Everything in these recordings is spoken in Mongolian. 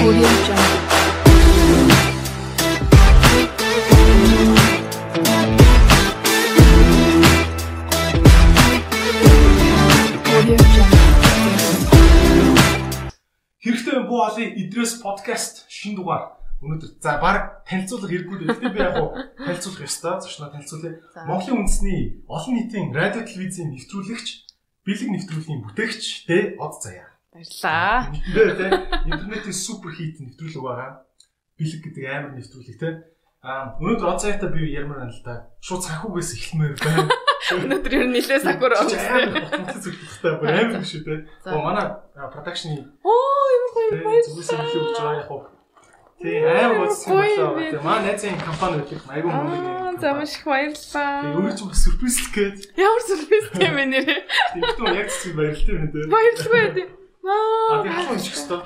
Хэрэгтэй буу олын идрээс подкаст шинэ дугаар. Өнөөдөр за баг танилцуулах хэрэггүй дээ. Гэхдээ би яг танилцуулах ёстой. Зочноо танилцуулъя. Монголын үндэсний олон нийтийн радио телевизийн нэвтрүүлэгч, бэлэг нэвтрүүлгийн бүтээгч тэ Од Заяа. Баярлалаа. Интернетийн супер хит нэвтрүүлэг байгаа. Бэлэг гэдэг амар нэвтрүүлэг тэ. Өнөөдөр Од Заяатай би ярмаар байна л да. Шууд санхугээс эхлэмээр байна. Өнөөдөр ер нь нэлээд сакур амар зөвлөлттэй амар шүү дээ. Манай продакшны зүгээс хэлж байгаа яг хөө. Тий амар гоцсон болоо. Тий манай найзын компани гэдэг айгүй мөнгө. За маш их баярлалаа. Тий өөрөө ч бас сюрприз гээд. Ямар сюрприз юм бэ нэрээ? Тэгтээ яг зүг баярлалаа юм дээ. Баярлалаа тий. Би хаваа чих өстөө.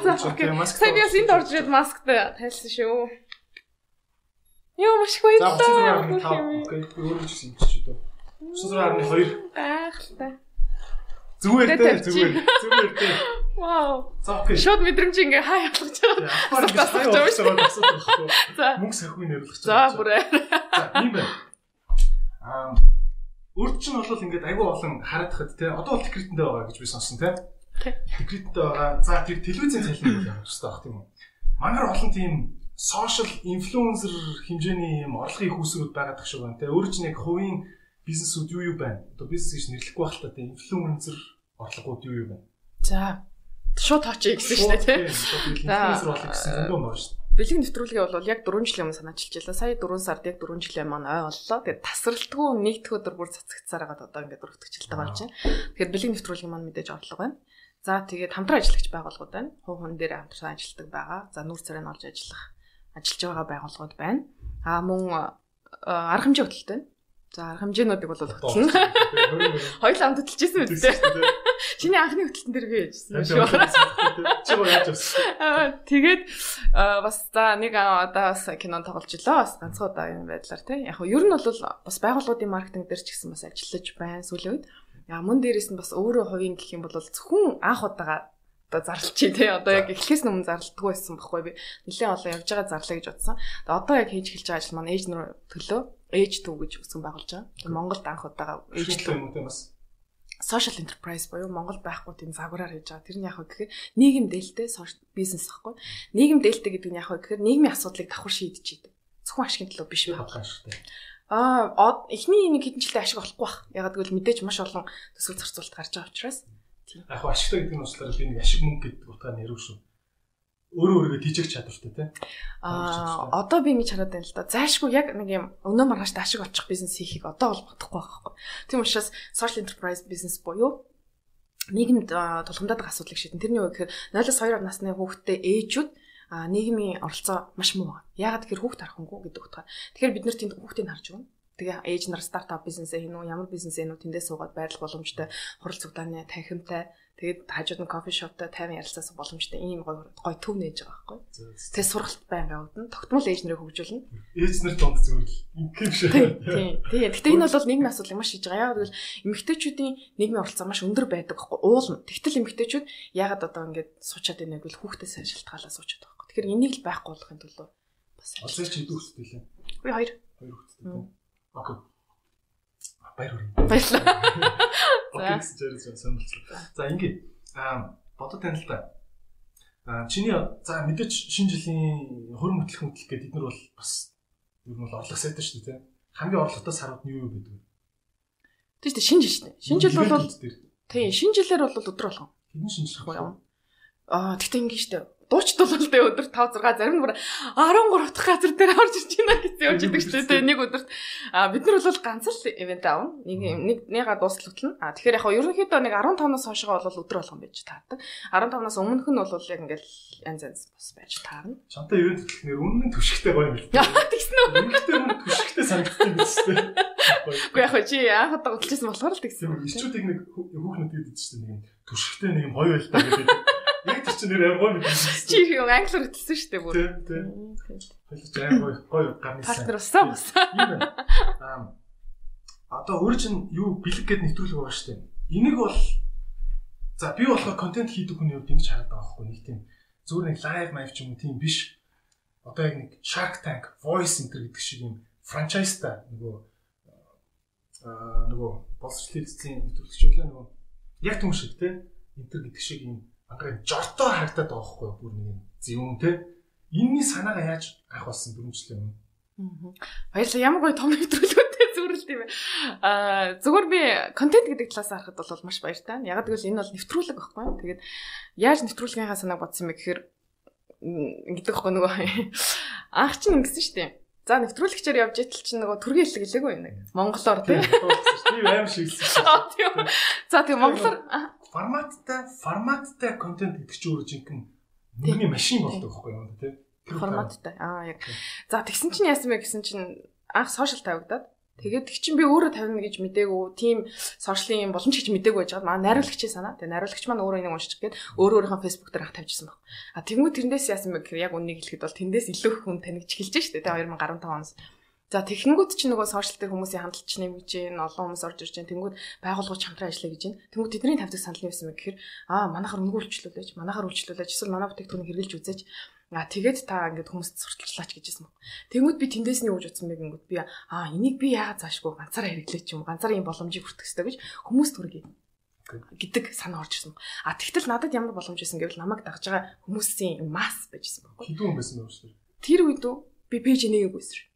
За окей. Сайн яс энд орж ирээд масктай тайлсан шүү. Йоо маш их баярлалаа. Окей. Өөрөө ч юм чи дээ. 9.2 Ахтай. Зүгээр дээ. Вау. За окей. Шууд мэдрэмж ингээ хай ялгаж байгаа. За мөнгө сахиуг нэрлэж байгаа. За бүрээ. За ийм байна. Өөрт чинь бол ингээд айгүй олон харагдахад те одоо бол секретэндээ байгаа гэж би сонсон те. Секретэндээ байгаа. За тэр телевизийн цалин бол явах хэрэгтэй баг тийм үү. Мангар олон тийм сошиал инфлюенсер хэмжээний юм орлогын хүүсрүүд байгаад тах шиг байна те. Өөр чинь яг хувийн бизнесүүд юу байна? Одоо бизнес гэж нэрлэхгүй байх та тийм инфлюенсер орлогууд юу байна? За шууд тооч гэсэн шүү дээ тийм. Инфлюенсер орлого гэсэн зөндөө байна шүү дээ. Бэлэг нэвтрүүлгээ бол яг 4 жилийн өмнө санаачилж байлаа. Сая 4 сард яг 4 жилийн маань ой боллоо. Тэгээд тасралтгүй нэгдэх өдөр бүр цацагцсаар хагаад одоо ингээд өргөтгчлээ болж байна. Тэгэхээр бэлэг нэвтрүүлгийн маань мэдээж орлого байна. За тэгээд хамтран ажиллагч байгууллагууд байна. Хувь хүн дээр хамтран ажилладаг байгаа. За нүүр царайнд олж ажиллаж байгаа байгууллагууд байна. Мөн арга хэмжээ хөтөлтэй байна. За арга хэмжээнүүдийг бол хөтлөн. Хоёул амт хөтөлжсэн үү те. Чиний анхны хөтөлтөн дээр би яжсэн шүү. Чи гоо яаж авсан? Тэгээд бас за нэг одоо бас кинон тоглож илаа. Бас ганцхан удаа юм байдлаар те. Яг нь ер нь бол бас байгууллагуудын маркетинг дээр ч гэсэн бас ажиллаж байна сүүлийн үед. Мөн дээрээс нь бас өөрөө хувийн гэх юм бол зөвхөн анх удаага одоо зарлчих тий. Одоо яг эхлэхээс өмнө зарлдаггүй байсан байхгүй би. Нэлээд олон явж байгаа зарлаа гэж бодсон. Одоо яг хийж эхэлж байгаа ажил маань ээж нөр төлөө ээж төв гэж үгсэн байгуулж байгаа. Монголд анх удаага ээж төв юм бас social enterprise боёо Монгол байхгүй тийм загвараар хийж байгаа. Тэр нь яг гэхээр нийгэм дээлтэй бизнес байхгүй. Нийгэм дээлтэй гэдэг нь яг гэхээр нийгмийн асуудлыг давхар шийдэж идэг. Зөвхөн ашигын төлөө биш байхгүй шүү дээ. Эхний нэг хэдэн жилдээ ашиг олохгүй байх. Ягаад гэвэл мэдээж маш олон төсөв зарцуулалт гарч байгаа учраас. Яг ашигтай гэдэг нь услаар би нэг ашиг мөнгө гэдэг утгаар нэрв шүү. Өөрөө тийжэх чадвартай тий. Одоо би ингэж хараад байна л да. Зайшгүй яг нэг юм өнөө маргааштай ашиг олчих бизнес хийхийг одоо бол бодохгүй байхгүй. Тийм учраас social enterprise business буюу нийгэмд тулгамдаад байгаа асуудлыг шийдэн. Тэрний үг гэхээр 0-2 насны хүүхдтэй ээжүүд нийгмийн оролцоо маш муу. Ягаад гэхээр хүүхд харахынгүй гэдэг утгаар. Тэгэхээр бид нэр тэнд хүүхдийг харж өгнө. Тэгээ ээж нар стартап бизнесээ хийнэ үү, ямар бизнесээ хийнэ үү, тэндээ суугаад байрлах боломжтой, хурал цугдааны танхимтай, тэгээд хажууд нь кофе шоптой тайван ярилцах боломжтой ийм гоё төв нээж байгаа байхгүй. Тэгээ сургалт байнга явуулна. Тогтмол ээж нарыг хөгжүүлнэ. Ээж нар донд зүгээр л ингэх шиг. Тийм. Гэхдээ энэ бол нийгмийн асуудлыг маш шийдэж байгаа. Яг гэвэл эмэгтэйчүүдийн нийгмийн оролцоо маш өндөр байдаг байхгүй. Уулна. Тэгтэл эмэгтэйчүүд ягаад одоо ингэж суучаад байна гэвэл хүүхдээс шалтгаалаа суучаад байгаа байхгүй. Тэгэхээр энийг л байхгүй болгохын төлөө бас олж чи хэдэн хүүхдтэй лээ? Би 2 хүүхдтэй. Окей. Баярлалаа. Окей, зэрэг сонирхолтой. За ингээд бодод тань л та. Чиний за мэдээч шинэ жилийн хөрөн хөтлөх гэдэг эднэр бол бас ер нь бол орлого сайтай шүү дээ, тийм. Хамгийн орлоготой сарууд нь юу байдаг вэ? Тийм шинэ жил шүү дээ. Шинэ жил бол тийм, шинэ жилээр бол өдөр болгон. Хэдэн шинэ жил юм? Тэгтээ ингэ шүү дээ. Дуучт бол тэ өдөрт 5 6 зарим нь бүр 13 дахь газар дээр орж ирж байна гэсэн явж идэг шүү дээ. Нэг өдөрт бид нар бол ганц л ивент аавна. Нэга дуустал хөтлөн. Тэгэхээр яг ерөнхийдөө нэг 15-наас хойшоо бол өдөр болгон байж таардаг. 15-наас өмнөх нь бол яг ингээл янз бас байж таарна. Чамтай ивент хөтлөхнөр үнэн түшигтэй гоё юм л. Тэгсэн үү? Үнэхээр мөн түшигтэй санагдсан биз дээ. Үгүй яг чи анх удаа хөтлөжсэн болохоор л тэгсэн. Ичүүдийг нэг хүүхнүүд гэдэг чинь нэг түшигтэй нэг юм гоё байлтаа гэдэг. Яг тэр чинь нэр гоё мэдээ. Чи юу англиар хэлсэн шүү дээ бүр. Тийм. Хэлж гоё гарны сан. Партнер усаа. Одоо өөр чинь юу бэлэг гэд нэвтрүүлэг байгаа шүү дээ. Энийг бол за би болохоор контент хийдэг хүний хувьд ингэж хараад байгаа байхгүй нэг тийм зүгээр нэг live live ч юм уу тийм биш. Одоо яг нэг Shark Tank, Voice Center гэдэг шиг юм франчайзтай нөгөө боловсрол эзэсийн нэвтрүүлэгчүүлээ нөгөө яг түн шиг те интер гэдэг шиг юм анхаа жортой харагдаад байгаа хгүй бүр нэг юм зөвүүн те энэний санаагаа яаж авах болсон 4 жилийн өмнө. Баярлалаа. Ямар гоё том нэвтрүүлгүүтэй зүрэлт юм бэ. Зүгээр би контент гэдэг талаас харахад бол маш баяртай. Яг гэвэл энэ бол нэвтрүүлэг байхгүй юу? Тэгээд яаж нэвтрүүлгийнхаа санааг бодсон юм бэ гэхээр ингэдэг байхгүй нөгөө анх чинь ингэсэн шүү дээ. За нэвтрүүлэгчээр явж итэл чинь нөгөө төргийн хэллэг хэлээгүй юм нэг. Монголоор тийм. Би аим шиг хэлсэн. За тийм монголоор форматтай контент гэдэг чинь өөрөө жинхэнэ мөнгөний машин болдог байхгүй юу тийм. Форматтай. Яг. За тэгсэн чинь яасан бэ гэсэн чинь анх сошиал тавигдаад тэгээд тэг чинь би өөрөө тавина гэж мдээгүй тийм сошиалын боломж гэж мдээгүй байж байгаа. Манай найруулагчийн санаа. Тэгээд найруулагч маань өөрөө энийг уншчих гээд өөрийнхөө фэйсбુક дээр тавьчихсан баг. Тэгмүү тэрнээс яасан бэ гэхээр яг үннийг хэлэхэд бол тэндээс илүү их хүн танигч эхэлж штэ. Тэгээд 2015 оноос. За тэгэнгүүт чинь нөгөө сошиал дээр хүмүүсийн хандлт чинь нэмж гин, олон хүмүүс орж ирж гин. Тэнгүүд байгууллагч хамтран ажиллая гэж гин. Тэнгүүд тэдний тавьдаг санал нь яасан бэ гэхээр манайхаар үнгүй үйлчлүүлээч, эсвэл манай бүтээгдэхүүнийг хэрэглэж үзээч. Тэгээд та ингээд хүмүүст сурталчлаач гэжсэн баг. Тэнгүүд би тэндээс нь юу гэж утсан бэ гингүүд би энийг би яагаад заашгүй ганцаараа хэрэглээч юм ганцаараа ийм боломжийг хүртэх хэрэгтэй гэж хүмүүст хүргэе гэдэг санаа орж ирсэн. Тэгтэл надад ямар боломж байсан гэвэл намайг дагж байгаа хүмүүсийн масс байжсэн баг. Хэдэн хүн байсан бэ шүү дээ. Тэр үед би пэйж нэгээгүйсэн.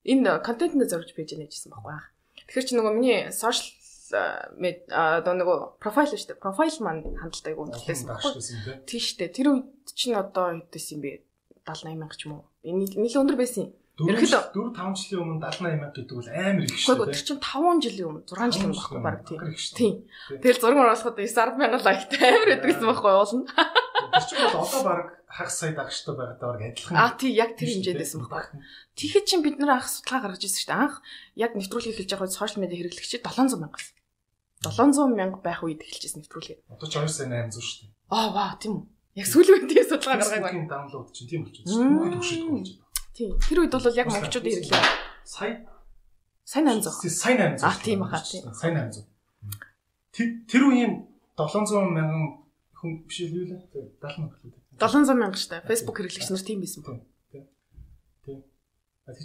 Энэ контентны зорж пэйж нээжсэн байхгүй. Тэгэхээр чи нөгөө миний сошиал одоо нөгөө профайл шүү дээ. Профайл маань хандлтайг үнэлсэн байхгүй. Тийм шүү дээ. Тэр үед чинь одоо хэдээс юм бэ? 78 мянга ч юм уу. Энэ нэлээд өндөр байсан юм. Ерөнхийдөө 4-5 жилийн өмнө 78 мянга гэдэг бол амар их шүү дээ. Тэр чинь 5 жилийн өмнө 6 жилийн өмнө байхгүй баг тийм. Тэгэл зураг оруулахад 9-10 мянган лайктай амар байдаг гэсэн байхгүй уулна. Тэр чинь бол одоо баг хагас сая дагчтай байгаад баг адилхан. Тийм яг тэр хэмжээдсэн байхгүй. Тэгэхэд чинь бид нэр анх судалгаа гаргаж ирсэн шүү дээ. Анх яг нэвтрүүлгийг хэлж байгаа сошиал медиа хэрэглэгчид 700 мянга. 700 мянга байх үед эхэлжсэн нэвтрүүлгээ. Одоо ч 2 сая 800 шүү дээ. Ваа тийм үү. Яг сүүлийн үед тийм судалгаа гаргаагүй. Facebook-ийн даунлоуд чинь тийм болчихсон шүү дээ. Бүгд төвшөлт болж байна. Тийм. Тэр үед бол яг монголчуудын хэрэглээ. Сая 800. Сая 800. Тийм баха тийм. Сая 800. Тэр үеийн 700 мянган хүн биш үү лээ? 70 мянга л үү? 700 мянга шүү дээ. Facebook хэрэглэгч нар тийм байсан байна. Тийм.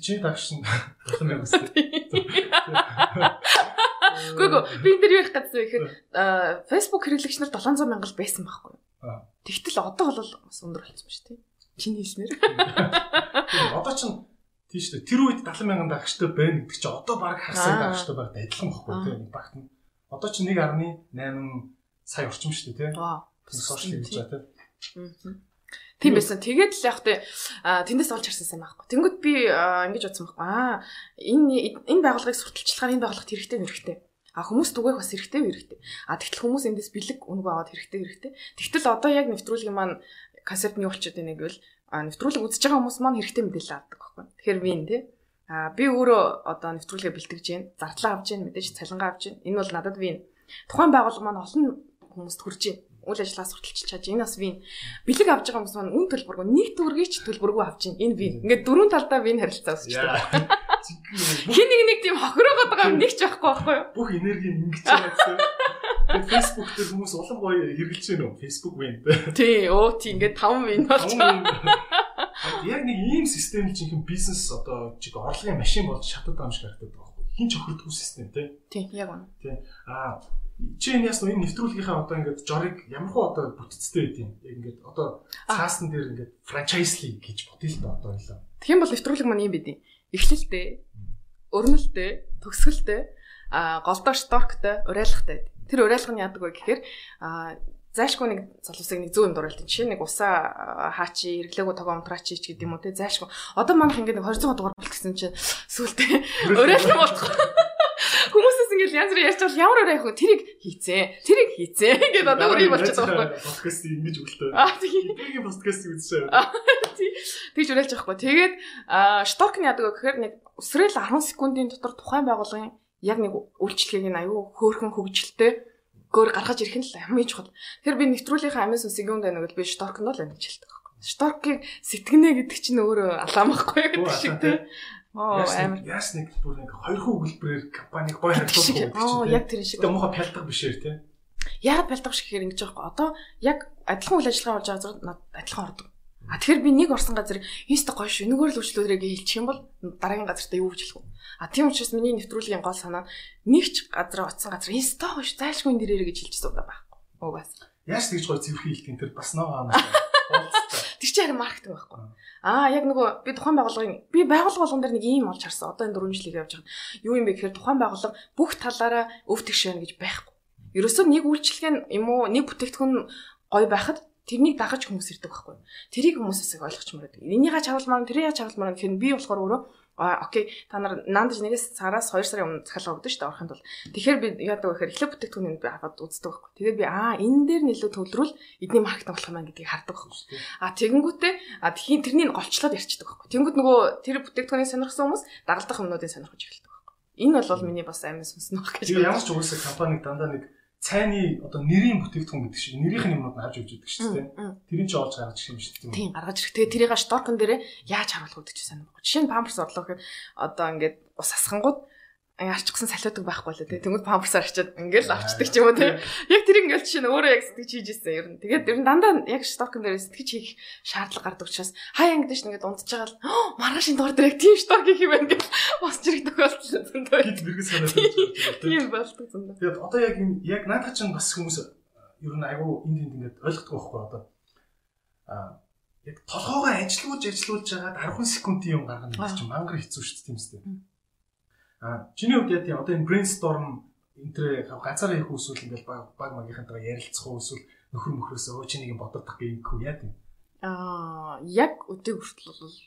Чи дагш нь 7 мянга үстэй. Гүг би энэ дэр ярих гэсэн ихээр Facebook хэрэглэгч нар 700 мянга л байсан байхгүй. Тэгтэл одоо бол бас өндөр болсон ба шүү дээ. Чиний хэлснээр. Одоо ч тийм шүү дээ. Тэр үед 70 мянган дагчтай байна гэдэг чинь одоо баг хагасаа дагчтай байгаад адилхан байхгүй тийм багт нь. Одоо ч 1.8 сая орчим шүү дээ тийм. Сошиал хийж байгаа тийм. Тийм байсан. Тэгээд л яг тэндээс олж харсан сайн байхгүй. Тэнгүүд би ингэж бодсон байхгүй. Энэ байгууллагыг сурталчлахаар энэ байгууллагт хэрэгтэй. Хүмүүс түгээх бас хэрэгтэй. Тэгтэл хүмүүс эндээс бэлэг үнэг аваад хэрэгтэй. Тэгтэл одоо яг нэвтрүүлгийн маань концепт нь юу болчиход байна гэвэл нэвтрүүлэг үзэж байгаа хүмүүс маань хэрэгтэй мэдээлэл авдаг байхгүй. Тэгэхээр вин тий. Би өөрөө одоо нэвтрүүлгээ бэлтгэж гин, зардлаа авч гин, мэдээж цалингаа авч гин. Энэ бол надад вин. Тухайн байгууллага маань олон хүмүүст хүрж гин. Үйл ажиллагаа сурталчилж чаж. Энэ бас вин. Бэлэг авч байгаа хүмүүс маань үн төлбөргүй, нэг төгрөгч төлбөргүй авч гин. Энэ вин. Ингээд дөрвөн талдаа вин харилцаа үүсэж байна. Хин нэг тийм хохироогоод байгаа юм нэг ч байхгүй юу? Бүх энерги ингэж байгаа гэсэн. Тэгээд Facebook дээр хүмүүс улам гоё хэрэгжилж байна уу? Facebook win. Тийм ингээд 5 win болчихсон. Яг нэг ийм систем чинь бизнес одоо чиг орлогын машин болж шатаад байгаа юм шиг харагдаад байгаа байхгүй. Хин ч охирдгүй систем тийм яг үнэ. Тийм. Чи энэ ясна энэ нэвтрүүлгийнхаа одоо ингээд жорыг ямархуу одоо бүтцтэй байд юм. Яг ингээд одоо цаасан дээр ингээд франчайзли гэж бодъё л да одоо ойлоо. Тэгэх юм бол нэвтрүүлэг маань юм бидий. Эхлэлтэй, өрнөлтэй, төгсгөлтэй, голдоо шторктэй, уриалгатай. Тэр уриалга нь яадаг вэ гэхээр зайлшгүй нэг залуусыг нэг зүүн дуурайлт. Жишээ нэг усаа хаачи, эргэлээгөө тогоо унтраач ч гэдэг юм уу те зайлшгүй. Одоо манайх ингээд 200 дугаар болчихсон чинь сүултээ уриалга болчих. Хүмүүсээс ингээд янз бүр ярьж бол ямар уриалах вэ? Тэрийг хийцээ гэдэг одоо үрий болчиход байгаа байхгүй. Подкаст ингэж өгөлтөө. Тийм. Энийг подкаст үзсэн. Тэгж уриалж байгаа байхгүй. Тэгээд шторк нь яадаг вэ гэхээр нэг өсрөл 10 секундын дотор тухайн байгууллагын яг нэг үйлчлэгийг нь аюу хөөрхөн хөгжилтэй гөр гаргаж ирэх нь л хамгийн чухал. Тэгэхээр би нэвтрүүлгийнхаа амин сүнсийг юм дайнаг би шторкнд л амьд хэлдэг байхгүй. Шторкийг сэтгэнэ гэдэг чинь өөрөө алаамахгүй гэдэг шиг тийм. Амар яс нэг бүр нэг хоёр хүү өгүүлбэрээр компаниг гоё харьцуулах гэдэг чинь. Яг тэр шиг. Тэгээ муухай пялдаг бишээр тийм. Яагаад бэлдэх шиг гэхээр ингэж байгаа байхгүй. Одоо яг адилхан үйл ажиллагаа болж байгаа зэрэг адилхан ордог. Тэгэхээр би нэг орсон газар инста гоё шүү. Энэгээр л үйлчлүүлэрэг хэлчих юм бол дараагийн газартаа юу гэж хэлэх вэ? Тийм учраас миний нэвтрүүлгийн гол санаа нэг ч газар оцсон газар инста гоё шүү. Зайлшгүй энэ дээрээ гэж хэлчихсэн удаа байхгүй. Угаас. Яаж тэгж гоё цэвэрхэн хэлтийн тэр бас ногоо амаас. Тэр чинь харин маркетинг байхгүй. Яг нөгөө би тухайн байгууллага болгон дээр нэг ийм олж харсан. Одоо энэ 4 жилийг явж байгаа. Юу юм бэ гэхээр тухайн байгууллага бүх талаараа өв тэгш байна гэж байхгүй. Ерөөсөө нэг үйлчлэг юм уу нэг бүтээгдэхүүн гоё байхад тэрнийг дагаж хүмүүс ирдэг байхгүй. Тэрийг хүмүүсээс их ойлгочмоор байдаг. Энийгээ чавлмаар, тэрийг чавлмаар гэхээр би болохоор өөрөө окей та нар наандаж нэгээс сараас 2 сарын өмнө захиалга өгдөн шүү дээ орохын тулд. Тэгэхээр би яадаг вэ гэхээр эхлээд бүтээгдэхүүнийг би аваад үздэг байхгүй. Тэгээд би энэ дээр нэлээд төвлөрүүл эдний маркетинг болох юм байна гэдгийг хардаг байхгүй. Тэгэнгүүтээ тхийн тэрнийг голчлоод ярьчихдаг байхгүй. Тэнгүүд нөгөө тэр бүтээгдэхүүнийг сонирхсан хүмүүс дагалдах юмнуудыг сонирхож эхэлдэг байхгүй. Энэ бол миний бас амин сонсноо гэж. Ямар ч угсаа компаниг дандаа нэг цайны одоо нэрийн бүтээгдэхүүн гэдэг шиг нэрийнх нь юмнууд нь авч өгч байдаг шүү дээ. Тэрийг ч олж гаргаж ирэх юм шүү дээ. Тийм гаргаж ирэх. Тэгээ тэрийг шторкон дээрээ яаж харуулах гэдэг чинь санаа баггүй. Жишээ нь памперс орлоо гэхэд одоо ингээд ус асхангууд арчсан салиудаг байхгүй л дээ. Тэнгүүд памперсаар арчаад ингээл авчдаг ч юм уу тийм. Яг тэр ингээл чинь өөрөө яг сэтгэж хийж ирсэн ер нь. Тэгээд ер нь дандаа яг шторкон дээр сэтгэж хийх шаардлага гардаг учраас хаяа ингээд ш ингээд унтж байгаа л маргаашийн доор дээр яг тийм шторк хийх юм байна гэж босч ирэх тохиолдол зөндөө. Гид мэрэгс санаад байж байгаа. Тийм болдог зөндөө. Тэгээд одоо яг наадах чинь бас хүмүүс ер нь айгүй энд ингээд ойлгохгүй байхгүй одоо яг толгоогоо ажилуулж жагаад 10 секундын юм гаргана гэж чинь мангар хэцүү шүү дээ тийм үстэй. Чиний хувьд яа тийм одоо энэ brainstorm энтрээ ганцаараа хийх үсвэл ингээл баг магийнхантайгаа ярилцах уу эсвэл нөхөр мөхрөөсөө чи нэг юм бодогдох гэх юм яа тийм. Яг өдөө хүртэл бол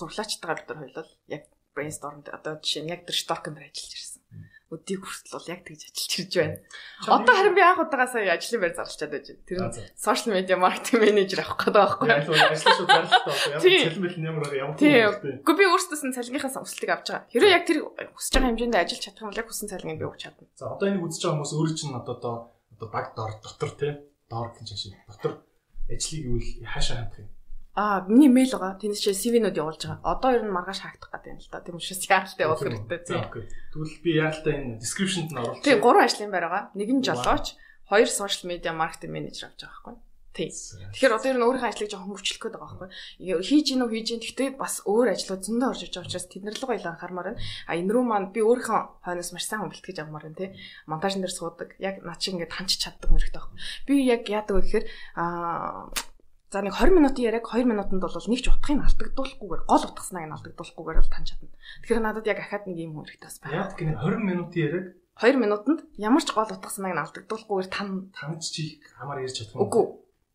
зурлаачтайгаар бид хоёулаа яг brainstorm одоо жишээ нь яг тэр stock-нд ажиллаж ирсэн. Өдийг хүртэл бол яг тэгж ажиллаж ирж байна. Одоо харин би анх удаага сая ажлын байр зарлчаад байж байна. Тэр нь social media marketing manager авах гэдэг байхгүй юу? Ажлын шууд зарлалтаа одоо ямар цалин ямар ямар тийм. Гэхдээ би өөртөөс нь цалингийнхаа өсөлтийг авч байгаа. Хэрэв яг тэр хүсэж байгаа хэмжээнд ажиллаж чадах юм бол яг хүссэн цалиныг би өгч чадна. За одоо энийг үзэж байгаа хүмүүс өөрөө чинь одоо баг дотор тий доор гэж шиг дотор ажлыг юу хаашаа хандах юм? Миний мэйл байгаа. Тэнд чинь CV-нүүд явуулж байгаа. Одоо ер нь маргааш хаагдах гэдэг юм л да. Тийм учраас яаралтай явуулах хэрэгтэй тийм. Тэгвэл би яаралтай энэ description-д нь оруулах. Тийм 3 ажлын байр байгаа. Нэг нь жолооч, 2 social media marketing manager авч байгаа байхгүй. Тийм. Тэгэхээр одоо ер нь өөрийнхөө ажлыг жоохон хөгжүүлэх гээд байгаа байхгүй. Хийж гин үү хийж гин. Гэхдээ бас өөр ажлууд зөндөө орж иж байгаа учраас тэднэр л гоё анхаармаар байна. Энэ рүү маань би өөрийнхөө хойноос маш сайн бэлтгэж авмаар байна тий. Монтажн дээр суудаг. Яг над шиг ингээд ханч чаддаг мөрөгтэй байхгүй. Би яг яадаг вэ гэхээр за нэг 20 минутын яриаг 2 минутанд бол нэг ч утгыг алдагдуулахгүйгээр гол утгаснаа нь алдагдуулахгүйгээр л тань чадна. Тэгэхээр надад яг ахаад нэг юм хэрэгтэй бас байна. Яг гинэ 20 минутын яриаг 2 минутанд ямар ч гол утгаснаа нь алдагдуулахгүйгээр таньж чих хамаар ярьж чадах юм. Үгүй.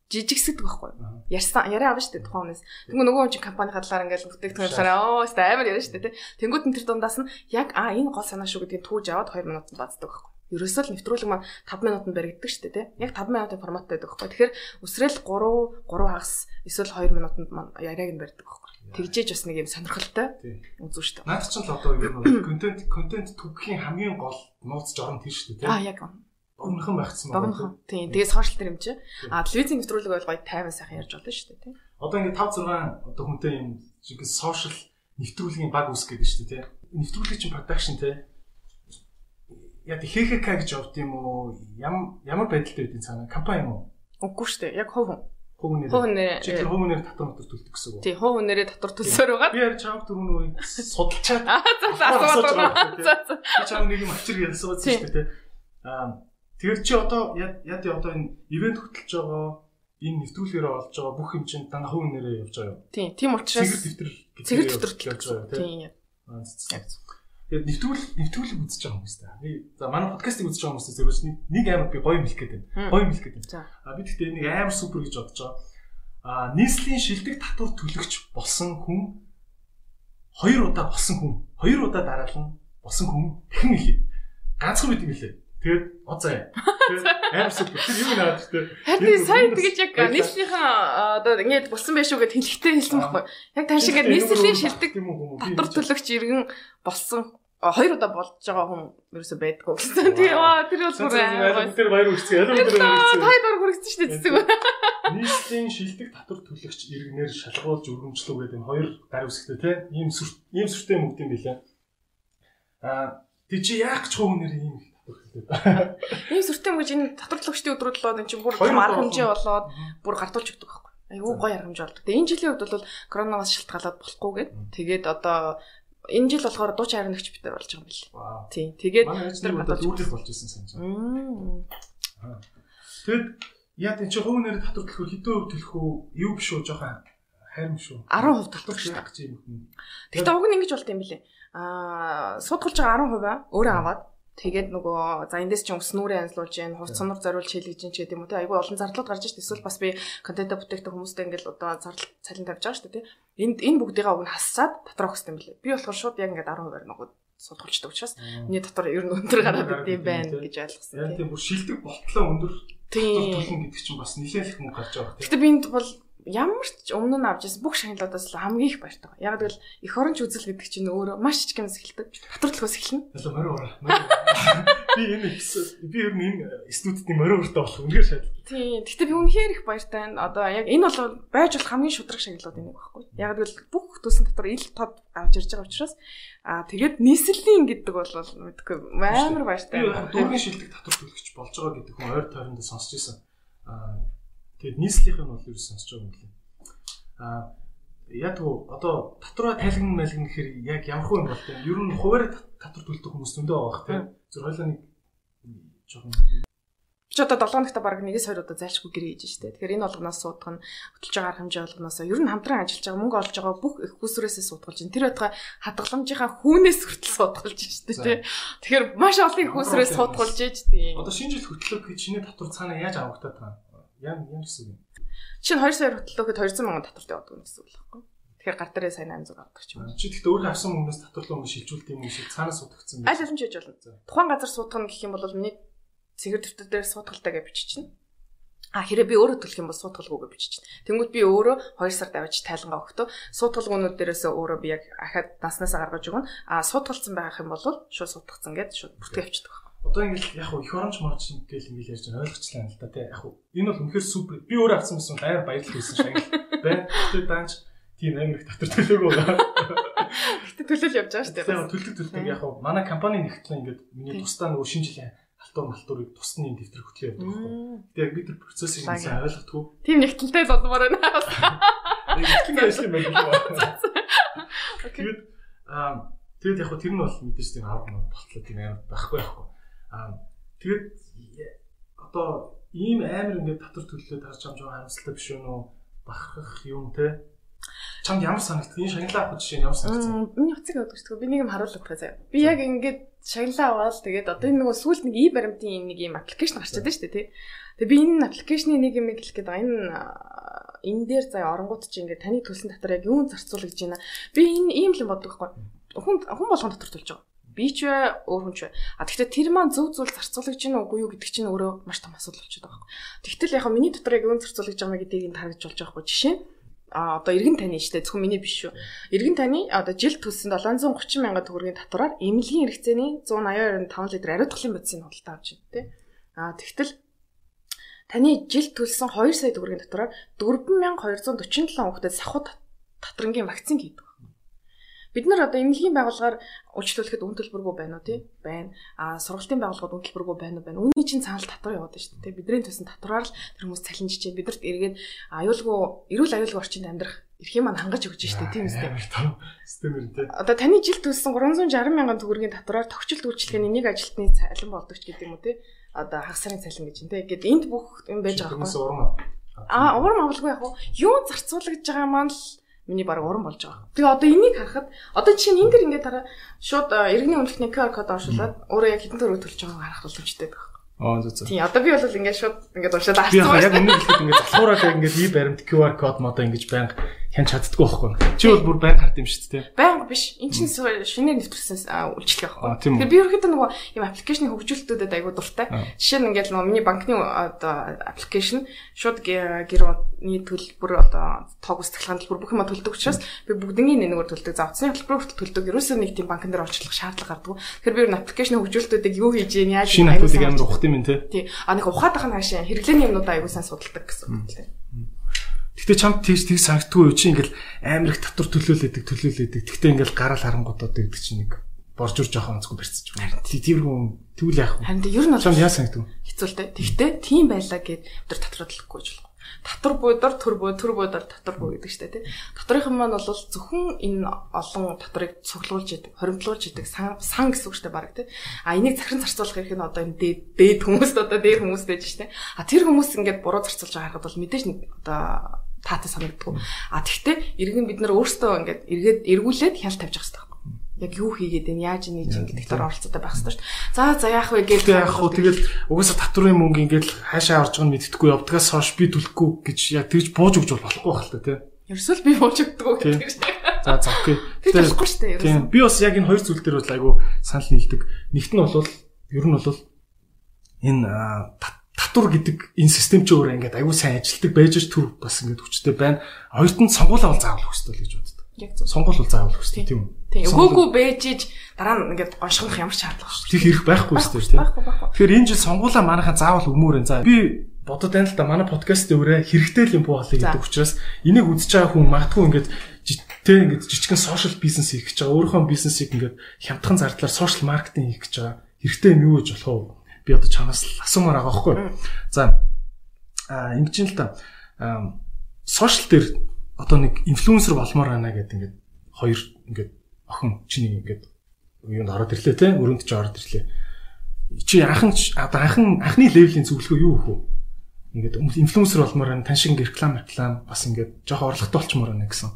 Жижигсэдэг байхгүй. Яриа авна шүү дээ тухайн хүнээс. Тэнгүү нөгөө хүн чинь компани хадлаар ингээл бүтээгдэхүүн талаараа амар яриа шүү дээ тий. Тэнгүүд нь тэр дундаас нь яг энэ гол санаа шүү гэдгийг түүж аваад 2 минутанд бацдаг байхгүй. Ерөөсөө л нэвтрүүлэг маань 5 минутанд баригддаг шүү дээ тий. Яг 5 минутын форматтай байдаг байхгүй. Тэгэхээр өсрэл 3 хагас эсвэл 2 минутанд маань яриаг нь барьдаг байхгүй. Тэгжээж бас нэг юм сонирхолтой үзүү шүү дээ. Наад чинь л одоо юм контент түгхийн хамгийн гол нууц жорон тэр шүү дээ тий. Яг Богинохан байхсан байна. Тийм. Тэгээ сошиал дээр юм чи. Телевизийн нэвтрүүлэг бол гоё тайван сайхан ярьж болно шүү дээ тий. Одоо ингээд 5 6 одоо хүнтэй юм шиг сошиал нэвтрүүлгийн баг үсгээд шүү дээ тий. Нэвтрүүлгийн чинь production тий. Яг ХХК гэж явд юм уу? Ямар байдалтай байдгийг цаана компани юм уу? Үгүй шүү дээ. Яг хувь нэр. Чи тэр хувь нэр татвар төлдөг гэсэн үг. Тий, хувь нэрээ татвар төлсөөр байгаа. Би яар чамд түрүүн үе судалчаад. За. Би чам нэг юм авчир ярьсан шүү дээ тий. Тэр чи одоо яа одоо энэ ивент хөтлөж байгаа энэ нэвтрүүлгээр олж байгаа бүх юм чинь дандаа хувь нэрээ явж байгаа юм. Тийм учраас цэгэр дэвтэр явж байгаа тийм. Тэгээд нэвтрүүлэг үзэж байгаа хүмүүс та. Би за манай подкастыг үзэж байгаа хүмүүсээс зөвхөн нэг амар би гоё мэлэх гээд байна. Гоё мэлэх гээд байна. Би тэгтээ нэг амар супер гэж бодож байгаа. Нийслэлийн шилдэг татвар төлөгч болсон хүн 2 удаа болсон хүн 2 удаа дараалан болсон хүн дахин илээ. Ганцхан бид юм илээ. Тэгээд оцаа. Тэгээд амар супер. Тэр юу наад гэдэг. Харин сайн тэгэж яг нийслэлийнхаа одоо ингэж болсон байх шүү гэд хэлэхдээ хэлсэн байхгүй. Яг тань шиг нийслэлийн шилдэг татвар төлөгч иргэн болсон 2 удаа болж байгаа хүн ерөөсөй байдгүй гэсэн. Тэр бол бүр тэр баяр үргэцээ. Тайд ор хүргэсэн шүү дээ цэцэг. Нийслэлийн шилдэг татвар төлөгч иргэнээр шалгуулж өргөмжлөө гэдэг энэ 2 гар үсгтэй тийм ийм сүртэй мөгд юм билээ. Тэг чи яах ч хувь нэр ийм Ийм сүртэй мөж энэ татвар төлөгчдийн өдрүүд болоод энэ чинь бүр арга хэмжээ болоод бүр гартуулж өгдөг байхгүй. Айгуу гоё арга хэмжээ болдог. Тэгээ энэ жилийн үед бол коронавигоос шалтгаалаад болохгүй гээд тэгээд одоо энэ жил болохоор дуучин харигч бид нар болж байгаа юм бэл. Тийм. Тэгээд тэр гадаад үүрэг болж исэн санаж байна. Тэгэд яа тийм чи хувь нэрээр татвар төлөхөөр хэдэн өв төлөх үү? Юу биш үү? Жохон хайрм шүү. 10% төлөх шүү дээ. Тэгтээ уг нь ингэж болт юм бэлээ. Судгалж байгаа 10% өөрөө аваад тэгээд нөгөө за эндээс чинь өснүүрээ анзлуулж гин, хувц сонор зориулж хийлгэж гин ч гэдэг юм уу те. Айгүй олон зардлууд гарч ирж эсвэл бас би контент бүтээгдэхүүн хүмүүстэй ингээл одоо зардал цалин тавьж байгаа шүү дээ те. Энэ бүгдийг уг нь хассаад дотроо өгсөн юм бэлээ. Би болохоор шууд яг ингээд 10% нөгөө судгалждаг учраас миний дотор ер нь өндөр гараад идэм байна гэж ойлгосон. Яг тийм бүр шилдэг болтлоо өндөр төлнө гэдэг чинь бас нэлээх мөнгө гарч байгаа. Гэтэ би энд бол ямар ч өмнө нь авч ирсэн бүх шагналуудаас хамгийн их баяртай. Яг гэвэл эх оронч үзэл гэдэг чинь өөрөө маш их юмс эхэлдэг. Татвар төлөхөөс эхэлнэ. Би ер нь энэ студидний мориортой болох үнээр шаардлагатай. Тийм. Гэтэ би үнэхээр их баяртай байна. Одоо яг энэ бол байж болох хамгийн шудраг шагналууд энийг багхгүй. Яг гэвэл бүх төсөл дотор ил тод авч ирж байгаа учраас тэгээд нийслэлийн гэдэг бол мэдгүй амар баяртай. Дүүргийн шилдэг татвар төлөгч болж байгаа гэдэг хүн ойр тойронд сонсч ирсэн. Тэгээд нийслэлийнх нь бол юу сонсож байгаа юм бэ? Яг одоо татвараа тайлгна мэлгэн гэхээр яг ямар хөө юм бол тийм ер нь хуваар татвар төлдөг хүмүүс зөндөө байгаа тийм зөв хойлоо нэг жоохон ч одоо 7 хоногта баг 1-2 удаа зайлшгүй гэрээ хийж штэ. Тэгэхээр энэ болгоноос суудах нь хөтөлж байгаа арга хэмжээ болгоноос ер нь хамтран ажиллаж байгаа мөнгө олж байгаа бүх их хүсрээсээ суудгалж байна. Тэр байтугай хадгаламжийнхаа хүүнээс хүртэл суудгалж штэ тий. Тэгэхээр маш олон их хүсрээс суудгалж ээж тий. Одоо шинэ жил хөтлөх гэж чиний татвар цаанаа яаж авагдаад байгаа юм? Ямар гэсэн юм? Чинь 2 сая хөтлөхөд 200 сая татвартай явдаг юм гэсэн үг л байхгүй. Тэгэхээр гар дээрээ сайн 800 авдаг ч юм. Чи гэхдээ өөрөө авсан хүмүүс татварлаа өмнө шилжүүлдэг юм шиг цаанаас суудагдсан байх. Аль аль хийж болно. Тухайн газар суудах нь гэх юм бол миний цэгэр дэвтэр дээр суудгалтай гэж биччихнэ. Хэрэг би өөрөө төлөх юм бол суудгалгүй гэж биччихнэ. Тэнгүүд би өөрөө 2 сард авч тайлангаа өгтөө суудгалгуунууд дээрээс өөрөө би яг ахаад наснасаа гаргаж өгнө. Суудгалцсан байх юм бол шууд суудгацсан гэдээ шууд бүртгэж авчдаг. Одоо ингэж яг их оронч марч ингээл ингэж ярьж байгаа ойлгочлаа л да тий. Яг энэ бол үнэхээр супер. Би өөрөө авсан байсан амар баярлал хийсэн шагнал байна. Тэгээд даанч тийм амар их татвар төлөөгүй байна. Гэтэ төлөөл явж байгаа шүү дээ. Төлдөг яг манай компани нэгтлээ ингээд миний тусдаа нөгөө шинэ жилийн малтуурыг тусны дэвтэр хөтлөө явдаг байхгүй. Тэгээд яг би тэр процессыг сайн ойлгохгүй. Тийм нэгтэлтэй л болмоор байна. Нэгтгэн ажил юм байна. Тэгээд яг тэр нь бол мэдээж тийм арга болтлоо тийм амар байхгүй байхгүй. Тэгээд одоо ийм амар ингээд татвар төлөлөө тарж амж байгаа харамсалтай биш үү нөө бахархах юм те чамд ямар санагдав? Энэ шагналаа авах жишээ нь ямар санагдав? Миний утсыг авдаг шүү дээ. Би нэг юм харуулдаг заяа. Би яг ингээд шагналаа аваад тэгээд одоо энэ нөгөө сүүлд нэг баримтын нэг юм аппликейшн гарч чадсан шүү дээ тий. Тэгээд би энэ аппликейшны нэг юм хэлэх гээд байгаа. Энэ дээр заяа оронгууд чи ингээд таны төлсөн татвар яг юун зарцуулах гэж байна. Би энэ ийм л юм боддог байхгүй. Хүн болгон татвар төлж байгаа. Би ч өөр хүн ч. Тэгэхдээ тэр маань зөв зүйл зарцуулагч гин үгүй юу гэдэг чинь өөрөө маш том асуудал болчиход байгаа байхгүй. Тэгтэл яг миний дотор яг юун зарцуулагч байгаа гэдгийг таргаж болж байгаа байхгүй. Жишээ нь одоо эргэн таны штэ зөвхөн миний биш шүү. Эргэн таны одоо жил төлсөн 730 сая төгрөгийн татвараар эмнэлгийн хэрэгцээний 182.5 литр ариутгын бодисын худалдаа авч байна тий. Тэгтэл таны жил төлсөн 2 сая төгрөгийн татвараар 4247 хүүхдэд сахуу татрангийн вакцин хийдэг. Бид нар одоо эмнэлгийн байгууллагаар үйлчлүүлэхэд үн төлбөргүй байна уу тий? Байна. Сургалтын байгууллагад үн төлбөргүй байна уу? Байна. Үүний чинь цаанал татвар яваад шүү дээ. Бидний төсөн татвараар л тэр хүмүүс цалинжиж чинь бидэрт эргээд эрүүл аюулгүй орчинд амьдрах эрхийн маань хангаж өгч шүү дээ. Тийм үстэй. Системэр тий. Одоо таны жил төлсөн 360 сая төгрөгийн татвараар тохиолдолт үйлчлэгээний нэг ажилтны цалин болдог ч гэдэг юм уу тий? Одоо хагас сарын цалин гэж юм тий. Ингээд энд бүх юм байж байгаа байхгүй. Урам авалгүй яг юу зарцуулагдж байгаа маань л миний баг уран болж байгаа. Тэгээ одоо энийг харахад одоо чинь энэ дэр ингээд дараа шууд иргэний үнэлгээний QR код оршуулад өөрөө яг хэдэн төгрөг төлж байгааг харах боломжтой байх. Зөв. Тийм одоо би бол ингээд шууд ингээд уншаад авчихсан. Би яг өмнө хэлэхэд ингээд залхуураад ингээд ий баримт QR код модоо ингэж байнга хянч чаддгүй байхгүй. Чи бол бүр байнга хард юм шүү дээ. Байнга биш. Энэ чинь шинээр нэвтрүүлсэн үйлчлэг байхгүй. Тэгэхээр би ерөөхдөө нөгөө юм аппликейшны хөгжүүлэлтүүдэд айгуу дуртай. Жишээ нь ингээд нөгөө миний банкны одоо аппликейшн шууд гэрний төлбөр одоо тоог устгалахын төлбөр бүх юм төлдөг учраас би бүгднийг нэгээр төлдөг. За утасны төлбөр хүртэл төлдөг. Ерөөсөө нэг тийм банкн дээр орчлох шаардлага гардаг. Тэгэхээр би ер нь аппликейшны хөгжүүлэлтүүдийг юу хийж яа яаж айгуу амар ухт юм тий. Тий. Нэг ухаад ахын хаашаа хэрэглээний юмнуудаа айгуу сайн судалдаг гэсэн үг лээ. Гэтэ чамд тийж санагддгүй юу чи ингээл амар их татвар төлөөлөдөг. Тэгтээ ингээл гараал харангуудаад гэдэг чинь нэг боржур жоохон онцгүй барьцаж байна. Тиймэрхүү тэгвэл яах вэ? Харин ер нь бол яа санагдав? Хэцүүлтэй. Тэгтээ тийм байлаа гэд өдөр татварлахгүй ч болох. Татвар буудар төр буудар татвар буу гэдэг штэ тий. Татрын маань бол зөвхөн энэ олон татрыг цуглуулж идэг, хоримтлуулж идэг сан гэсэн үг штэ баг тий. А энийг захиран зарцуулах хэрэг нь одоо энэ дээд хүмүүст одоо дээр хүмүүс байж штэ. А тэр хүмүүс ингээд буруу зарцуулж байгаа харахад бол мэдээж нэг одоо таатай санагддаг. А тэгтээ иргэн бид нар өөрсдөө ингээд эргүүлээд хяналт тавьж байгаа хэрэгтэй. Яг юу хийгээд энэ яаж нээж гэдэг дээр оролцоотой байх хэрэгтэй шүү дээ. За яах вэ гэж яах вэ? Тэгэл угаасаа татварын мөнгө ингээд хаашаа орж байгааг мэддэхгүй явдгаас хойш би төлөхгүй гэж яг тэгж бууж өгч болохгүй байх л та тий. Ерөөсөө би бууж өгдөг гэдэг шүү дээ. За окей. Тэр болохгүй шүү дээ. Тийм. Би бас яг энэ хоёр зүйл дээр бол айгу санал нийлдэг. Нэгт нь бол ер нь бол энэ татвар гэдэг энэ систем ч өөрөө ингээд айгу сайн ажилтдаг байж төр бас ингээд хүчтэй байна. Хоёрт нь сонгуулаа бол заавал хүсдэг гэж боддог. Яг зөв. Сонгуул бол заавал хүсдэг тийм үү? Тийм. Өгөөгүй бэжиж дараа нь ингээд гоншгох ямар ч шаардлага шүү. Тэг хэрэг байхгүй шүү дээ тийм. Тэгэхээр энэ жил сонгуулаа манайхан заавал өгмөөрэн. За би бодод байна л да манай подкаст дээр хэрэгтэй л юм буу болъё гэдэг учраас энийг үзэж байгаа хүн магадгүй ингээд тэг ингээд жижигхэн сошиал бизнес хийх гэж байгаа. Өөрийнхөө бизнесийг ингээд хямдхан зардлаар сошиал маркетинг хийх гэж байгаа. Хэрэгтэй юм юу гэж болох вэ? Би одоо чанаас асуумаар байгаа байхгүй. За ингэж юм л да. Сошиал дээр одоо нэг инфлюенсер болмоор байна гэдэг ингээд хоёр ингээд охин чиний ингээд юунд ороод ирлээ те өрөөнд ч ороод ирлээ. Чи анхны левелийн зөвлөгөө юу вэ? Ингээд инфлюенсер болмоор байна, тань шиг реклам бас ингээд жоохон орлоготой болчмоор байна гэсэн.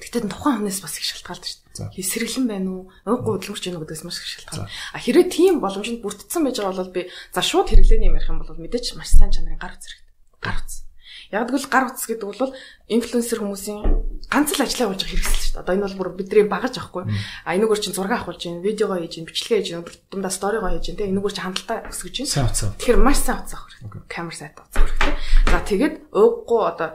Тэгтээ тухайн хүнээс бас их шалтгаалдаг шүү дээ. Сэргэлэн байна уу? Ууггүй хөдөлмөрч байна уу гэдгээс маш их шалтгаална. А хэрвээ тийм боломжинд бүрдсэн байж байгаа бол би за шууд хэрэглээний юм ярих юм бол мэдээч маш сайн чанарын гар үз хэрэгтэй. Гар үз. Яг гэвэл гар утас гэдэг бол инфлюенсер хүмүүсийн ганц л ажлаа болж байгаа хэрэгсэл шүү дээ. Одоо энэ бол бүр бидний багаж авахгүй. А энэгээр чинь зураг авахулж байна, видеогоо хийж байна, бичлэгээ хийж байна, дундаа сторигоо хийж байна. Тэгээ энэгээр чинь хандлтаа өсгөж байна. Тэгэхээр маш сайн утас авах хэрэгтэй. Камер сайт утас хэрэгтэй. За тэгээд ууггүй одоо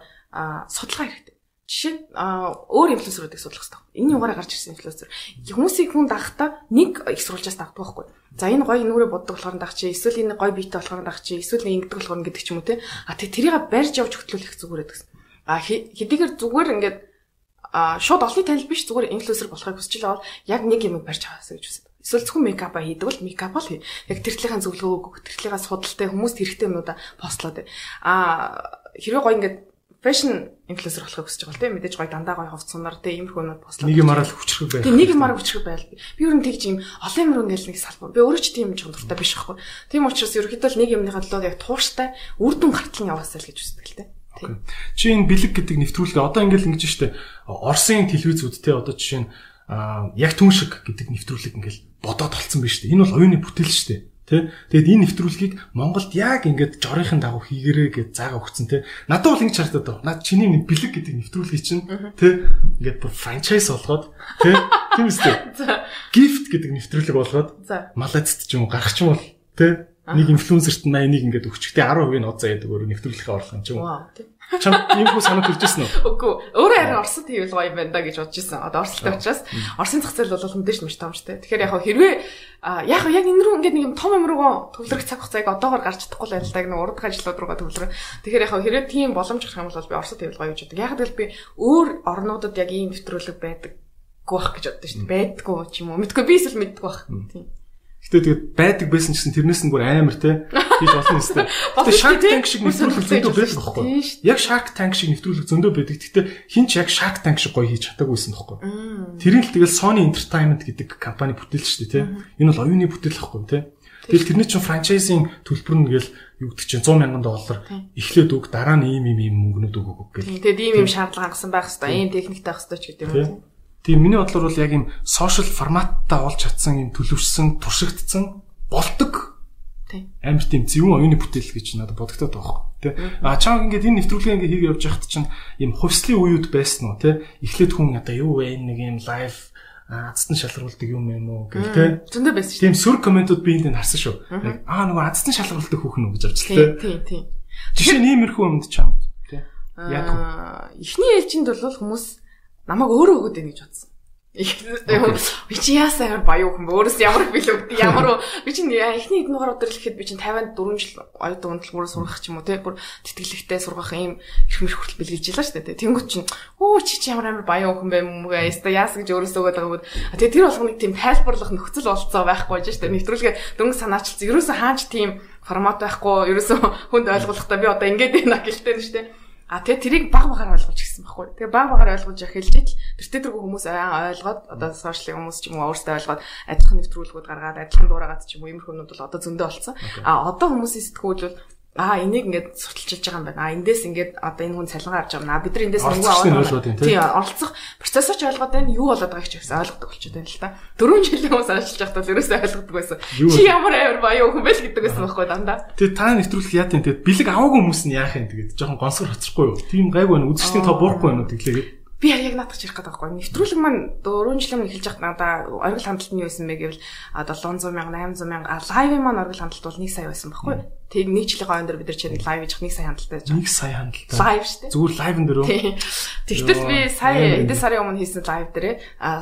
судалгаа хэрэгтэй. Жишээ нь өөр инфлюенсеруудыг судлах хэрэгтэй. Энэ юугаараа гарч ирсэн инфлюенсер. Хүмүүсийг хүн дагахтаа нэг их сурвалжаас дагдаг байхгүй. За энэ гоё нүрээ боддог болохоор дагах чи, эсвэл энэ гоё биетэй болохоор дагах чи, эсвэл ингэ ингэдэг болохоор гэдэг ч юм уу те. А тэрийг барьж явж хөтлүүлэх зүгээрээ гэсэн. А хэдийгээр зүгээр ингээд шууд олонний танил биш зүгээр инфлюенсер болохыг хүсэж байгаа бол яг нэг юм барьж аваасаа гэж хүсэж. Эсвэл зөвхөн мейкап хийдэг бол мейкап л яг тэртлийнхаа зөвлөгөө өгөх, тэртлийнхаа судалтай хүмүүст хэрэгтэй юмудаа постлоод. Хэрвээ гоё ингээд фэшн инфлюенсер болохыг хүсэж байгаа л тийм мэдээж гоё дандаа гоё ховцсоноор тийм иймэрхүү юмуд послоо. Нэг юмараа л хүчрэх байх. Тийм нэг юмараа хүчрэх байл. Би ер нь тэгж юм олон юмруу ингээл нэг салбар. Би өөрөө ч тийм юм дуртай биш байхгүй. Тийм учраас ерөөхдөө л нэг юмныхаа төлөө яг тууштай үр дүн гартал яваасаа л гэж үздэг л тийм. Чи энэ бэлэг гэдэг нэвтрүүлгээ одоо ингээл ингэж штэ Оросын телевизүүд те одоо жишээ нь яг түн шиг гэдэг нэвтрүүлэг ингээл бодоод толцсон биш штэ. Энэ бол оюуны бүтээл штэ. Тэ тэгэд энэ нэвтрүүлгийг Монголд яг ингээд жорынхын дагуу хийгэрээ гэж заагаа өгцөн тэ надад бол ингэж харагдаад байна. Наад чиний бэлэг гэдэг нэвтрүүлгийг чинь тэ ингээд бүр франчайз болгоод тэ тийм үстэй. Gift гэдэг нэвтрүүлэг болгоод Малайзд ч юм уу гарах ч юм бол тэ нэг инфлюенсерт 81 ингээд өгчтэй 10% нь оцоо яадаг өөр нэвтрүүлэхээ орлого юм ч юм уу. Чам иймгүй санаа төрж ирсэн үү? Үгүй. Өөрөө харин Оросд хийвэл гоё юм байна да гэж бодож ирсэн. Одоо Оростой учраас Оросын зах зээл бол мэдээж маш тоомжтой. Тэгэхээр хэрвээ яг энэ рүү ингээд нэг юм том юм руугаа төвлөрөх цаг хугацааг одоогоор гарч чадахгүй л байлаа нэг урд ажлууд руугаа төвлөрөө. Тэгэхээр хэрвээ тийм боломж гарах юм бол би Оросд хийвэл гоё гэж боддог. Яг л би өөр орнуудад яг ийм нэвтрүүлэг байдаггүй байх гэж боддоо шүү дээ. Байдаггүй ч юм уу. Мэдгүй би эсвэл мэддэггүй байх. Тийм. Гэтэ тэгээд байдаг байсан гэсэн тэрнээс нь бүр амар те хийж болно өстэй. Гэтэ Shark Tank шиг нэвтрүүлэг зөндөө байдаг байхгүй. Яг Shark Tank шиг нэвтрүүлэг зөндөө байдаг. Гэтэ хин ч яг Shark Tank шиг гоё хийж чадаагүйсэн байхгүй. Тэрийг л тэгэл Sony Entertainment гэдэг компани бүтээлч шүү дээ те. Энэ бол оюуны бүтээл байхгүй те. Тэгэл тэрний чинь франчайзинг төлбөр нь гээл юу гэдэг чинь $100,000 эхлээд өг дараа нь ийм мөнгнүүд өгөг гэх. Тэгээд ийм шаардлага хангасан байх хэвээр, ийм техниктэй байх хэвээр ч гэдэг юм. Тийм миний бодлоор бол яг юм сошиал форматтай олж чадсан юм төлөвшсөн, туршигдсан болдог. Тийм. Амар тийм зөвхөн оюуны бүтээл гэж надад бодогдоод байгаа хөө. Тэ. Чам ингээд энэ нэвтрүүлгээ ингээд хийгээ явж байхад чинь юм хувьслын үеуд байсан уу те. Эхлээд хүн одоо юу вэ нэг юм лайв азтан шалгаруулдаг юм юм уу гэх те. Зөндөө байсан шүү. Тийм сүр комментууд би энд харсан шүү. Нөгөө азтан шалгаруулдаг хүүхэн үү гэж авч те. Тийм. Жишээ нь иймэрхүү юмд чамд те. Яг эхний ээлжинд бол хүмүүс намайг өөрөө өгөөд байна гэж бодсон. Би чи яасаа баяу хүн өөрөөс ямар билүү ямар би чи эхний хэдэн дугаар өдөр л ихэд би чи 54 жил оюутан унтлагаараа сургах ч юм уу те бүр тэтгэлэгтэй сургах ийм их мэр хүртэл бэлгэлж илаа шүү дээ. Тэнгүүд чинь чи ямар баяу хүн бэ мөгээ яста яас гэж өөрөөсөө өгöd байгаа юм. Тэгээ тэр болгоныг тийм тайлбарлах нөхцөл болцоо байхгүй байж шүү дээ. Нэвтрүүлгээ дөнгө санаачилсан. Ерөөсөө хаач тийм формат байхгүй ерөөсөө хүнд ойлгуулахдаа би одоо ингэж байна гэлтэй нь шүү дээ. Тэгээ тэрийг баг багаар ойлгуулж гисэн байхгүй. Тэгээ баг багаар ойлгуулж эхэлж ил тэр хүмүүс ойлгоод одоо сошиал хүмүүс ч юм уу өөрсдөө ойлгоод адилхан нэвтрүүлгүүд гаргаад адилхан дуурайгаад ч юм уу иймэрхүү юмуд бол одоо зөндөө болсон. Одоо хүмүүсийн сэтгүүл бол энийг ингээд сурталчилж байгаа юм байна. Эндээс ингээд одоо энэ хүн цалингаа авч байгаа юм. Бид нар эндээс мөнгө аваад тийм оролцох процессор ч ойлгоод байна. Юу болоод байгааг ч гэсэн ойлгодог болчиход байна л та. 4 жилийн хүмүүс ажиллаж байхдаа л ерөөсөө ойлгодог байсан. Чи ямар амар баяу хүн бэ л гэдэг байсан байхгүй дандаа. Тэгээ та нэвтрүүлэх яа тийм тэгээд бэлэг аваагүй хүмүүс нь яах юм тэгээд жоохон гонсгор хоцрохгүй юу? Тийм гайгүй байна. Үзэгчдийн тоо буурахгүй байна уу тэглээгээд. Би яг наадах чирэх гэдэг байхгүй. Нэвтрүүлэг маань 4 жилийн өмнө эхэлж байхдаа надаа оргил хандлт нь юу байсан бэ гэвэл 700 мянга 800 мянга лайвын маань оргил хандлт бол 1 сая байсан байхгүй. Тэг нэг жилийн хойно дээр бид нар чинь лайв хийж 1 сая хандлттай байж байгаа. 1 сая хандлттай. Лайв шүү дээ. Зүгээр лайвн дээр үү? Тэгтэл би сая эдгээр сарын өмнө хийсэн лайв дээрээ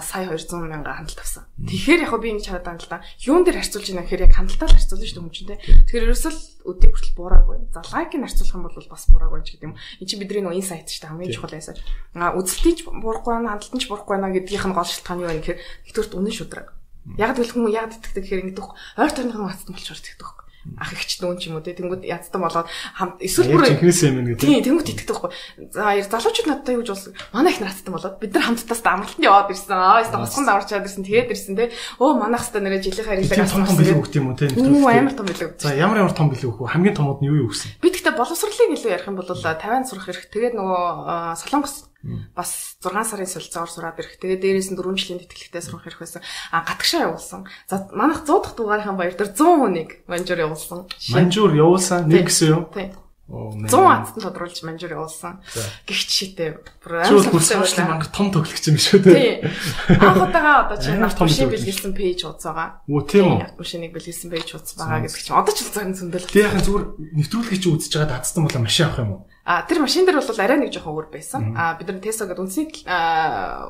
сая 200 мянга хандлт авсан. Тэгэхээр яг би ингэж хараад байна л да. Юун дээр харьцуулж байна гэхээр яг хандлтаар харьцуулна шүү дээ хүмүүчтэй. Тэгэхээр ерөөсөө өдөө хүртэл буураагүй. За лайкийг харьцуулах юм бол бас буураагүй ч гэдэг юм. Энд чинь бидний нөө инсайт шүү дээ хамгийн чухал байсан. Үзэлтийн ч буурахгүй байна, хандлтын ч буурахгүй байна гэдгийнх нь гол шалтгаан юу вэ гэхээр нэгдүгürt үнэн шудраг. Яг л хүмүүс яг итгэдэг гэхээр ингэдэг ойр тойрныхан хацсан болчоор итгэдэг. Ах ихч нүүн ч юм уу те тэнгууд ядтан болоод хамт эсвэл бүр тийм тэнгууд итгэдэг байхгүй. За залуучууд надтай юу гэж болсон. Манай их наацтан болоод бид нар хамттаас амралтанд яваад ирсэн. Яста хосгонд аварчаад ирсэн. Тэгээд ирсэн те. Манайх хэвээр нэрэ жилийн харилаг авсан. Том билүү өгт юм уу те. Амар том билүү. За ямар том билүү өгөх вэ? Хамгийн томод нь юу өгсөн? Би тэгтээ боловсролыг илүү ярих юм бол 50 сурах хэрэг. Тэгээд нөгөө Солонгос бас 6 сарын солилцоогоор сураад ирэх. Тэгээ дээрээс нь 4 жилийн тэтгэлэгтэй сурах хэрэг байсан. Гатгшаа явуулсан. За манайх 100 дахь дугаарынхаа баяр дээр 100 хүнийг манжуур явуулсан. Манжуур явуулсан нэг гэсэн юу? Тийм. 100 азтан тодруулж манжуур явуулсан. Гихч шитэй. Бүр манг том тоглогч юм шүү дээ. Тийм. Анхудаага одоо чинь машин бэлгэлсэн пэйж ууц байгаа. Үу тийм үү? Машиныг бэлгэлсэн пэйж ууц байгаа гэдэг чинь одоо ч зөвхөн зөндөл. Тэгээ яхан зүгээр нэвтрүүлгийг чи үзэж байгаа дацсан бол машин авах юм уу? Тэр машин дээр бол арай нэг жоохон өөр байсан. Бид нар Tesla гэдэг үндэсний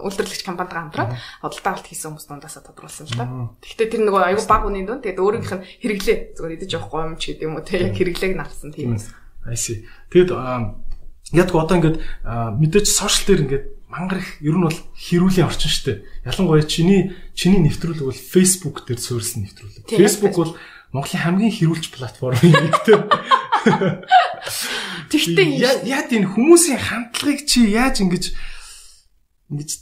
үйлдвэрлэгч компанитайгаа хамтраад худалдаа авалт хийсэн хүмүүс дундаас тодруулсан л та. Тэгэхдээ тэр нөгөө аюу баг үнийн дунд тэгээд өөрийнх нь хэрэглээ зүгээр идэж явах гомч гэдэг юм уу те яг хэрэглээг навсан тийм. I see. Тэгэд яг одоо ингээд мэдээж сошиал дээр ингээд мангар их ер нь бол хэрүүлийн орчин шүү дээ. Ялангуяа чиний нэвтрүүлэг бол Facebook дээр суурилсан нэвтрүүлэг. Facebook бол Монголын хамгийн хэрүүлж платформ юм гэдэг. Тэгтээ яа тийм хүмүүсийн хандлагыг чи яаж ингэж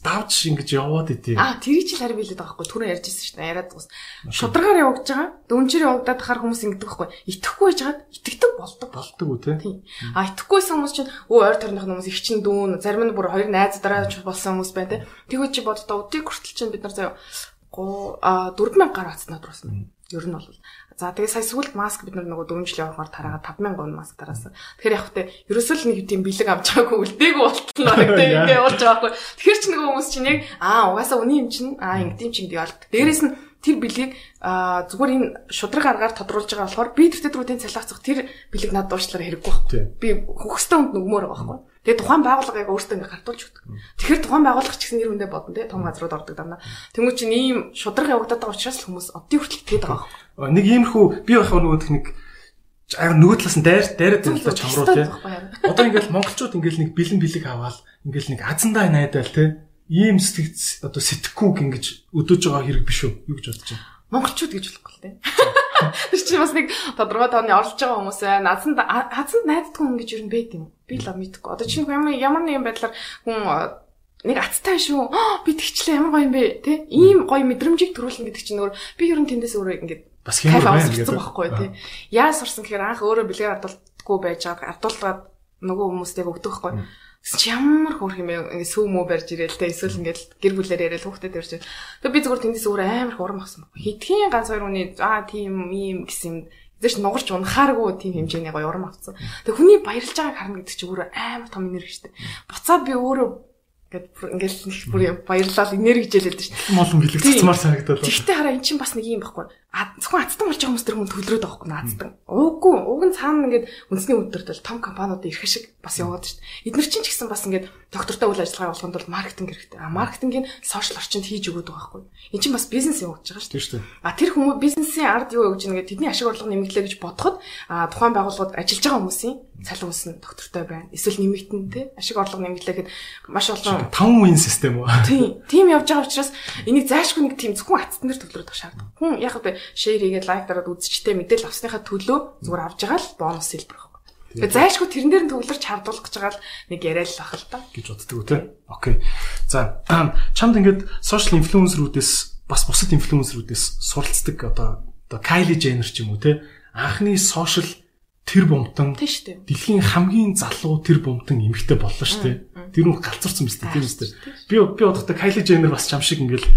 давж ингэж яваад идэв. Тэрийг чи харин билээд байгаа байхгүй. Түрүү ярьжсэн шүү дээ. Яриад дуус. Шударгаар явагдаж байгаа. Дөнчөр явагдаад хахаар хүмүүс ингэдэг байхгүй. Итгэхгүй байжгаад итгэдэг болдог үү те. Итгэхгүйсэн хүмүүс чинь ойр тойрных хүмүүс их чин дүүн зарим нь бүр хоёр найз дараа болсон хүмүүс байна те. Тэгвэл чи боддоо өдийг хүртэл чинь бид нар заяа 4000 гаруй хацнаа дурсан. Ер нь бол. За тэгээ сая сүүлд маск бид нөгөө 4 жилийн явахаар тараагаад 5000 гон маск тараасан. Тэгэхээр яг хөтэ ерөөсөө л нэг тийм бэлэг авч байгаагүй үлдээгүй болтолно гэдэг ингээ болж байгаа байхгүй. Тэгэхээр ч нөгөө хүмүүс чинь яг угаасаа үний юм чинь ингэдэм чинь гэдэг болт. Дээрээс нь тэр бэлгийг зүгээр энэ шудраг аргаар тодруулж байгаа болохоор би тэр төдрүүдийн цалиацах тэр бэлэг над дуушлаар хэрэггүй байхгүй. Би хөхстэй хүнд нөгмөр байгаа байхгүй. Тэгээ тухайн байгууллага яг өөртөө ингээ гартуулж өгдөг. Тэгэхээр тухайн байгууллага ч гэсэн нэр хүндээ бодно те том газрууд ордог дандаа. Тэнгүүт чинь ийм шудраг явагдаад байгаа учраас л хүмүүс оддын хүртэл тэгээд байгаа байхгүй. Нэг иймэрхүү би байх нөгөө техник нөгөө талаас нь дайраад байлаа чамруу те. Одоо ингээл монголчууд ингээл нэг бэлэн бэлэг аваад ингээл нэг азандаа найдаал те. Ийм сэтгэц одоо сэтгэхгүйг ингэж өдөөж байгаа хэрэг биш үү? Юу гэж бодож байна? Монголчууд гэж болохгүй л те. Тэр чинь бас нэг тодорхой тооны орлож байгаа хүмүүс азанд найддаг хүн гэж юу юм бэ тийм. Би л мэдгүй. Одоо чинь ямар нэгэн байдлаар хүн нэг аттай шүү. Би тэгчлээ ямар гоё юм бэ те. Ийм гоё мэдрэмжийг төрүүлнэ гэдэг чинь өөр би ер нь тэндээс өөрөө ингээд бас хэмээр байна гэдэг байхгүй те. Яаж сурсан гэхээр анх өөрөө бэлгээр ардуулдаггүй байж байгаа. Ардуулгаад нөгөө хүмүүстэйг өгдөг байхгүй. Ямар хөөрх юм бэ? Сүү мөө барьж ирээл те. Эсвэл ингээд гэр бүлээр яриад хүүхдэд ярьж. Тэгээ би зүгээр тэндээс өөрөө амар их урам авсан. Хэдхийн ганц хоёр хүний тийм ийм гэсэн юм дэш нугарч унахааргүй тийм хэмжээний гоё урам авсан. Тэгээ хүний баярлж байгааг харна гэдэг чинь өөрөө амар том энерги шүү дээ. Буцаад би өөрөө ингээд нэг бүр баярлал энерги хичээлээд шүү дээ. Молон бэлэг цацмаар санагдаад. Тэгтээ хараа эн чинь бас нэг юм байхгүй. Зөвхөн азтан болж байгаа хүмүүс тэр хүн төлрөөд байгаа байхгүй наацдаг. Уг нь цаана ингээд үндэсний өдөртөл том компаниуд ирэх шиг бас яваад шүү дээ. Эдгээр чинь ч гэсэн бас ингээд доктортой үйл ажиллагаа явуулахын тулд маркетинг хэрэгтэй. Маркетингийн сошиал орчинд хийж өгöd байгаа байхгүй. Энд чинь бас бизнес явуулж байгаа шүү дээ. Тэр хүмүүс бизнесийн ард юу өгж байгаа тэдний ашиг орлого нэмэгдлээ гэж бодоход тухайн байгууллагууд ажиллаж байгаа хүмүүсийн цалин үс нь доктортой байна. Эсвэл нэмэгдэн тий ашиг орлого нэмэгдлээ гэхэд маш олон 5 үеийн систем үү? Тийм явж байгаа учраас энийг заашгүй нэг тийм зөвхөн атсан дээр төвлөрөх шаардлагатай. Хүн яг л шеэр хийгээд лайк дараад үзчихтэй мэдээлэл авсныхаа төлөө зүгээр авж байгаа л бонус хэлбэр байхгүй. Тэгээ заашгүй тэрэн дээр нь төвлөрч хардуулах гэж байгаа л нэг яриа л ах л та гэж боддог үү те. Окей. За чамд ингээд сошиал инфлюенсерүүдээс бас бусад инфлюенсерүүдээс суралцдаг одоо Kylie Jenner ч юм уу те. Анхны сошиал тэр бомтон дэлхийн хамгийн залуу тэр бомтон эмэгтэй боллоо шүү дээ. Тэр нь галзуурсан биз дээ тийм үстэй. Би бодохдоо Kylie Jenner бас чам шиг ингээл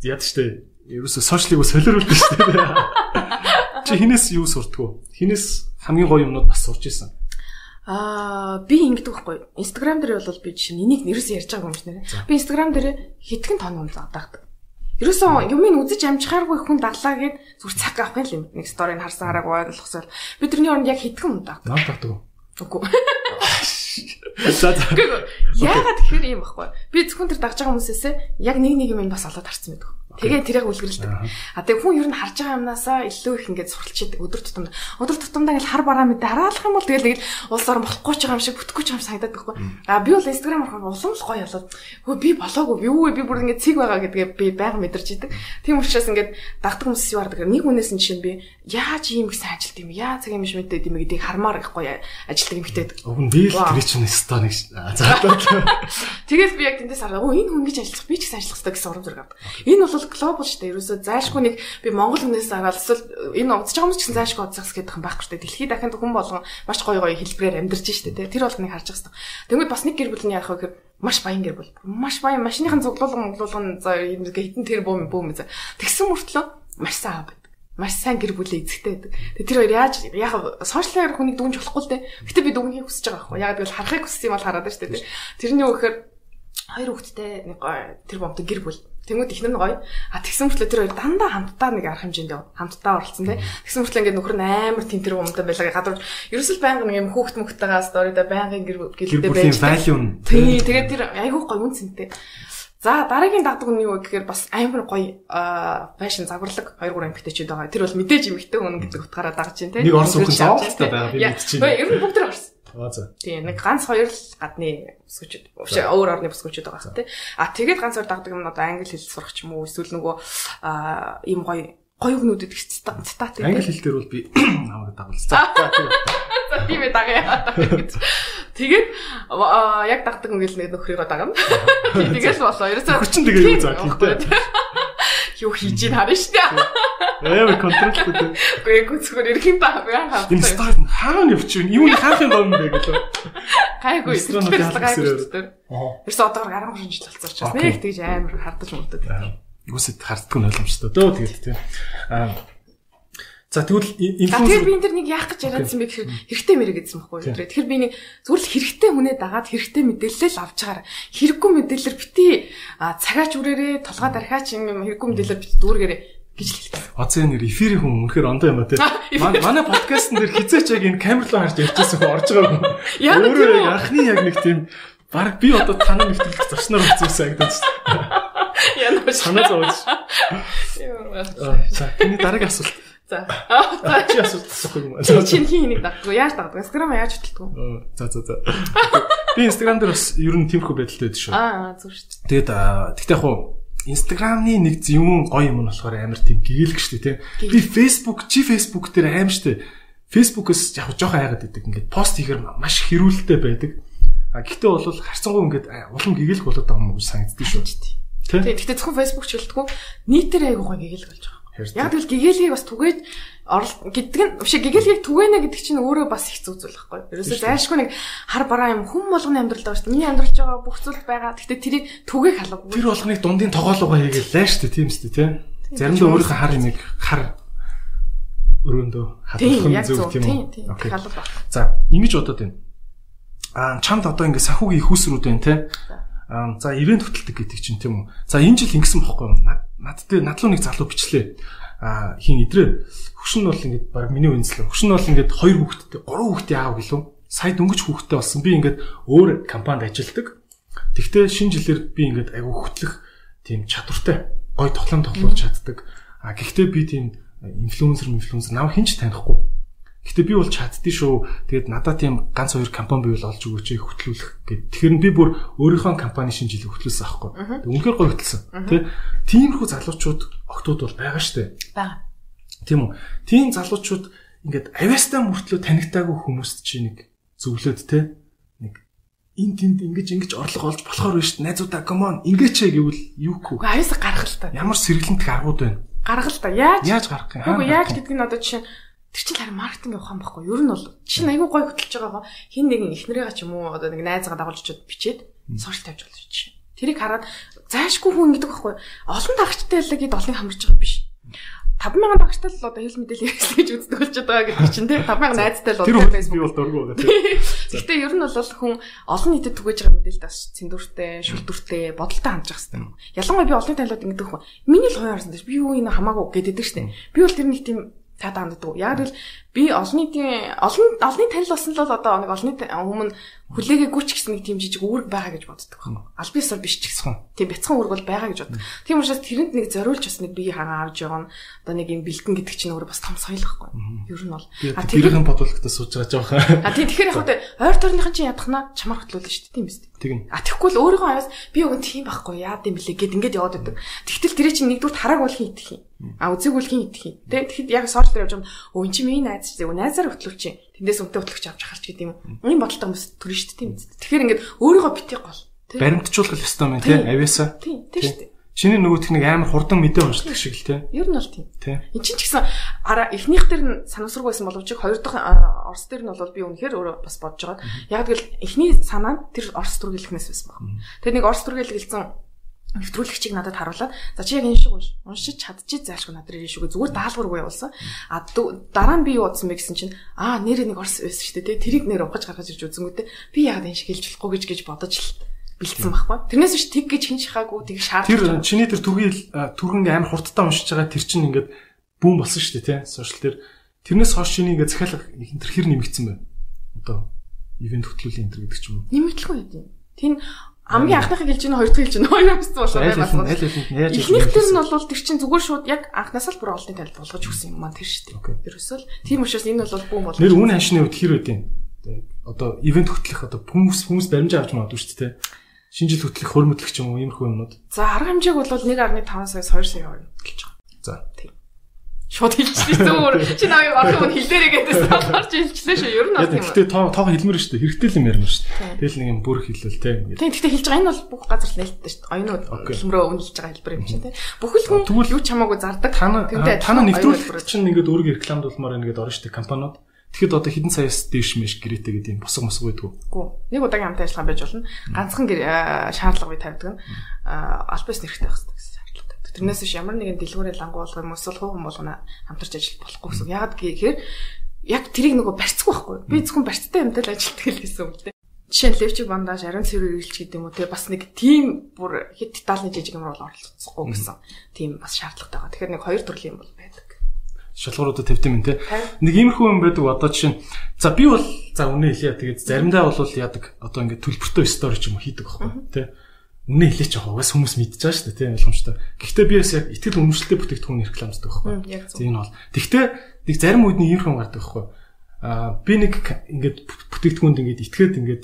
яад штэ. Ерөөсө сошиалыг солиоруулдаг шүү дээ. Чи хинээс юу сурдгүү? Хинээс хамгийн гоё юмнууд бас сурч ирсэн. Би ингэдэг байхгүй. Instagram дээр бол би жишээ нь энийг нэрээс ярьж байгаа юм шиг нэрэ. Би Instagram дээр хэдхэн тонн юм дагдаг. Ерөөсөн юмыг үзэж амжихааргүй хүн даглаа гэд зүр цаг авах юм. Нэг сторийг харсан хараагүй ойлгосоор би тэрний оронд яг хэдхэн юм дагдаг. Наад дагдаг. Үгүй. Яагаад тэгэхээр юм байхгүй. Би зөвхөн тэр дагж байгаа хүмүүсээсээ яг нэг юм бас олоод харсан байдаг. Тэгээ тэрийг үлгэрэлдэг. Тэгээ хүн ер нь харж байгаа юмнасаа илүү их ингээд суралцдаг өдөр тутамдаа. Өдөр тутамдаа ингээд хар бараа мэдээ хараалах юм бол тэгэл улс орон болохгүй ч байгаа юм шиг бүтэхгүй ч юм санагдаад байхгүй. Би бол Instagram ороход улам л гоё болоод хөө би болоогүй юу вэ би бүр ингээд цэг байгаа гэдгээ би байнга мэдэрч идэг. Тийм учраас ингээд дагдаг хүмүүс юу хардаг. Нэг хүнээс нь жишээ нь би яаж ийм их сайн ажилт юм яа цаг юм биш мэдээд юм гэдгийг хармаар ихгүй ажилтдаг юмхтэй. Уг нь би л тэр чинь стоныг заадаа. Тэгэл би яг тэндээс хараа. Энэ хүн гэж ажиллах би ч гэсэн ажиллах хэрэгтэй гэсэн урам зориг авдаг. Энэ бол глобал шүү дээ. Ерөөсөө заашгүй нэг би Монгол хүнээс агаал эсвэл энэ удаж байгаа хүмүүс ч гэсэн заашгүй удацгаас гэдэг юм байхгүй шүү дээ. Дэлхийд дахинд хүн болгон маш гоё хэлбэрээр амьдарч штэ тий. Тэр бол нэг харж байгаа хэрэгтэй. Тэгвэл бас нэг гэр бүл нь яах вэ гэхээр маш баян гэр бүл. Маш баян машиныхан цуглуулган за хитэн тэр бөөм тэгсэн мөртлөө маш сайн аав байдаг. Маш сайн гэр бүлээ эзэгтэй байдаг. Тэр хоёр яаж яг сошиалаар хүнийг дүнж болохгүй л дээ. Гэтэ би дүнхийг хүсэж байгаа байхгүй. Яг тэгвэл харахыг хүссэн юм бол хараад штэ тий. Тэрний юу гэхээр хоёр хүүхэдтэй нэг тэр бомтой гэр бүл. Тэнгүүд ихнэр нь гоё. Тэгсэн мөртлөө тэр хоёр дандаа хамтдаа нэг арга хэмжээнд хамтдаа оролцсон тий. Тэгсэн мөртлөө ингээд нөхөр нь амар тентэр умтай байлаа. Гадуур ерөөсөл байнга нэг юм хүүхд мөхтэйгээ сторидо байнгын гэлдээ байж. Тий, тэгээд тэр айгүй гоё үнцэнтэй. За дараагийн дагдаг нь юу гэхээр бас амар гоё фэшн загварлаг 2-3 эмэгтэйчүүд байгаа. Тэр бол мэдээж эмэгтэй хүн гэдэг утгаараа дагж байна тий. Нэг орс хүн зоолтой байгаа би мэдчихэв. Ер нь бүгд тэр орс. За. Тийм нэг ганц хоёр л гадны бүсгүүчүүд өөр орны бүсгүүчүүд байгаа хэрэг тий. Тэгээд ганц хоёр дагдаг юм одоо англи хэл сурах ч юм уу эсвэл нөгөө ийм гоё өгнүүдэд цитат англи хэл дээр бол би намайг дагуулсан. За тийм ээ дагая. Тэгээд яг дагдаг ингээл нэг нөхрийгөө дагна. Тэгэл болоо. Ерөөсөө хүчин тэгээ юу заа тий. Юу хийж ийн харна шүү дээ. Эвэ контролтой. Гэхдээ зүгээр ирэх юм ба хаа. Энэ стар хаана явчих вэ? Юу хаахын гом бэ гэлээ. Гайгүй. Ерөөсөө одоор 13 жил болцсон учраас нэг тэгж амар хардаж мөрдөд. Үсэд харддаг нь ойлгомжтой дөө тэгээд тий. За тэгвэл инфлюенсер би энэ төр нэг яах гэж яриадсан бэ гэхээр хэрэгтэй мэрэг гэсэн байхгүй юу. Тэгэхээр би нэг зүгээр л хэрэгтэй хүнээ дагаад хэрэгтэй мэдээлэл л авч чагаар. Хэрэггүй мэдээлэлэр бити цагаач үрээрээ толгой дархаач юм хэрэггүй мэдээлэлэр бити дүүргээрээ гэж хэлдэг. Оцоо нэр эфирийн хүн үнэхээр ондоо юм а тий. Манай подкастн дээр хизээч яг энэ камер руу харж ярьчихсан хүн орж байгаа хүн. Өөрөө яг анхны яг нэг тийм баг би одоо танаа нэвтрүүлэх зарчнаар үзсэнагдаж байна. Яна санаа зовж. За тэний дараагийн асуулт. За. Чи асуулт асуух юм. Чи хийнийг дагдаг. Яаж дагдаг? Instagram яаж хөтэлдэг вэ? За. Би Instagram дээр бас ер нь тиймэрхүү байдалтай байдаг шүү. Зөв шүү. Тэгээд тэгтээ яг хуу Instagram-ны нэг юм гоё юм нь болохоор амар тийм гэгээлэг шүү дээ, тий. Би Facebook дээр аим шүү дээ. Facebook-оос яг жоохон хайгаад байдаг. Ингээд пост хийхээр маш хэрүүлэлтэй байдаг. Гэхдээ бол харцангуй ингээд улам гэгээлэг болоод байгаа юм уу санагддаг шүү. Тий. Тэгтээ зөвхөн Facebook ч хэлдэггүй. Нийтээр айгуу гоё гэгээлэг болж байгаа. Яг тэгэл гэгээлгийг бас түгээд гэдэг нь биш гэгээлгийг түгэнэ гэдэг чинь өөрөө бас их зүг зүйл байхгүй. Ерөөсөө зайлшгүй нэг хар бараа юм хүн болгоны амьдрал байгаа шүү дээ. Миний амьдралж байгаа бүх зүйл байгаа. Гэхдээ тэрийг түгээх алга. Тэр болгоныг дундын тоглоогоо хийгээл лаа шүү дээ. Тийм шүү дээ, тийм. Заримдаа өөрийнхөө хар юмыг хар өрөөндөө хадгалах зүг тийм үү. Окей. За, ингэж бодоод байна. Чамд одоо ингэ сахуугийн их усрүүд байна, тийм. За ивент хөтэлдэг гэдэг чинь тийм үү. За энэ жил ингэсэн бохгүй юу? Надлуу нэг залуу бичлээ. Хин идрээ хөшин нь бол ингээд баг миний үнслээ. Хөшин нь бол ингээд 2 хүүхэдтэй 3 хүүхдийн аав гэлөө. Сая дөнгөж хүүхэдтэй болсон. Би ингээд өөр компанид ажилладаг. Тэгтээ шинэ жилээр би ингээд айгүй хөтлөх тийм чадвартай гой тоглоулж чаддаг. Гэхдээ би тийм инфлюенсер намайг хинч танихгүй. Гэхдээ би бол чаддсан шүү. Тэгээд надад тийм ганц хоёр компани бивэл олж өгөөч хөтлүүлэх гэд. Тэгэхээр би бүр өөрийнхөө компани шинэ жилийг хөтлүүлсэн аахгүй. Үнэхээр гоё хөтлсөн. Тиймэрхүү залуучууд октод бол байгаа штэ. Бага. Тийм үү. Тийм залуучууд ингээд авьяастай мөртлөө танигтаагүй хүмүүст чи нэг зөвлөд те. Нэг энэ тэнд ингэж орлого олж болохоор биш найзуудаа come on ингэж гэвэл юугүй. Авьяасаа гаргах л та. Ямар сэргэлэнт аргууд байна. Гаргах л та. Яаж гаргах юм? Үгүй яаж гэдэг нь одоо жишээ тэр чинь харин маркетинг ухаан байхгүй. Ер нь бол чинь айгүй гоё хөтлөж байгаа гоо. Хин нэгэн эхнэрээ ч юм уу одоо нэг найзгаа дагуулж очиод бичээд сошиал тавьж болж чинь. Тэрийг хараад заашгүй хүн гэдэг байхгүй. Олон дагагчтай л гээд олоныг хамарч байгаа биш. 5,000 дагагчтай л одоо хэл мэдээлэл хэрэглэх гэж үздэг болчиход байгаа гэдэг чинь тий 5,000 найзтай л одоо Facebook би бол дургу байгаа тий. Гэхдээ ер нь бол хүн олон нийтэд түгэж байгаа мэдээлэлд бас цэндүртэй, шүлтүртэй, бодолтой хандж байгаа хэрэгтэй. Ялангуяа би олон танилууд ингэдэг хүн. Миний л хоёр харсан дээ. Би юу энэ хамаагүй гэдэг штэ. Би бол тэр нэг тийм таад ханддаг. Яг л би олонний танил болсон л одоо нэг олонний өмнө хүлээгээгүй ч гэсэн нэг тийм жижиг үүрэг байгаа гэж боддог байна. Аль биесээр биш ч гэсэн. Тийм бяцхан үүрэг бол байгаа гэж боддог. Тийм учраас тэрэнд нэг зориулж бас нэг бие хагаа авч явна. Одоо нэг юм бэлтгэн гэдэг чинь өөрөө бас том соёл байхгүй. Ер нь бол тэрийн бодлоготой сууж байгаа жоохон. Тэгэхээр яг ойр тойрныхан чинь ядахна чамаар хөтлүүлнэ шүү дээ. Тийм биз дээ. Тийм. Тэгэхгүй л өөрийнхөө аяас би өгөн тийм байхгүй яад юм блэ гэд ингээд яваад байдаг. Тэгтэл тэрий чинь нэгдүгээр тарааг бол хин идэх юм. Үзег бол хин идэх юм. Тэгэхэд яг сошиал дээр явж байгаа өө эн чинь миний найз чинь найзаар хөтлөвч чинь. Тэндээс үнтэй хөтлөгч авч харч гэдэг юм. Ийм бодолтой хүмүүс төрнө шүү дээ. Тийм биз дээ. Тэгэхээр ингээд өөрийгөө битгий гол. Баримтжуулах ёстой юм тийм авьяасаа. Тийм шүү дээ. Чиний нөгөөх нэг амар хурдан мэдээ уншдаг шиг л тийм. Ер нь бол тийм. Энд чинь ч гэсэн эхнийх дээр нь санамсаргүй байсан боловч хоёр дахь орс дээр нь бол би үнэхээр өөрөө бас бодож байгаа. Яг тэгэл эхний санаа нь тэр орс түргэлэхнээс байсан баг. Тэгээ нэг орс түргэлэг хэлсэн нэвтрүүлэгчийг надад харуулад за чи яг энэ шиг уншиж чадчих заашгүй надад ирэх шүүгээ зүгээр даалгаваргүй явуулсан. Дараа нь би юу бодсон бэ гэсэн чинь нэрээ нэг орс байсан шүү дээ. Тэрийг нэр ухаж гаргаж ирж үзэнгүүтээ би яг энэ шиг хэлж болохгүй гэж бодож л бэлдсэн байхгүй. Тэрнээс биш тэг гэж хин шахаагүй тэг шаардлагатай. Тэр чиний тэр түргэн амар хурдтай уншиж байгаа тэр чинь ингээд бүүн болсон шүү дээ тий. Сошиал дээр тэрнээс хойш чиний ингээд захиалга тэр хэр нэмэгдсэн бэ? Одоо ивент хөтлөлийн энэ гэдэг ч юм уу. Нэмэгдлгүй юм. Тийм амгийн анхныхыг хэлж гэнэ хоёр дахь хэлж гэнэ хоёр өссөн болоо байна. Эхнийх тэр нь бол тэр чинь зүгээр шууд яг анхнаас л бүр олдын танил болгож өгсөн юм маань тэр шүү дээ. Ерөөсөө л тийм учраас энэ бол бүүн болоо. Нэр үн ханшны үед хэр үдийн одоо ивент хөтлөх одоо хүмүүс баримжаа авч магадгүй шүү дээ. Шинэ жил хөтлөх хөрмөдлөх ч юм уу иймэрхүү юмнууд. За арга хэмжээг бол 1.5 саяас 2 сая явуулна гэж байгаа. За тийм. Шууд хэлчихсэн зүгээр. Чи намайг орхон хэлээрээ гэдээс толгорч хэлчихлээ шүү. Ер нь бол тийм. Гэтэ тоо хэлмэр шүү дээ. Хэрэгтэй л юм ярина шүү дээ. Тэгэл нэг юм бүр хэлвэл те. Тийм. Гэтэ хэлж байгаа энэ бол бүх газар л нээлттэй шүү дээ. Оюунууд хэлмрөө үнэлж байгаа хэлбэр юм чинь те. Бүхэл хүн юу ч хамаагүй зардаг. Тана нэвтрүүлэгч чинь ингээд өөргөө рекламдуулмаар ингээд орно шүү дээ компаниуд. Тэгэхэд одоо хэдэн саяас дээш мэш гэрээтэй гэдэг юм босго байдгүй. Нэг удаагийн хамтын ажиллагаа байж болно. Ганцхан шаардлага бий тавьдаг нь албаас нэрхтэй байх хэрэгтэй гэсэн шаардлагатай. Тэрнээс биш ямар нэгэн дэлгүүрээ лангу болгох юм эсвэл хувь хүн болгоно хамтарч ажиллах болохгүй гэсэн. Яагаад гэхээр яг тэрийг нөгөө барьцгүй байхгүй. Би зөвхөн барьцтай юмтай л ажилладаг л гэсэн үг л дээ. Жишээ нь левчиг бандаж ариун цэвэр ирэлч гэдэг юм уу те бас нэг тийм бүр хэд детальны жижиг юмруу оролцохгүй гэсэн. Тийм бас шаардлагатай байгаа. Тэгэхээр нэг хоёр төрлийн юм бол байдаг. Шалгууруудад тавьдаг юм те. Нэг иймэрхүү юм байдаг одоо жишээ нь за би бол за үнэ хэлье тэгээд заримдаа бол яадаг одоо ингээд төлбөртэй стори ч юм уу хийдэг байхгүй те. Үнэ хэлээч яг угаас хүмүүс мэдчихэж байгаа шүү дээ те ойлгомжтой. Гэхдээ би бас яг итгэл үнэмшилтэй бүтээгдэхүүн рекламддаг байхгүй. Тийм энэ бол. Гэхдээ нэг зарим үед нэг иймэрхүү гардаг байхгүй. Би нэг ингээд бүтээгдэхүүнд ингээд итгээд ингээд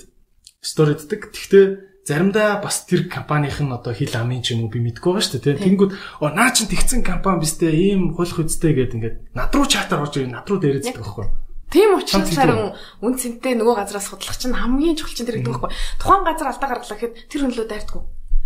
сториддаг. Гэхдээ заримдаа бас тэр компанийн нь одоо хил амын ч юм уу би мэдгүй байгаа шүү дээ тийм. Тэнгүүд наа чин тэгсэн компани бистэй ийм хулх үстэй гэдэг ингээд над руу чатаар орж ирээ над руу дээрээдэг байхгүй. Тийм учраас харин үн цэнтэй нөгөө газраас судлах чинь хамгийн чухал чинь тэр гэдэг байхгүй. Тухайн газар алдаа гаргалаа гэхэд тэр хөнлөө дайрдаггүй.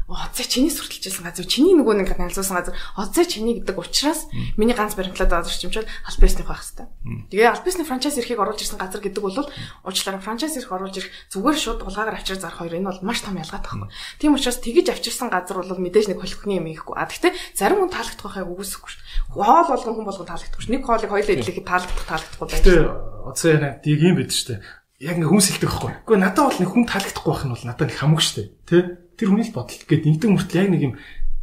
Оцоо чиний сурталчилсан газар чиний нөгөө нэг канализуулсан газар оцоо чиний гэдэг учраас миний ганц баримтлаад байгаа чимчэл аль бизнесний байх хэвээр. Тэгээ аль бизнесний франчайз эрхийг оруулж ирсэн газар гэдэг бол уучлаарай франчайз эрх оруулж ирэх зүгээр шууд улгаагаар авчир зарах хоёр энэ бол маш том ялгаатай байхгүй. Тийм учраас тэгэж авчирсан газар бол мэдээж нэг холихны юм ихгүй. Гэхдээ зарим хүн таалагдах байхыг үгүйсэхгүй шүү. Хоол болгон хүн болгон таалагдахгүй шүү. Нэг хоолыг хоёулаа идлэхэд таалагдахгүй байх. Тэгээ оцоо яна тийг юм бид шүү. Яг ингээ хүмүүс хэлдэг байхгүй. Гэхдээ надад бол нэг хүн таалагдахгүй байх нь бол надад нэг хамаагүй шүү. Тэ? Тэр хүний л бодол гээд нэгдэг мөртл яг нэг юм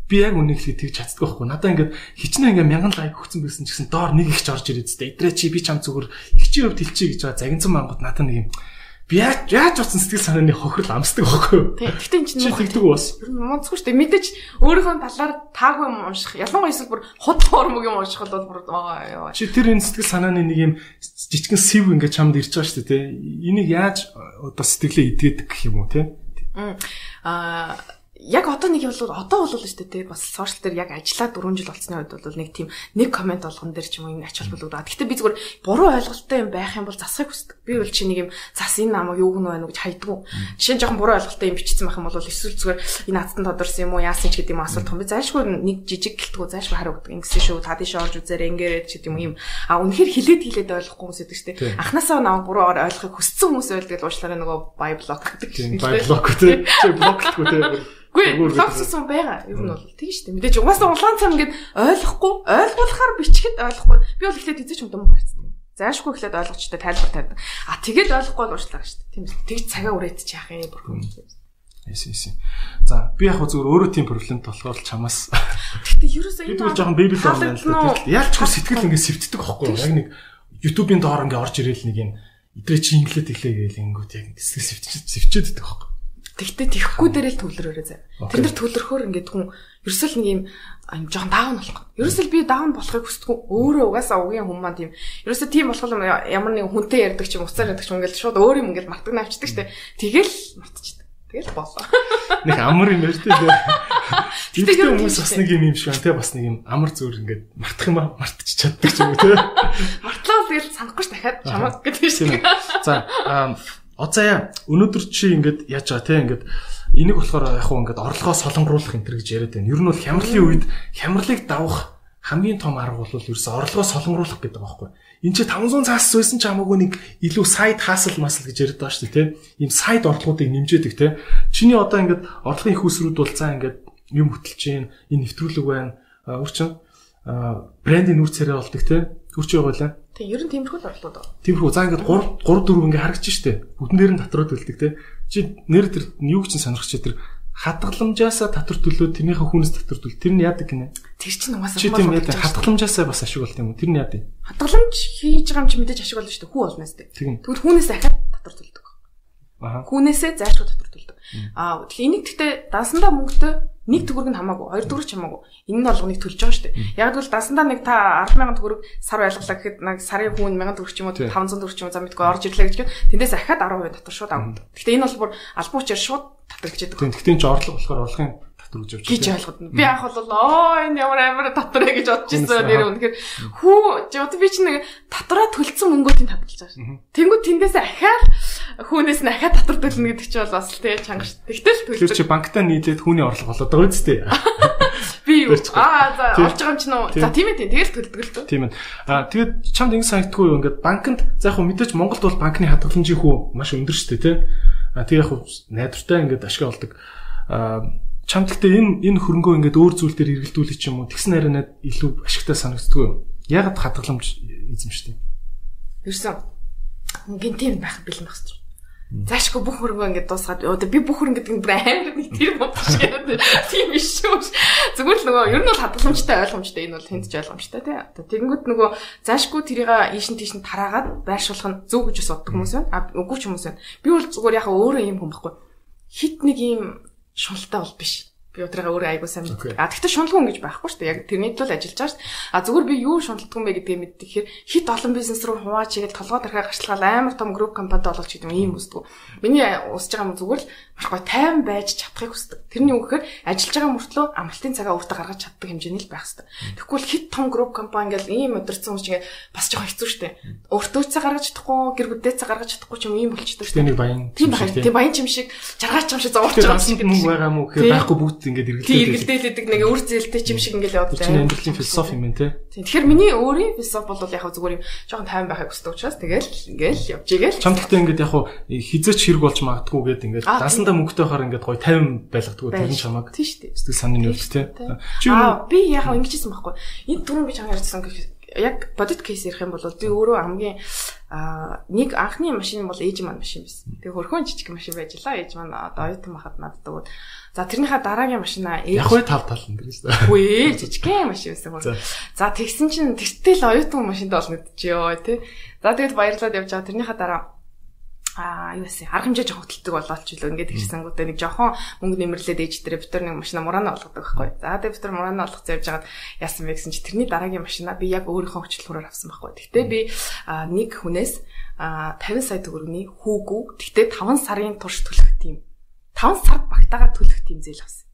би яг үнийг хэлээд тэгж чаддаг байхгүй. Надаа ингээд хичнээн ингээ 1000 лайк өгсөн байсан ч гэсэн доор нэг ихч орж ирээд зү. Эдрээ чи би чам зүгээр ихчийн хувьд хэлчихье гэж байгаа загинцсан мангууд надаа нэг юм Би яаж утсан сэтгэл санааны хохирол амсдаг байхгүй юу? Тэгтээ энэ чинь тэгдэг бас. Ер нь мунцгүй шүү дээ. Мэдээж өөрийнхөө талаар таагүй юм унших. Ялангуяа эсвэл бүр хот хормог юм уншихад бол бүр чи тэр энэ сэтгэл санааны нэг юм жижигхэн сэв ингээд чамд ирж байгаа шүү дээ, тэ. Энийг яаж одоо сэтгэлээ идгээд гэх юм уу, тэ? Яг одоо нэг бол шүү дээ бас сошиал дээр яг ажиллаа 4 жил болсны үед бол нэг тийм нэг комент болгон дээр ч юм уу ингэ ач холбогдоод. Гэхдээ би зүгээр буруу ойлголттой юм байх юм бол засахыг хүсдэг. Би бол чи нэг юм зас энэ намайг юу гэнэ байна уу гэж хайдгүй. Жишээ нь жоохон буруу ойлголттой юм бичсэн байх юм бол эсвэл зүгээр энэ хатсан тодорсон юм уу яасан ч гэдэг юм асуулт том. Би зайлшгүй нэг жижиг гэлтгүү зайлшгүй хариу өгдөг. Ингэсэн шүү та тийш орж үзээрэй ингэрээд ч гэдэг юм. Үнэхээр хилээд ойлгохгүй хүмүүс байдаг шүү дээ. Анханасаа намайг буруу ойлгохыг хүссэн хүмүүс байлдаг л уучлаарай нөгөө бай блок гэдэг. Бай блок үү? Чи блоклахгүй те. Үгүй логссон байгаа. Ер нь бол тийм шүү дээ. Мэдээж угаасаа улаан цам ингээд ойлгуулахаар бичгэд ойлгохгүй. Би бол ихлээр тэзэж юм гарцсан. Заашгүй ихлээр ойлгочтой тайлбар тавьдаг. Тэгээд ойлгохгүй л уучлаарай шүү дээ. Тийм үү. Тэгж цагаа үрээд чи яах юм бүрхүү. Эсэ. За би яг зөвөр өөрөө тийм проблемт болохоор л чамаас. Гэхдээ ерөөсөө энэ жоохон бэбил байна л да. Яаж ч сэтгэл ингээд сэвтдэг байхгүй юу? Яг нэг YouTube-ийн доор ингээд орж ирээл нэг юм идрээ чи инглээд иглээ гээл ингүүт яг сэтгэл сэвчээд идэх байхгүй. Тэгтээ тэхгүй дээрээ л төвлөрөөрэй заа. Тэр нэр төвлөрөхөөр ингээд хүн ерөөсөл нэг юм жоохон даун болох. Ерөөсөл би даун болохыг хүсдэггүй. Өөрөө угаасаа угийн хүн маань тийм. Ерөөсөө тийм болох юм ямар нэг хүнтэй ярьдаг ч юм уцаар ярьдаг ч юм ингээд шууд өөр юм ингээд мартаг навчдаг штэ. Тэгэл мартчихдаг. Тэгэл болоо. Нэг амар юм ярьж дээ. Тэгтээ хүмүүс бас нэг юм шиг байна те бас нэг юм амар зөөр ингээд мартах юм мартчих чаддаг ч юм уу те. Мартлаа тэгэл санахгүй ш дахиад чамаг гэдэг шиг. За Оцаа өнөөдөр чи ингээд яаж байгаа те ингээд энийг болохоор яг хуу ингээд орлогоо солонгоруулах энэ төр гэж яриад байна. Ер нь бол хямралын үед хямралыг давах хамгийн том арга бол ерөөсө орлогоо солонгоруулах гэдэг байгаа байхгүй. Энд чи 500 цаас суусан ч хамаагүй нэг илүү сайд хасл масл гэж яриад байгаа шүү дээ те. Ийм сайд орлогуудыг нэмжээдэг те. Чиний одоо ингээд орлогын их усрууд бол цаа ингээд юм хөтөлж чинь энэ нэвтрүүлэг байна. Өөрчн брендийн нүүр царай болдог те. Үрч яваалаа. Тэг ер нь тиймэрхүү л орлууд байгаа. Тиймэрхүү. За ингээд 3 4 ингээ харагдчих штэ. Бүгдэн дээр нь татрууд үлддэг те. Чи нэр тэр юу ч сонирхож чи тэр хадгаламжаасаа татвар төлөө тэрнийхээ хүнээс татвар төлөө тэр нь яадаг гинэ. Тэр чинь угаасаа чи тийм яадаг хадгаламжаасаа бас ашиг болт юм уу? Тэр нь яадаг. Хадгаламж хийж байгаа юм чи мэдээж ашиг болно штэ. Хүү болноос те. Тэгвэл хүнээс ахаад татвар төлдөг. Хүнээсээ зайлшгүй татвар төлдөг. Тэгэхээр энийг гэхдээ дансандаа мөнгөтэй нэг төгрөг нь хамаагүй, хоёр төгрөг ч хамаагүй. Энэ нь болгоныг төлж байгаа шүү дээ. Яг л дасандаа нэг та 10,000 төгрөг сар байлгалаа гэхэд нэг сарын хүн 1,000 төгрөг ч юм уу 500 төгрөг ч юм уу за мэдгүй орж ирлээ гэж гээд тэндээс ахаад 10% татвар шууд авна. Гэхдээ энэ бол бүр албан учир шууд татвар гэж яддаг. Тэгтээ ч орлого болохоор орлогын татвар гэж явж байгаа. Гэж ойлгоод. Би анх бол энэ ямар амар татвар гэж бодож ирсэн нэр үнэхээр хүү одоо би чинь нэг татвараа төлсөн мөнгөийг татгалж байгаа шүү. Тэнгүүд тэндээс ахаад хүнээс нь ахаад татвар төлнө гэдэг чинь бол бас тий чанга шүү. Тэгтэл төлдөг. Тэр чи банктаа нийлээд хүний орлого болоод байгаа үстэй. Би юу? За олж байгаа юм чинь үү? За тийм ээ тэгэл төлдөг л дөө. Тийм ээ. Тэгээд чамд ингэ санагдгүй юу? Ингээд банкнд за яг хөө мэдээж Монголд бол банкны хадгаламжийн хүү маш өндөр шүү дээ тий. Тэг яг хөө найдвартай ингээд ашиг олдог. Чамд гэхдээ энэ хөрөнгөө ингээд өөр зүйл дээр эргэлдүүлэх юм уу? Тэгсэн хараа илүү ашигтай санагддгүй юу? Ягаад хадгаламж эзэмшдэг? Ерсэн гинтийн байх бэлэн байх шүү. Заашгүй бүх хөрөнгөө ингээд дуусгаад би бүх хөрөнгө гэдэг нь бүр амар нэг тэр бодож яриад тийм биш шүү. Зүгээр л нөгөө ер нь бол хадгаламжтай ойлгомжтой энэ бол хэнд ч ойлгомжтой тий. Тэгэнгүүт нөгөө заашгүй тэрийг ийшин тийш нь тараагаад байршуулах нь зөв гэж боддог хүмүүс байна. Үгүй ч хүмүүс байна. Би бол зүгээр яхаа өөрөө юм хүн байхгүй. Хит нэг юм шуналтай бол биш. Би өдрөөгөө өөрөө айгуу сайн мэддэг. Тэгтээ шуналгүй хүн гэж байхгүй шүү дээ. Яг тэрний төлөө ажиллаж байгаа шүү дээ. Зүгээр би юу шуналдгүй юм бэ гэдгийг мэддэг. Тэгэхээр хит олон бизнес руу хуваач игээл толгой тархаа гарчлагал амар том групп компанид олж гэдэг юм үсдэг. Миний усж байгаа юм зүгээр л маш гоё тайван байж чадахыг хүсдэг. Тэрний үг гэхээр ажиллаж байгаа мөртлөө амралтын цагаа өөртөө гаргаж чаддаг хэмжээний л байх хэрэгтэй. Тэгэхгүй л хит том групп компани ингээл ийм өдөрцөн хүмүүс чинь бас жоохон хэцүү шүү дээ. Өөртөө цаа гаргаж чадахгүй, гэр бүлдээ цаа гаргаж чадахгүй ч юм ийм болчихдог шүү дээ. Тийм баян чим шиг жаргаач юм шиг зовж байгаа юм шиг мөнгө байгаа мүү гэхээр байхгүй бүгд ингээд эргэлдээлдэг нэг үр зээлтэй чим шиг ингээд яваад байгаа. Тийм амьдралын философи юм те. Тэгэхээр миний өөрийн философи бол яг зүгээр юм жоохон тайван байхыг хүсдэг учраас тэгэл ингээл явж игээл. Чам гэхдээ ингээд яг хизээч хэрэг болж магадгүй гээд ингээд дасандаа мөнгөтэй хаар ингээд гоё тайван байлгадаг тэр нь чамаг. Тийм шүү дээ. Сэтгэл санааны нөлөө те. Би яг ингэжсэн байхгүй. Энэ түрүүн би чамд ярьсан яг бодит кейс ярих юм бол би өөрөө хамгийн нэг анхны машин бол ээж маань машин байсан. Тэгээ хөрхөн жижиг машин байж лаа. Ээж маань одоо оюутан махад надад өгөөд. За тэрнийхээ дараагийн машинаа ээж яг хөө тав тал энэ гэсэн. Үгүй жижигхэн машин байсан. За тэгсэн чинь тэртэл оюутан машинд олно гэж ёо тий. За тэгээд баярлаад явж байгаа. Тэрнийхээ дараа юу вэ? Арга хэмжээ жоох хөдөлдөг болоод ч илүү ингээд ирсэнгүүтээ нэг жоохон мөнгө нэмэрлээд ээждэрээ бид нар нэг машина мураана болгодог байхгүй. За тэгээд бид нар мураана болгоцоо явж хагаад яасан бэ гэсэн чи тэрний дараагийн машина би яг өөрийнхөө хөчлөхөөр авсан байхгүй. Гэхдээ би нэг хүнээс 50 сая төгрөгийн хүүгүү гэхдээ 5 сарын турш төлөх тийм 5 сард багтаагаар төлөх тийм зээл авсан.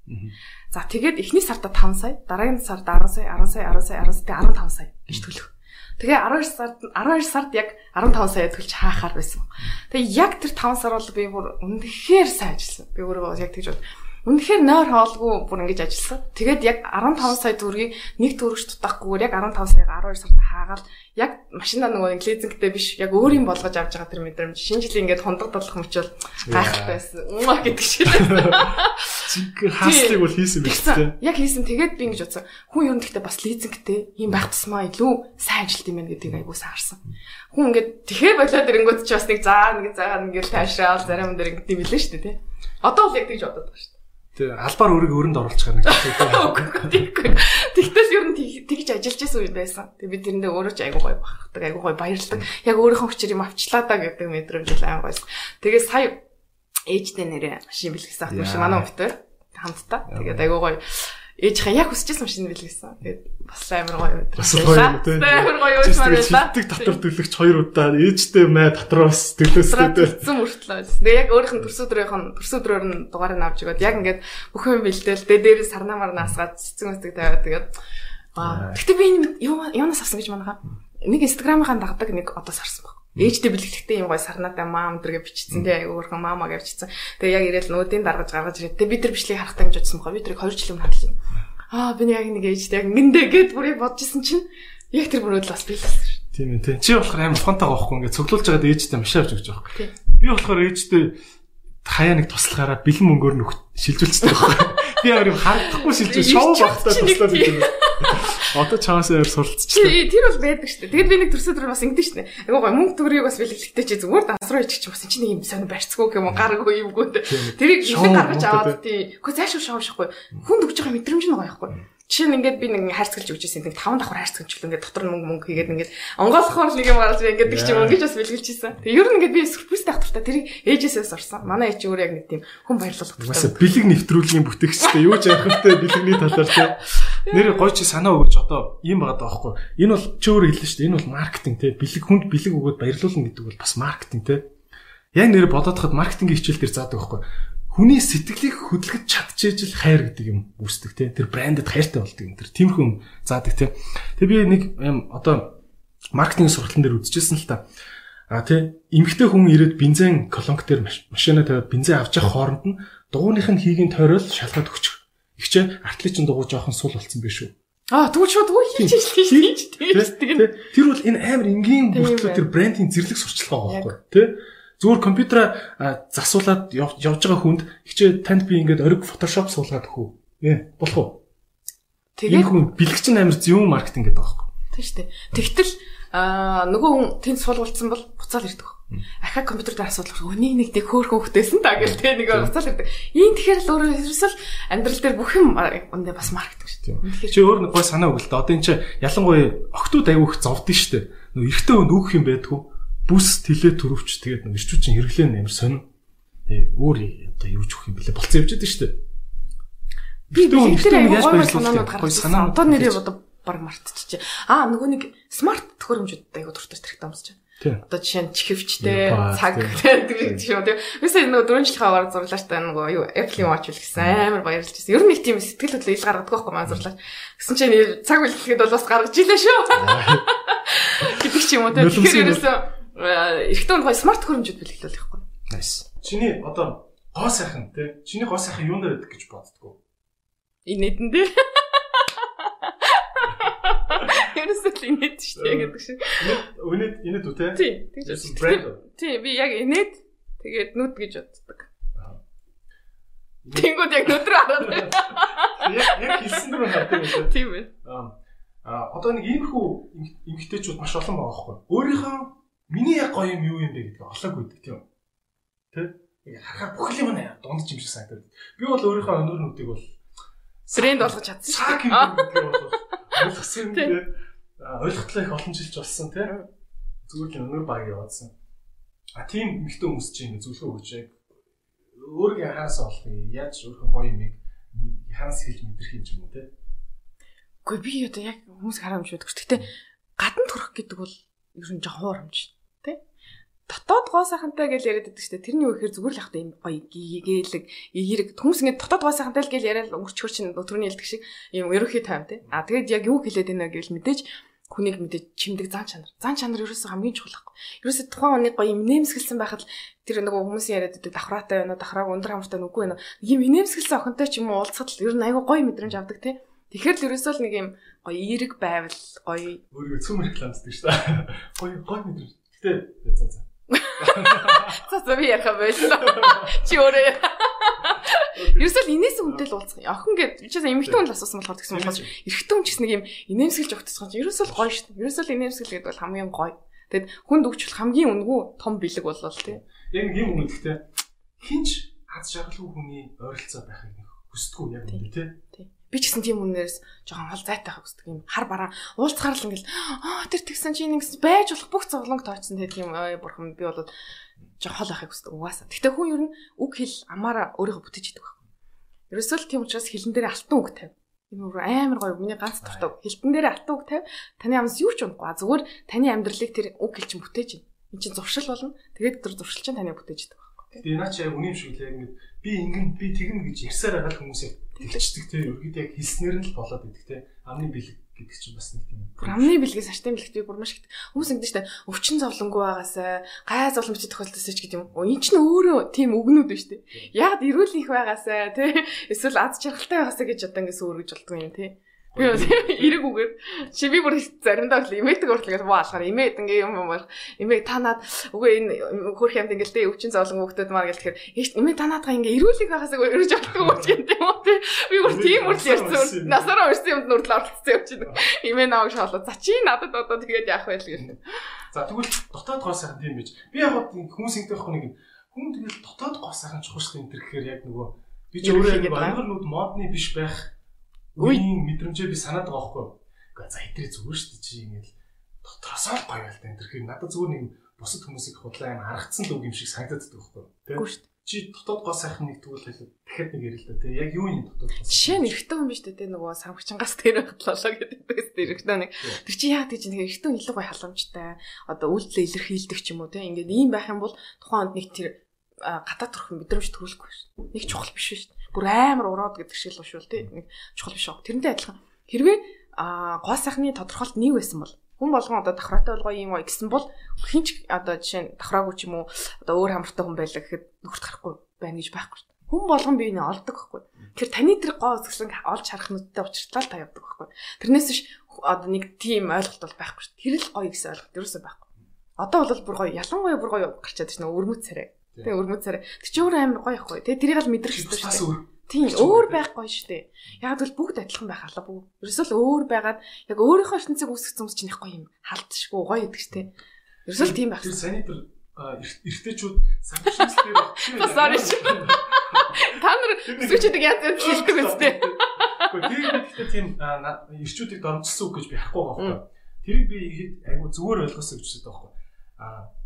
За тэгээд эхний сарда 5 сая, дараагийн сард 10 сая, 10 сая, 10 сая, 10 сая, 15 сая гэж төлөх. Тэгээ 12 сард яг 15 сая төлж хаахаар байсан. Тэгээ яг тэр 5 сар бол би бүр үнэхээр сайн ажилласан. Би өөрөө яг тэгж бод. Үнэхээр нойр хоолгүй бүр ингэж ажилласан. Тэгээд яг 15 сая төгрөгийг нэг төгрөгч дутахгүйгээр яг 15 саяга 12 сард хаагаад яг машина нөгөө лизингтэй биш яг өөрийн болгож авч байгаа тэр мэдрэмж шинэ жилийн ингээд хундаг додлох мөчөл гайхалтай байсан. Гэдэг шиг. Зинхэр хааслыг бол хийсэн байх тийм. Яг хийсэн. Тэгээд би ингэж бодсон. Хүн ер нь гэхдээ бас лизингтэй ийм байх тусмаа илүү сайн ажилт юм байна гэдгийг айгуу саарсан. Хүн ингээд тэгэхээр болоод ирэнгүүт ч бас нэг ингээд таашраал зарим дээр ингээд юм билээ шүү дээ тийм. Одоо бол яг тэгж бодоод байгаа шүү дээ. Тэгээ албаар өөрийгөө өрөнд оруулах гэж байна. Тэгтэл ер нь тэгж ажиллаж байсан үе байсан. Тэгээ би тэрэндээ өөрөө ч айгуу гоё бахдаг, айгуу гоё баярлдаг. Яг өөрийнхөө хүчээр юм авчлаа да гэдэг мэдрэмж л аян гоё. Тэгээ сая ээжтэй нэрээ машин бэлгэсэн ах машин манай өвтөр хамтдаа. Тэгээд айгуу гоё ээжийнхээ яг хүсчихсэн машин бэлгэсэн. Тэгээд бас амар гоё өдөр. Амар гоё үйл мөрөлдөө. Тэг татвар төлөгч 2 удаа ээжтэй мэ татраас төлөөстэй. Зэн мөртлөө. Тэгээ яг өөрийнх нь төрсөдрөөр нь дугаарыг авч өгөөд яг ингээд бүх юм бэлдээл дээр сарнаа марнаа асгаад цэцэн өстөг тавиад тэгээд гэхдээ би юунаас авсан гэж манайхаа нэг инстаграмынхаа дагдаг нэг одоо сарсан баг. Ээжтэй бэлгэхдээ юм гоё сарнаатай маам дэргээ бичсэн тий өөрхөн маамаа гэж бичсэн. Тэгээ яг ирээл нүүдийн даргаж гаргаж ирээд тэгээ бид нар бичлэгийг харахтаа гэж бодсон бохоо. Би тэрийг 2 жил өмнө хадгалсан. Би яг нэг ээжтэй яг ингэндээ гэд бүрийг бодчихсон чинь яг тэр бүрөөд л бас биелсэн шүү. Тийм ээ тий. Чи болохоор амар ухаантай байхгүй ингээд цуглуулж байгаад ээжтэй маш авч өгч байгаа байхгүй. Би болохоор ээжтэй хаяа нэг туслахаараа бэлэн мөнгөөр нөх шилжүүлчихсэн байхгүй. Би амар харагдахгүй шилжүүл шоу багтаа туслаад идэв. Одоо чаасаа яар суралцчихлаа. Тэр бол байдаг шүү дээ. Тэгээд би нэг төрсөдөр бас ингэдэж шүү дээ. Айгуу гоё мөнгө төгрөгийг бас бэлгэлэхтэй чи зүгээр дансруу ичих чи бас чи нэг юм сонир барьцгүй юм гараагүй юмгүй. Тэрийг ихэнх гаргаж аваад тий. Гэхдээ зайшгүй шоушхгүй. Хүнд өгж байгаа мэдрэмж нь гоё байхгүй. Жишээ нь ингээд би нэг хайрцагч өгч ирсэн. Нэг 5 давхар хайрцагч л ингээд дотор нь мөнгө хийгээд ингээд онгоолохоор нэг юм гараад би ингээд гэж юм ингэж бас бэлгэлж ирсэн. Тэгээ ер нь ингээд би сюрпризтэй ахтартай тэрийг ээжээсээс орсон. Манай ээж өөрөө яг нэг тийм хүн баярлуулах хэрэгтэй. Бас бэлэг нэвтрүүлгийн бүтээгчтэй юу ч яахантай бэлэгний талаар тий. Нэр гоё чи санаа өгөөч одоо ийм байгаа даахгүй. Энэ бол чи өөрөө хэллээ шүү дээ. Энэ бол маркетинг тий. Бэлэг хүнд бэлэг өгөөд баярлуулна гэдэг бол бас маркетинг тий. Яг нэр бодоод хахад маркетингийн хичээл дээр заадаг байхгүй. Хүний сэтгэлийг хөдөлгөж чадчихжил хайр гэдэг юм үүсдэг тий. Тэр брэндэд хайртай болдог юм. Тэр тиймэрхүү юм заадаг тий. Тэг би нэг одоо маркетинг сургалтын дээр үзчихсэн л та. Тий эмэгтэй хүн ирээд бензин колонк дээр машина тавиад бензин авч явах хооронд нь дугуйных нь хийгийн тойрол шалгаад өгчих. Ихчээ артлын дугуй жоохон сул болсон байх шүү. Тэгвэл шууд үгүй хийж тийм. Тэр бол энэ амар энгийн бүртлөө тэр брендинг зэрлэг сурчлага байгаа байхгүй тий. Зүгээр компьютераа засуулаад явж байгаа хүнд ихчээ танд би ингээд ориг фотошоп суулгаад өгөө. Болох уу? Тэгээд хүн бэлгч амар зөв маркетинг гэдэг байгаа байхгүй. Тийм шүү дээ. Тэгтэл нөгөө хүн тэнд суулгуулсан бол буцаал ирдэг. Ахаа компьютер дээр асуудал өнийг нэг хөөхөн хөхтэйсэн та гэл тэ нэг буцаал ирдэг. Ийм тэгэхээр л өөрөө ерөөсөл амьдрал дээр бүх юм өндөө бас маркетинг шүү дээ. Чи өөр нэг гой санаа өгөл та. Одоо энэ чи ялангуяа октод аяух зовдсон шүү дээ. Нөгөө эртөө өнд өөх юм байдгүй. Бүс тэлээ төрөвч тэгээд нэг ирчүүчин хэрэглэн амар сонин. Өөр одоо юу ч өгөх юм бэлээ болцсон явж байдаг шүү дээ. Би тэр яаж баярлуулах гой санаа одоо нэрээ одоо баг мартчихжээ. Нөгөө нэг смарт төхөөрөмжүүд айгуу дуртай хэрэгтэй юмсч. Одоо жишээ нь чихвчтэй цаг гэдэг юм тийм. Үгүй нөгөө 4 жилийн аваар зурлаач та нөгөө юу Apple Watch үлгсэн амар баярлж байсан. Ер нь их тийм сэтгэл хөдлөл ил гаргадаг байхгүй маань зурлаач. Гэсэн чинь цаг үлгэхэд бол бас гаргаж илээ шүү. Гэдэг ч юм уу тийм. Тэгэхээр ерөөсөө эрэгтэй хүн гоё смарт төхөөрөмжүүд бэлгэлэл байхгүй. Nice. Чиний одоо гоо сайхан тийм. Чиний гоо сайхан юунд байдаг гэж боддгоо. Инээдэн дээр. Ерөөсөө инээд шүү дээ гэдэг шиг. Инээд үү те? Тий, тэгж байна. Тий, би яг инээд тэгээд нүд гэж боддог. Тэнгүүд яг нүд рүү хараад байна. Яг хэлсэн рүү хатдаг юм. Тийм байна. Одоо нэг иймэрхүү эмгтээчүүд маш олон байгаа байхгүй. Өөрийнхөө миний яг гоё юм юу юм бэ гэдгийг олоогүй гэдэг тийм. Тэ? Харахаар бүх юм нэ дунд ч юм шиг санагдав. Би бол өөрийнхөө өнөр нүдийг бол брэнд болгож чадсан шүү дээ. Ойлгосон тийм. Ойлголтоо их олон жилч болсон тийм. Зүгээр л өнөр баг яваадсан. тийм эмэгтэй хүмүүс чинь ингэ зөвлөгөө өгч яг өөрийгөө анхаараас олох яаж өөрхөн гоё юмыг ханаас хэлж мэдрэх юм ч юм уу те. Гэхдээ би одоо яг хүмүүс хараа юм шүү. Гэхдээ гадна төрөх гэдэг бол ер нь жоохон хуурамч тий. Дотоод гоо сайхантай гэж яриад байдаг шүү дээ. Тэрний юу гэхээр зүгээр л явахдаа юм гоё гээйлэг эерэг хүмүүс ингэ дотоод гоо сайхантай л гэж яриад өнгөрчхөр чинь өтрөний хэлдэг шиг юм ерөөхий тайм тий. Тэгээд яг юу хэлээд байна гэвэл мэдээж хүнийг мэдээж чимдэг зан чанар. Зан чанар ерөөсөө хамгийн чухал байхгүй. Ерөөсөө тухайн оны гоё юм нэмсгэлсэн байхад тэр нөгөө хүмүүсийн яриад байдаг давхраатай байна уу, давхрааг өндөр хамартай нүггүй байна уу. Ийм нэмсгэлсэн охинтой ч юм уу уулзахад л ер нь айгүй гоё мэдрэмж авдаг тий. Тэгэхээр л ерөөсөө л нэг юм гоё эерэг байвал гоё өөрийгөө цөм рекламддаг шүү дээ. Гоё мэдрэмж. Гэтэ за. За би ярих байлаа. Чи өөрөө. Ерөөсөө л инээс үнтэй л уулзах. Охин гэдэг чи эмэгтэй хүн л асуусан болохоор тэгсэн болохоос эрэгтэй хүн ч гэсэн нэг юм инээмсэглэж өгдөсгөн чи ерөөсөө л гоё шүү дээ. Ерөөсөө л инээмсэглэх гэдэг бол хамгийн гоё. Тэгэд хүнд өгчл хамгийн үнэгүй том бэлэг болол тий. Яг нэг юм үнэтэй хинч аз жаргалгүй хүний ойролцоо байхыг хүсдэггүй яг үнэ тий. Би ч гэсэн тийм үнээрс жоохон хол зайтай хаа хүсдэг юм. Хар бараа уулзахаар л ингээл тэр тэгсэн чи нэг байж болох бүх зовлонг тооцсон тэгээд тийм бурхан би бол жоохон хол байхыг хүсдэг угаасаа. Гэтэ хүн ер нь үг хэл амаараа өөрийгөө бүтээж идэг байхгүй. Ерөөсөө л тийм учраас хэлэн дээр алтан үг тавь. Энэ өөр амар гоё миний ганц дуртай. Хэлтэн дээр алтан үг тавь. Таны амнаас юу ч унахгүй. Зүгээр таны амьдралыг тэр үг хэл чинь бүтээж ин. Энд чинь зуршил болно. Тэгээд тэр зуршил чинь таны бүтээж идэг байхгүй. Тэгээд наа чи яг үнэм шиг л яг ингэ би ингэн би тэгнэ гэж ярьсаар байгаа хүмүүсээ тэгчдэг те ерөөдөө яг хэлснээр нь л болоод идэг те амны бэлэг гэдэг чинь бас нэг тийм амны бэлгээс сартын бэлгтийг бүр маш их хүмүүс ингэдэж штэ өвчин зовлонгүй байгаасаа гай зовлон бичиж тохиолдосоо ч гэдэг юм. Энд чинь өөрөө тийм өгнүүд байна штэ. Яг эрүүл их байгаасаа те эсвэл аз жаргалтай байгаасаа гэж одоо ингээс өөргөж болдгоо юм те. Би эрэг үгээр чи би бүр заримдаа л имэдэг уртлагаас баалахаар имэд ингээ юм бол имэг танаад үгүй энэ хөрх юмд ингээл тэ өвчин зовлон хөвгтөд маар гэл тэгэхээр имэг танаадгаа ингээ эрүүлэг байгаасаа өрөж авахгүй юм тийм үү те. Би бүр тийм үрл ярьсан. Насаараа өрсөн юмд нүртэл оролцсон юм чинь. Имээ наваг шоолоо. За чи надад одоо тэгээд яах вэ гэх юм. За тэгвэл дотоод гоо сайхан тийм байж. Би яг хүмүүс ингэдэг байхгүй нэг хүн тэгэл дотоод гоо сайхан чухал энэ төр гэхээр яг нөгөө би ч өөрөө ангар нүд модны биш байх үеийн мэдрэмжээ би санаад байгаа байхгүй. Гэхдээ за хэдрээ зүгээр шүү дээ чи ингээл дотроосоо гоё байл та энэ тэрхээр надад зүгээр нэг бусад хүмүүсийг худлаа юм харагдсан л үг юм шиг санагдаад байгаа байхгүй. Үгүй шүү дээ. Чи дотоод гоо сайхан нэг тэгвэл хэлээд дахиад нэг ярил л да тий. Яг юу юм дотоод гоо. Жишээ нь эрэгтэй хүн биш дээ нөгөө самгчингаас тэр хатлалаа гэдэг эрэгтэй нэг. Тэр чи яа гэж нэг эрэгтэй илүү гоё халамжтай одоо үйлдэл илэрхийлдэг ч юм уу тий. Ингээд ийм байх юм бол тухайн онд нэг тэр гадаад төрх мэдрэмж төрүүлэхгүй шүү. Нэг чухал биш шүү. Бүр амар ураад гэдэг шиг л ушвал тий. Нэг чухал биш аа. Тэрнтэй адилхан. Хэрвээ гоо сайхны тодорхойлт нэг байсан бол хүн болгон одоо давхраатай болгоо юм уу гэсэн бол хинч одоо жишээ нь давхраагүй ч юм уу одоо өөр хамартай хүн байлаа гэхэд нөхөрт гарахгүй байна гэж байхгүй шүү. Хүн болгон биений олдог байхгүй. Тэгэхээр таны тэр гоо үзэсгэлэн олж харах нүдтэй учиртал та явдаг байхгүй. Тэрнээс биш одоо нэг тийм ойлголт бол байхгүй шүү. Тэр л гоё гэсэн ойлголт ерөөсөө байхгүй. Одоо бол бүр гоё ялангуяа бүр гоё гарчаад байна өрмөц царай. Тэгээ өрмөц царай. Тэр чи өөр амар гоё ихгүй. Тэгээ тэрийг л мэдрэх хэрэгтэй шүү. Тийм өөр байх гоё шүү дээ. Яг л бүгд адилхан байх албагүй. Ерөөсөө л өөр байгаад яг өөрийнхөө ертөнцийг үүсгэх хүмүүс чинь их гоё юм. Халдшгүй гоё гэдэг шүү дээ. Ерөөсөө л тийм байх. Тэр саний тэр эртээчүүд самшигсэл дээр баг. Sorry. Та нар сүчдэг янз янз хэлдэг үстэй. Гэхдээ тэр гэхдээ тийм эрчүүдийг дормжсон үг гэж би харахгүй байгаа байхгүй. Тэрийг би айгу зүгээр ойлгосоо гэж үздэг байхгүй.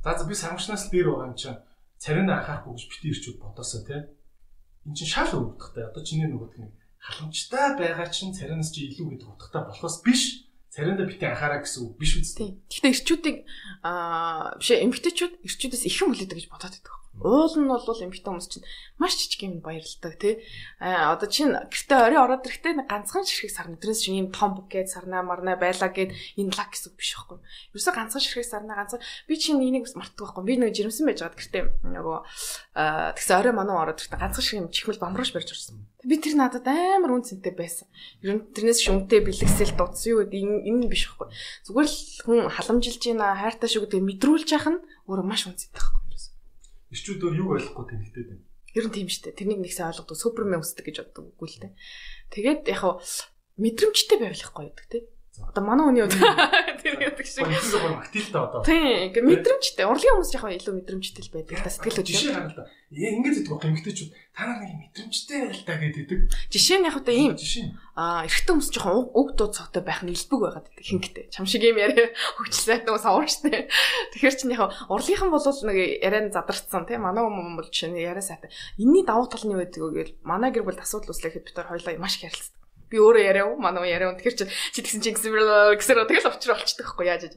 За би самшигнаас дээр байгаа юм чинь царина анхаарахгүй гэж бити эрчүүд бодосоо тий. Энд чинь шал өвдөхтэй. Одоо чиний нөгөөдг нэг халамжтай байгаа чинь царинаас чи илүү гэдэг утгатай болохоос биш. Цариндаа бити анхаараа гэсэн үг биш үстэй. Гэхдээ эрчүүдийг биш эмгтээчүүд эрчүүдээс их юм хүлээдэг гэж бодоод байдаг. Уул нь бол эмгтээ хүмүүс чинь маш жижиг юм баярлдаг тий. Одоо чинь гэртээ орой ороод ирэхдээ ганцхан ширхэг сарна. Тэрнээс чинь юм том букет сарнаа марнаа байлаа гэд энэ лак гэсэн үг биш байхгүй. Ерөөсө ганцхан ширхэг сарнаа ганцхан би чинь энийг мартдаг байхгүй. Би нэг жирэмсэн байж байгаад гэртээ нөгөө тэгсэн орой мануу ороод ирэхдээ ганцхан шиг юм чихмэл бамрууш барьж орсон. Би тэр надад амар үнцэнтэй байсан. Ер нь тэрнээс шүнтэй бэлгэсэл дуудсан юу гэдэг энэ биш байхгүй. Зүгээр л хүн халамжилж байна, хайртай шүү гэдэг мэдрүүлж яах нь өөрөө маш үнцэнтэй байхгүй. Ирчүүд юу ойлгохгүй тэнэгтэй байна. Ер нь тийм шүү дээ. Тэрнийг нэгсээ ойлгодог, супермен үсдэг гэж боддог үгүй л дээ. Тэгээд яг хав мэдрэмжтэй байвал их гоё гэдэг тий. Одоо манай хүний үед тэр гэдэг шиг. Илүү гоо активтай одоо. Тийм, ингээ мэдрэмжтэй. Урлагийн хүмүүс яг илүү мэдрэмжтэй л байдаг. Та сэтгэл хөдлөл. Жишээ гаргал та. Ингээд гэдэг гоо эмгтээчүүд та нар нэг мэдрэмжтэй байл та гэдэг. Жишээ нь яг одоо ийм. Жишээ. Эрэгтэй хүмүүс жоохон уг дуу цогтой байх нь илбэг байгаад байдаг хинхтэй. Чам шиг юм яриа хөгжлээд нөгөө савуурчтэй. Тэгэхээр чинь яг урлагийнхан бол нэг яриан задарцсан тийм манай хүмүүс бол чинь яриа сайтай. Энийний давуу тал нь юу гэдэг вэ гэвэл манай гэр бүлд асуудал үүслэхэд бид хоёр хоёлаа маш их ярилцдаг. Би өөрөө яриа манай яриа. Тэгэхээр чи тэгсэн чинь гэсэр тэгэл очроо олчдаг байхгүй яаж.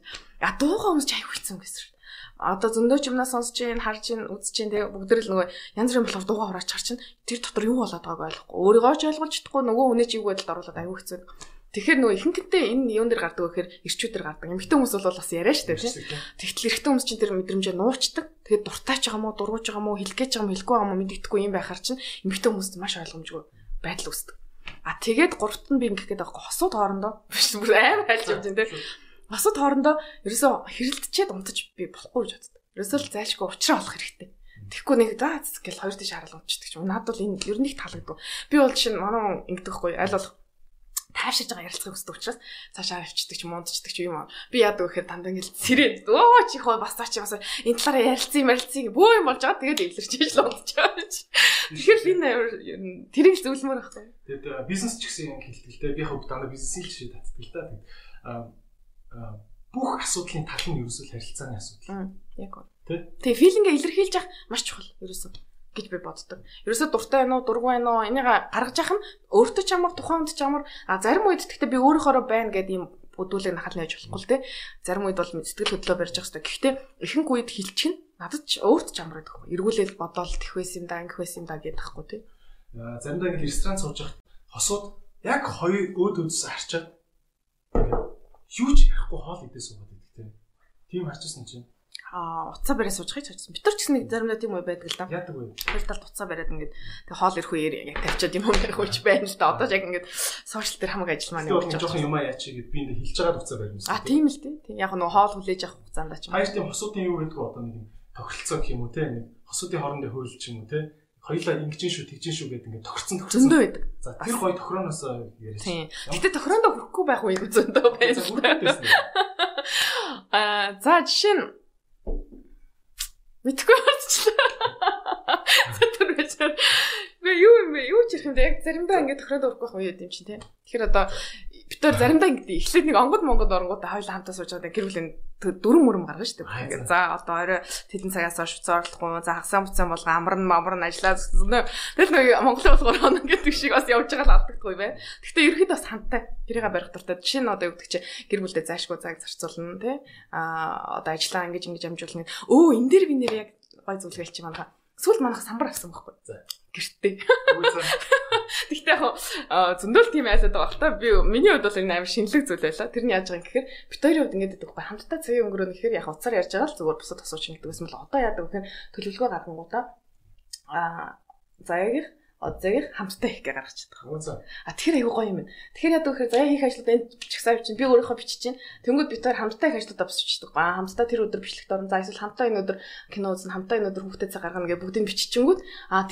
Дуугаа хүмүүс ч аяг хүлцэн гэсэн. Одоо зөндөө ч юмнаас сонсож ийн, харж ийн, үзэж ийн тэгээ бүгд л нөгөө янз бүрийн болохоор дуугаа хураач харж ийн. Тэр дотор юу болоод байгааг ойлгохгүй. Өөрийгөө ч ойлгож чадахгүй нөгөө үнэ чиг байдалд оруулаад аяг хэцүү. Тэгэхээр нөгөө ихэнхдээ энэ юун дээр гардаг вэ гэхээр ирчүүд дээр гардаг. Эмэгтэй хүмүүс бол бас яриа штэ тийм. Тэгтэл эрэгтэй хүмүүс чинь тэр мэдрэмжээ нуучдаг. Тэгээд дуртайч байгаа мó, дургуйж байгаа мó, хэлэх гэж байгаа мó, хэлэхгүй байгаа мó мэддэхгүй юм байхаар чинь эмэгтэй хүмүүст маш ойлгомжгүй байдал үүсдэг. Тэгээд гуравт нь би ингэх гээд байгаа хосууд хоорондоо бүр амар хайлж явж байна тийм. Хосууд хоорондоо ерөөсөө хэрэлдчихэд унтаж би болохгүй гэж боддог. Ерөөсөө л зайлшгүй уучраа олох хэрэгтэй. Тэгэхгүй нэг заа гэл хоёр тийш хараал унтчихдаг ч юм. Надад бол энэ ер нь их таалагдав. Би бол жишээ нь манай ингэдэгхгүй аль болох таашиж байгаа ярилцахыг хүсдэг учраас цаашаа авчдаг ч юм унтчихдаг ч юм. Би яадаг гэхээр дандаа ингээл сэрээд өө чи хоо бас цаа чи бас энэ талаараа ярилцсан бөө юм болж байгаа. Тэгээд эвлэрч л унтчихаа. Тэгэхээр энэ тэрийг зөвлөмөр байхгүй. Тэгээд бизнес ч гэсэн хэлдэг л дээ. Би хав дандаа бизнесийн л шийд татдаг л да. Тэгээд бүх асуудлын тал нь ерөөсөө харилцааны асуудал. Яг гоо. Тэгээ филингээ илэрхийлж явах маш чухал ерөөсөө гэж би боддог. Ерөөсөө дуртай байна уу, дургүй байна уу, энийг гаргаж явах нь өөртөө ч амар, тухайн хүнд ч амар. Зарим үед гэхдээ би өөрөөхөө байна гэдэг юм өдүүлэг нахал нээж болохгүй л дээ. Зарим үед бол сэтгэл хөдлөө барьж явах хэрэгтэй. Гэхдээ ихэнх үед хилчих нь надад ч өөрт ч амар байдаг. Эргүүлэл бодоол тэх байсан юм да, ингэх байсан юм да гэдэг тахгүй тий. Заримдаа ингэ ресторан сууж явах хосууд яг хоёр өөдөөс харчаад юу ч ярихгүй хоол идээ суугаад байдаг тий. Тийм харчихсан чинь уцаа бариа сууж хаяч харсан. Бид нар ч гэсэн заримдаа тийм үе байдаг л да. Яадаг вэ? Тэр талд уцаа бариад ингээд тэг хоол ирэх үеэр яг тавьчаад юм ярих үеч байна л да. Одоо яг ингээд сошиал дээр хамаг ажил маань явж байгаа. Жохон юм яач гээд би энэ хэлж байгаад уцаа барьсан. Тийм л тий. Яг нөгөө хоол хүлээж авах хугацаанд ч юм. Хоёр тийм хосуудын юу гэдэг одоо нэг юм тохиролцоо гэх юм уу те. Нэг хосуудын хоорондын хууль ч юм уу те. Хоёлаа ингэжин шүү, тэгжин шүү гэдэг ингээд тохирцсон. Зөндөө байдаг. За тэр гоё тохироноос яриасан. Гэтэ тохирондоо хүрэхгүй байх үе зөндөө байна. За жишээ нь мэдгүй болчихлоо. Тэр вечер. Юу ч ярих юм бэ? Яг заримдаа ингээд тохиронд өрөхгүй байх үе юм чинь тий. Тэгэхээр одоо бид нар заримдаа ингээд эхлээд нэг монгод оронгуудаа хоёулаа хамтаа сууж байгаа гэр бүлийн дөрөв мөрөм гаргана шүү дээ. За одоо орой тэдэн цагаас хойш зоорлохгүй. За хагасаа буцаан болго амарн ажиллаад тэгэл нэг Монголын болгоор хоног гэдэг шиг бас явж байгаа л алдагдахгүй бай. Гэхдээ ерөөд бас хамтаа тэрийг барих дуртай. Жишээ нь одоо юу гэдэг чи гэр бүлдээ заашгүй цаг зарцуулна тий. Одоо ажиллаа ингэж амжуулна. Энэ дээр би нэр яг гой зүйлгээл чи манайха сүүл манайх самбар авсан байхгүй. Гэртээ. Тэгтээ яг зөндөл тийм айсаад байгаа л та. Миний хувьд бол энэ амар шинэлэг зүйл байлаа. Тэр нь яаж байгаа юм гэхээр бид хоёрын хувьд ингэж байдаг байхгүй. Хамтдаа цагийн өнгөрөөнө гэхээр яг уцаар ярьж байгаа л зүгээр бусад асууж ингэдэг гэсэн бол одоо яадаг гэхээр төлөвлөгөө гаргангуудаа заяагийнх одзагийг хамтдаа хийх гэж гаргаж чаддаг. Тэгэхээр айгүй гоё юм байна. Тэгэхээр яадаг гэхээр заяа хийх ажлууд энэ чагсаа бичин би өөрийнхөө бичиж чинь тэнгууд бид хоёр хамтдаа их ажлуудаа бичдэг. Хамтдаа тэр өдөр бичлэгт орно. За эсвэл хамтдаа энэ өдөр кино үзэн, хамтдаа энэ өдөр хүүхдээ цаг гаргана гэж бүгдийг биччихэнгүүт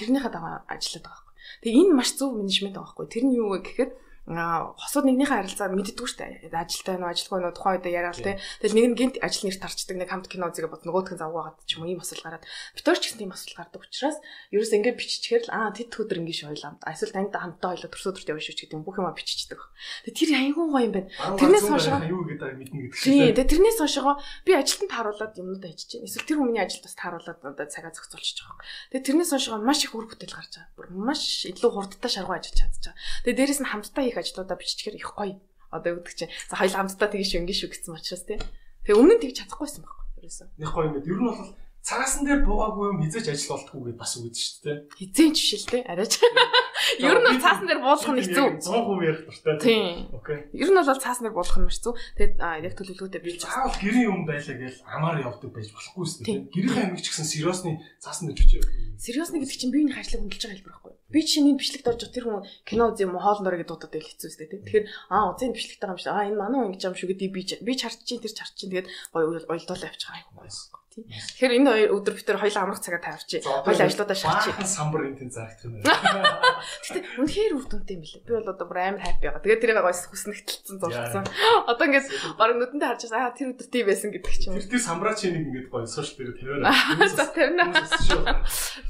тэрнийхээ дагуу ажилладаг байхгүй. Тэгээ энэ маш зөв менежмент байгаа байхгүй. Тэр нь юу вэ гэхээр хосууд нэгнийхээ харилцаа мэддэггүй шүү дээ. Ажилтай нь ажилгүй нь тухайн үед яриад те. Тэгэл нэг нь гинт ажил нэр тарчдаг, нэг хамт кино үзэгээ бод нөгөөх нь завгаагаад ч юм уу ийм асуудал гараад. Битүүр ч гэсэн тийм асуудал гардаг учраас ерөөс ингээд биччихээр л тэд өдөр ингээд шойлоо. Эсвэл танд хамтдаа хоёлоо төрсөдөрт явж шүү ч гэдэг юм бүх юм биччихдэг. Тэгээ тэр аягүй гоё юм байна. Тэрнээс хойшоо юу гэдэг мэднэ гэдэг шиг. Тийм. Тэгээ тэрнээс хойшоо би ажилтнад тааруулаад юмнуудаа хийчихэж байна. Эсвэл тэр хүний ажилд бас тааруулаад одоо цагаа зохицуулчих жоох. Тэгээ тэрнээс хойшоо маш их үр бүтээл гарч байгаа. Бүр маш илүү хурдтай шаргуу ажиллаж чадчих. Тэгээ дээрэс нь хамтдаа ажлуудаа биччихээр их гоё. Одоо өгдөг чинь. За хоёул хамтдаа тэгж шүү ингэ шүү гэсэн учраас тий. Тэгээ өмнө нь тэгж чадахгүйсэн байхгүй ерөөсөө. Их гоё юм. Ер нь бол цагаасан дээр буугаагүй юм хизээч ажил болтгүй гэдээ бас үгэж шүү дээ. Хизээч биш л дээ. Арайч. Ер нь цаасан дээр буулах нь хэцүү. 100% ярих дуртай. Тийм. Окей. Ер нь бол цаасан дээр буулах нь маш хэцүү. Тэгээд яг төлөвлөгөөтэй бий. Заавал гэрийн юм байлаа гэж амаар явдаг байж болохгүй шүү дээ. Гэрийн амиг ч гэсэн сериосны цаасан дээр бичиж явдаг. Сериосны гэдэг чинь биеийн ажлыг хөндлөж байгаа хэлбэр байхгүй. Би чинь энэ бичлэгт орж тэр хүн кино үзье юм хоолн дөрөө гэдэг дуудаад байл хэцүү үстэй тий. Тэгэхээр үзэн бичлэгтэй байгаа юм шиг энэ манай хүн ингэж юм шүү гэдэг би харж чинь тэр чарч чинь тэгээд гоё уйлдуулаа явчих байгаа юм. тий. Тэгэхээр энэ хоёр өдөр бид төр хоёулаа амрах цагаа тавьчих. Хоёулаа ажлуудаа шахчих. Баахан самбар энэ зарагдах юм байна. Гэтэ үнэхээр үр дүнтэй юм билээ. Би бол одоо бүр амар хайпи байгаа. Тэгээд тэрийг гойс хүснэгтэлцэн зурцсан. Одоо ингээд бараг нүдэндээ харж байгаа тэр өдөр тийм байсан гэдэг ч юм уу. Тэр самбраа чи нэг ингээд гоё сошиал дээр тавиараа. За тавина.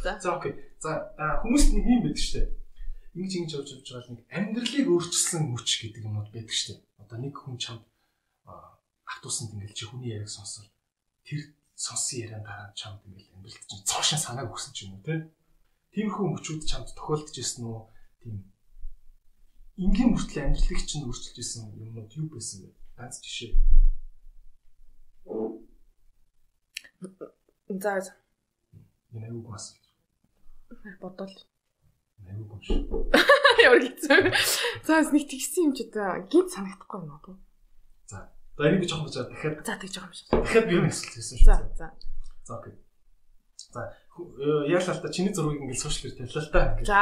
За окей. За хүмүүст нэг юм байдаг шүү дээ. Ингэж явж байгаа нэг амьдралыг өөрчилсөн мөч гэдэг юмуд байдаг шүү дээ. Одоо нэг хүн чамд автуусанд ингээд чи хүний яриаг сонсоод тэр сонсон яриан дараа чамд ингээд амьдралд чинь цоошин санааг өгсөн ч юм уу те. Тиймэрхүү мөчүүд чамд тохиолдож ирсэн үү? Тийм энгийн мөртлөө амьдралыг чинь өөрчилж ирсэн юмнууд юу байсан бэ? Ганц жишээ. За. Энэ аюу гас. Бодвол. Аюу гаш. Ямар хэцүү. За нэг тэгсэн юм ч одоо гинт санагдахгүй юм уу? За. За энийг би жоохон бочоод дахиад. За тэгж байгаа юм шиг. Дахиад би нэг асуулт хийсэн шүү. За. За окей. За яалаа та чиний зургийг ингээд сошиал дээр тавилаа л та. За.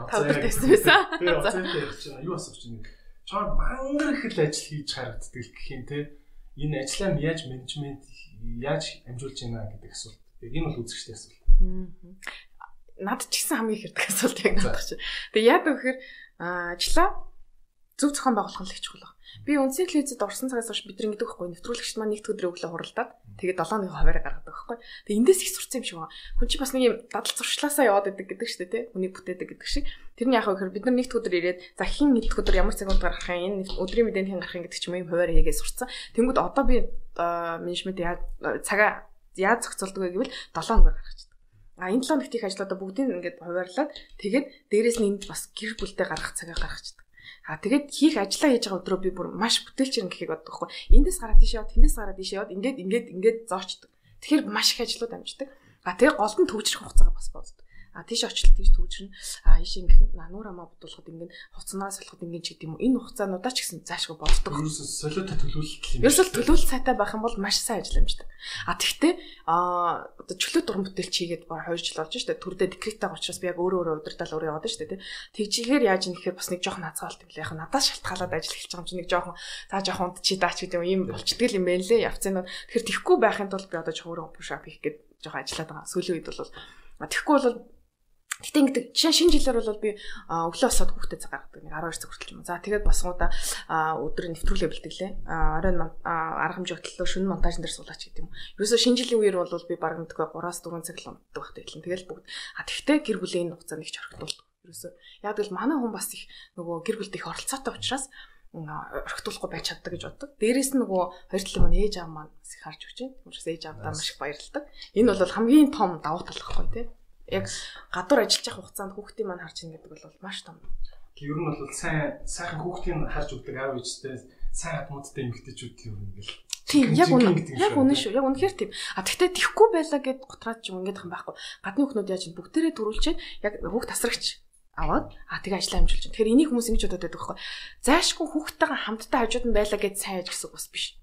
Тавд тавьсан байсан. Би оцентэй ярьж байна. Юу асууж чинь чам мангар их л ажил хийж харагддаг гэх юм те. Энэ ажлаа яаж менежмент яаж амжуулж байна гэдэг асуулт. Энэ бол үзэгчтэй асуулт. Над ч гэсэн хамгийн их ирдэг асуулт яг надад чинь. Тэгээ яадаг вэхээр ажлаа зөв зохион байгуулах нь л их чухал. Би үндсэн телевизэд орсон цагаас хойш бид ингэдэг байхгүй нэвтрүүлэгчд маань нэгд өдрөө өглөө хуралдаад тэгээд 7-ны хуваараа гаргадаг байхгүй. Тэгээ эндээс их сурцсан юм шиг байна. Хүн чи бас нэг юм дадал зуршлаасаа яваад идэг гэдэг шүү дээ тий. Үнийг бүтээдэг гэдэг шиг. Тэрний яхаа гэхээр бид нар нэгд өдөр ирээд за хин нэгд өдөр ямар цагт гаргах юм энэ өдрийн мэдээний хин гарах юм гэдэг ч юм хуваараа хийгээ сурцсан. Тэнгүүд одоо би менежмент цагаа яаж зохицуулдаг вэ гэвэл 7 өдөр гаргачихдаг. Энэ 7 нэгт их ажлуудаа бүгдийг ингээд хуваарлаад тэгээд дээрэс нь энд бас гэр бүлтэй гаргах цагаа гаргачихдаг. Тэгээд хийх ажиллаа хийж байгаа өдрөө би бүр маш бүтээлч юм гэхийг боддог байхгүй. Эндээс гараад тийш яваад, тэндээс гараад тийш яваад ингээд зоочдөг. Тэгэхээр маш их ажлууд амждаг. Тэгээ гол нь төвчрөх хугацаагаа бас боддог. Тийш очлоо тийш төвчрнэ. Ийш ингэх нуур амаа бодуулахад ингээд хуцнаас салахад ингээд ч гэдэм юм. Энэ хугацаануудаа ч гэсэн заашгүй боддог. Ерөөсөө солиотой төлөвлөлт юм. Ерөөсөө төлөвлөлт сайтай байх юм бол маш сайн ажил амждаг. Тэгтээ одоо чөлөө дуран бүтээлч хийгээд баг 2 жил болж штэ. Төрдөө декреттэй учраас би яг өөрөө удирдал өөрөө яваад штэ тий. Тэгжигээр яаж юм гэхээр бас нэг жоохон хацгаалт юм лээ. Яг надаас шалтгаалаад ажил эхэлж байгаа юм чи нэг жоохон за жоохон унтчи даач гэдэг юм болчдөг юм байна лээ. Явцын нь. Тэгэхээр тэхгүй байхын тулд би одоо жоохон push-up хийх гээд жоохон ажиллаад байгаа. Сүүлийн үед бол тэхгүй бол гэтээ ингээд шинэ жилээр бол би өглөө босоод хүүхдэд цаг гаргадаг нэг 12 цаг хүртэл юм. За тэгээд босгоодаа өдөр нэвтрүүлгээ бэлтгэлээ. Оройн арга хэмжээ хөтлөө шөнө монтажн дээр суулаач гэдэг юм. Ерөөсөө шинэ жилийн үеэр бол би баг мэдгүй 3-4 цаг л унтдаг багт хэлэн. Тэгэл бүгд тэгтээ гэр бүлийн хугацаанд их орхитуулдаг. Ерөөсөө яг л манай хүн бас их нөгөө гэр бүлд их оролцоотой учраас орхитуулахгүй байж чаддаг гэж боддог. Дээрээс нь нөгөө хоёр талын маань ээж аав маань бас их харж өгч байна. Тиймээс ээж аавдаа маш их баярлалдаг. Энэ бол хамгийн том давуу тал байхгүй тий. Яг гадуур ажиллаж явах хугацаанд хүүхдийн маань харж ийн гэдэг бол маш том. Ер нь бол сайхан хүүхдийн харж өгдөг аав ээжтэй сайн хатмуудтай эмэгтэйчүүд ер нь ингээл. Тийм яг үнэн шүү. Яг үнэхээр тийм. Тэгтээ тэхгүй байлаа гэд готраад ч юм ингээд юм байхгүй. Гадны хүүхнүүд яаж бүгдээрээ төрүүлчихэд яг хүүхд тасрагч аваад тэгээ ажиллаа амжуулж байна. Тэгэхээр энийг хүмүүс ингэж бодоод байдаг байхгүй. Заашгүй хүүхдтэйгээ хамтдаа хажууд нь байлаа гэж сайн аж гэсэн үг бас биш.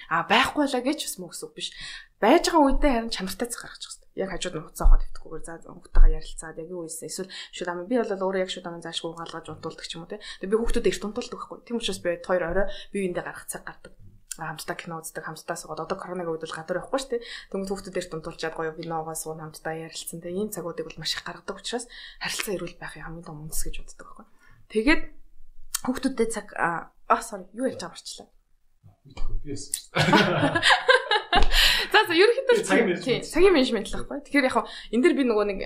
Байхгүй байлаа гэж бас мөн гэсэн үг биш. Байж байгаа үедээ харин чанартай цаг гаргаж байгаа. Яг хажууд нь хуцаа хоод өвтгөхгүйгээр за хүүхдтэйгээ ярилцаад яг юу ийсэн эсвэл шууд ам би бол өөрөө яг шууд ам заашгүй угаалгаж унтуулдаг ч юм уу те. Тэгээ би хүүхдүүд эрт унтуулдаг байхгүй. Тийм учраас би хоёр орой биеиндээ гаргах цаг гардаг. Хамтдаа кино үздэг, хамтдаа суугаад одоо коронавиг үед бол гадуур явахгүй шүү дээ. Тэнгүүд хүүхдүүд эрт унтуулчаад гоё киногоо суун хамтдаа ярилцсан. Тэгээ ийм цагуудыг бол маш их гаргадаг учраас харилцаа эрүүл байхын хамгийн том үндэс гэж боддог байхгүй. Тэгээд хүүхдүүдтэй цаг sorry юу ярьж байгаа марчлаа. За ерөнхийдөө цагийн менежмент л байхгүй. Тэгэхээр яг энэ дэр би нөгөө нэг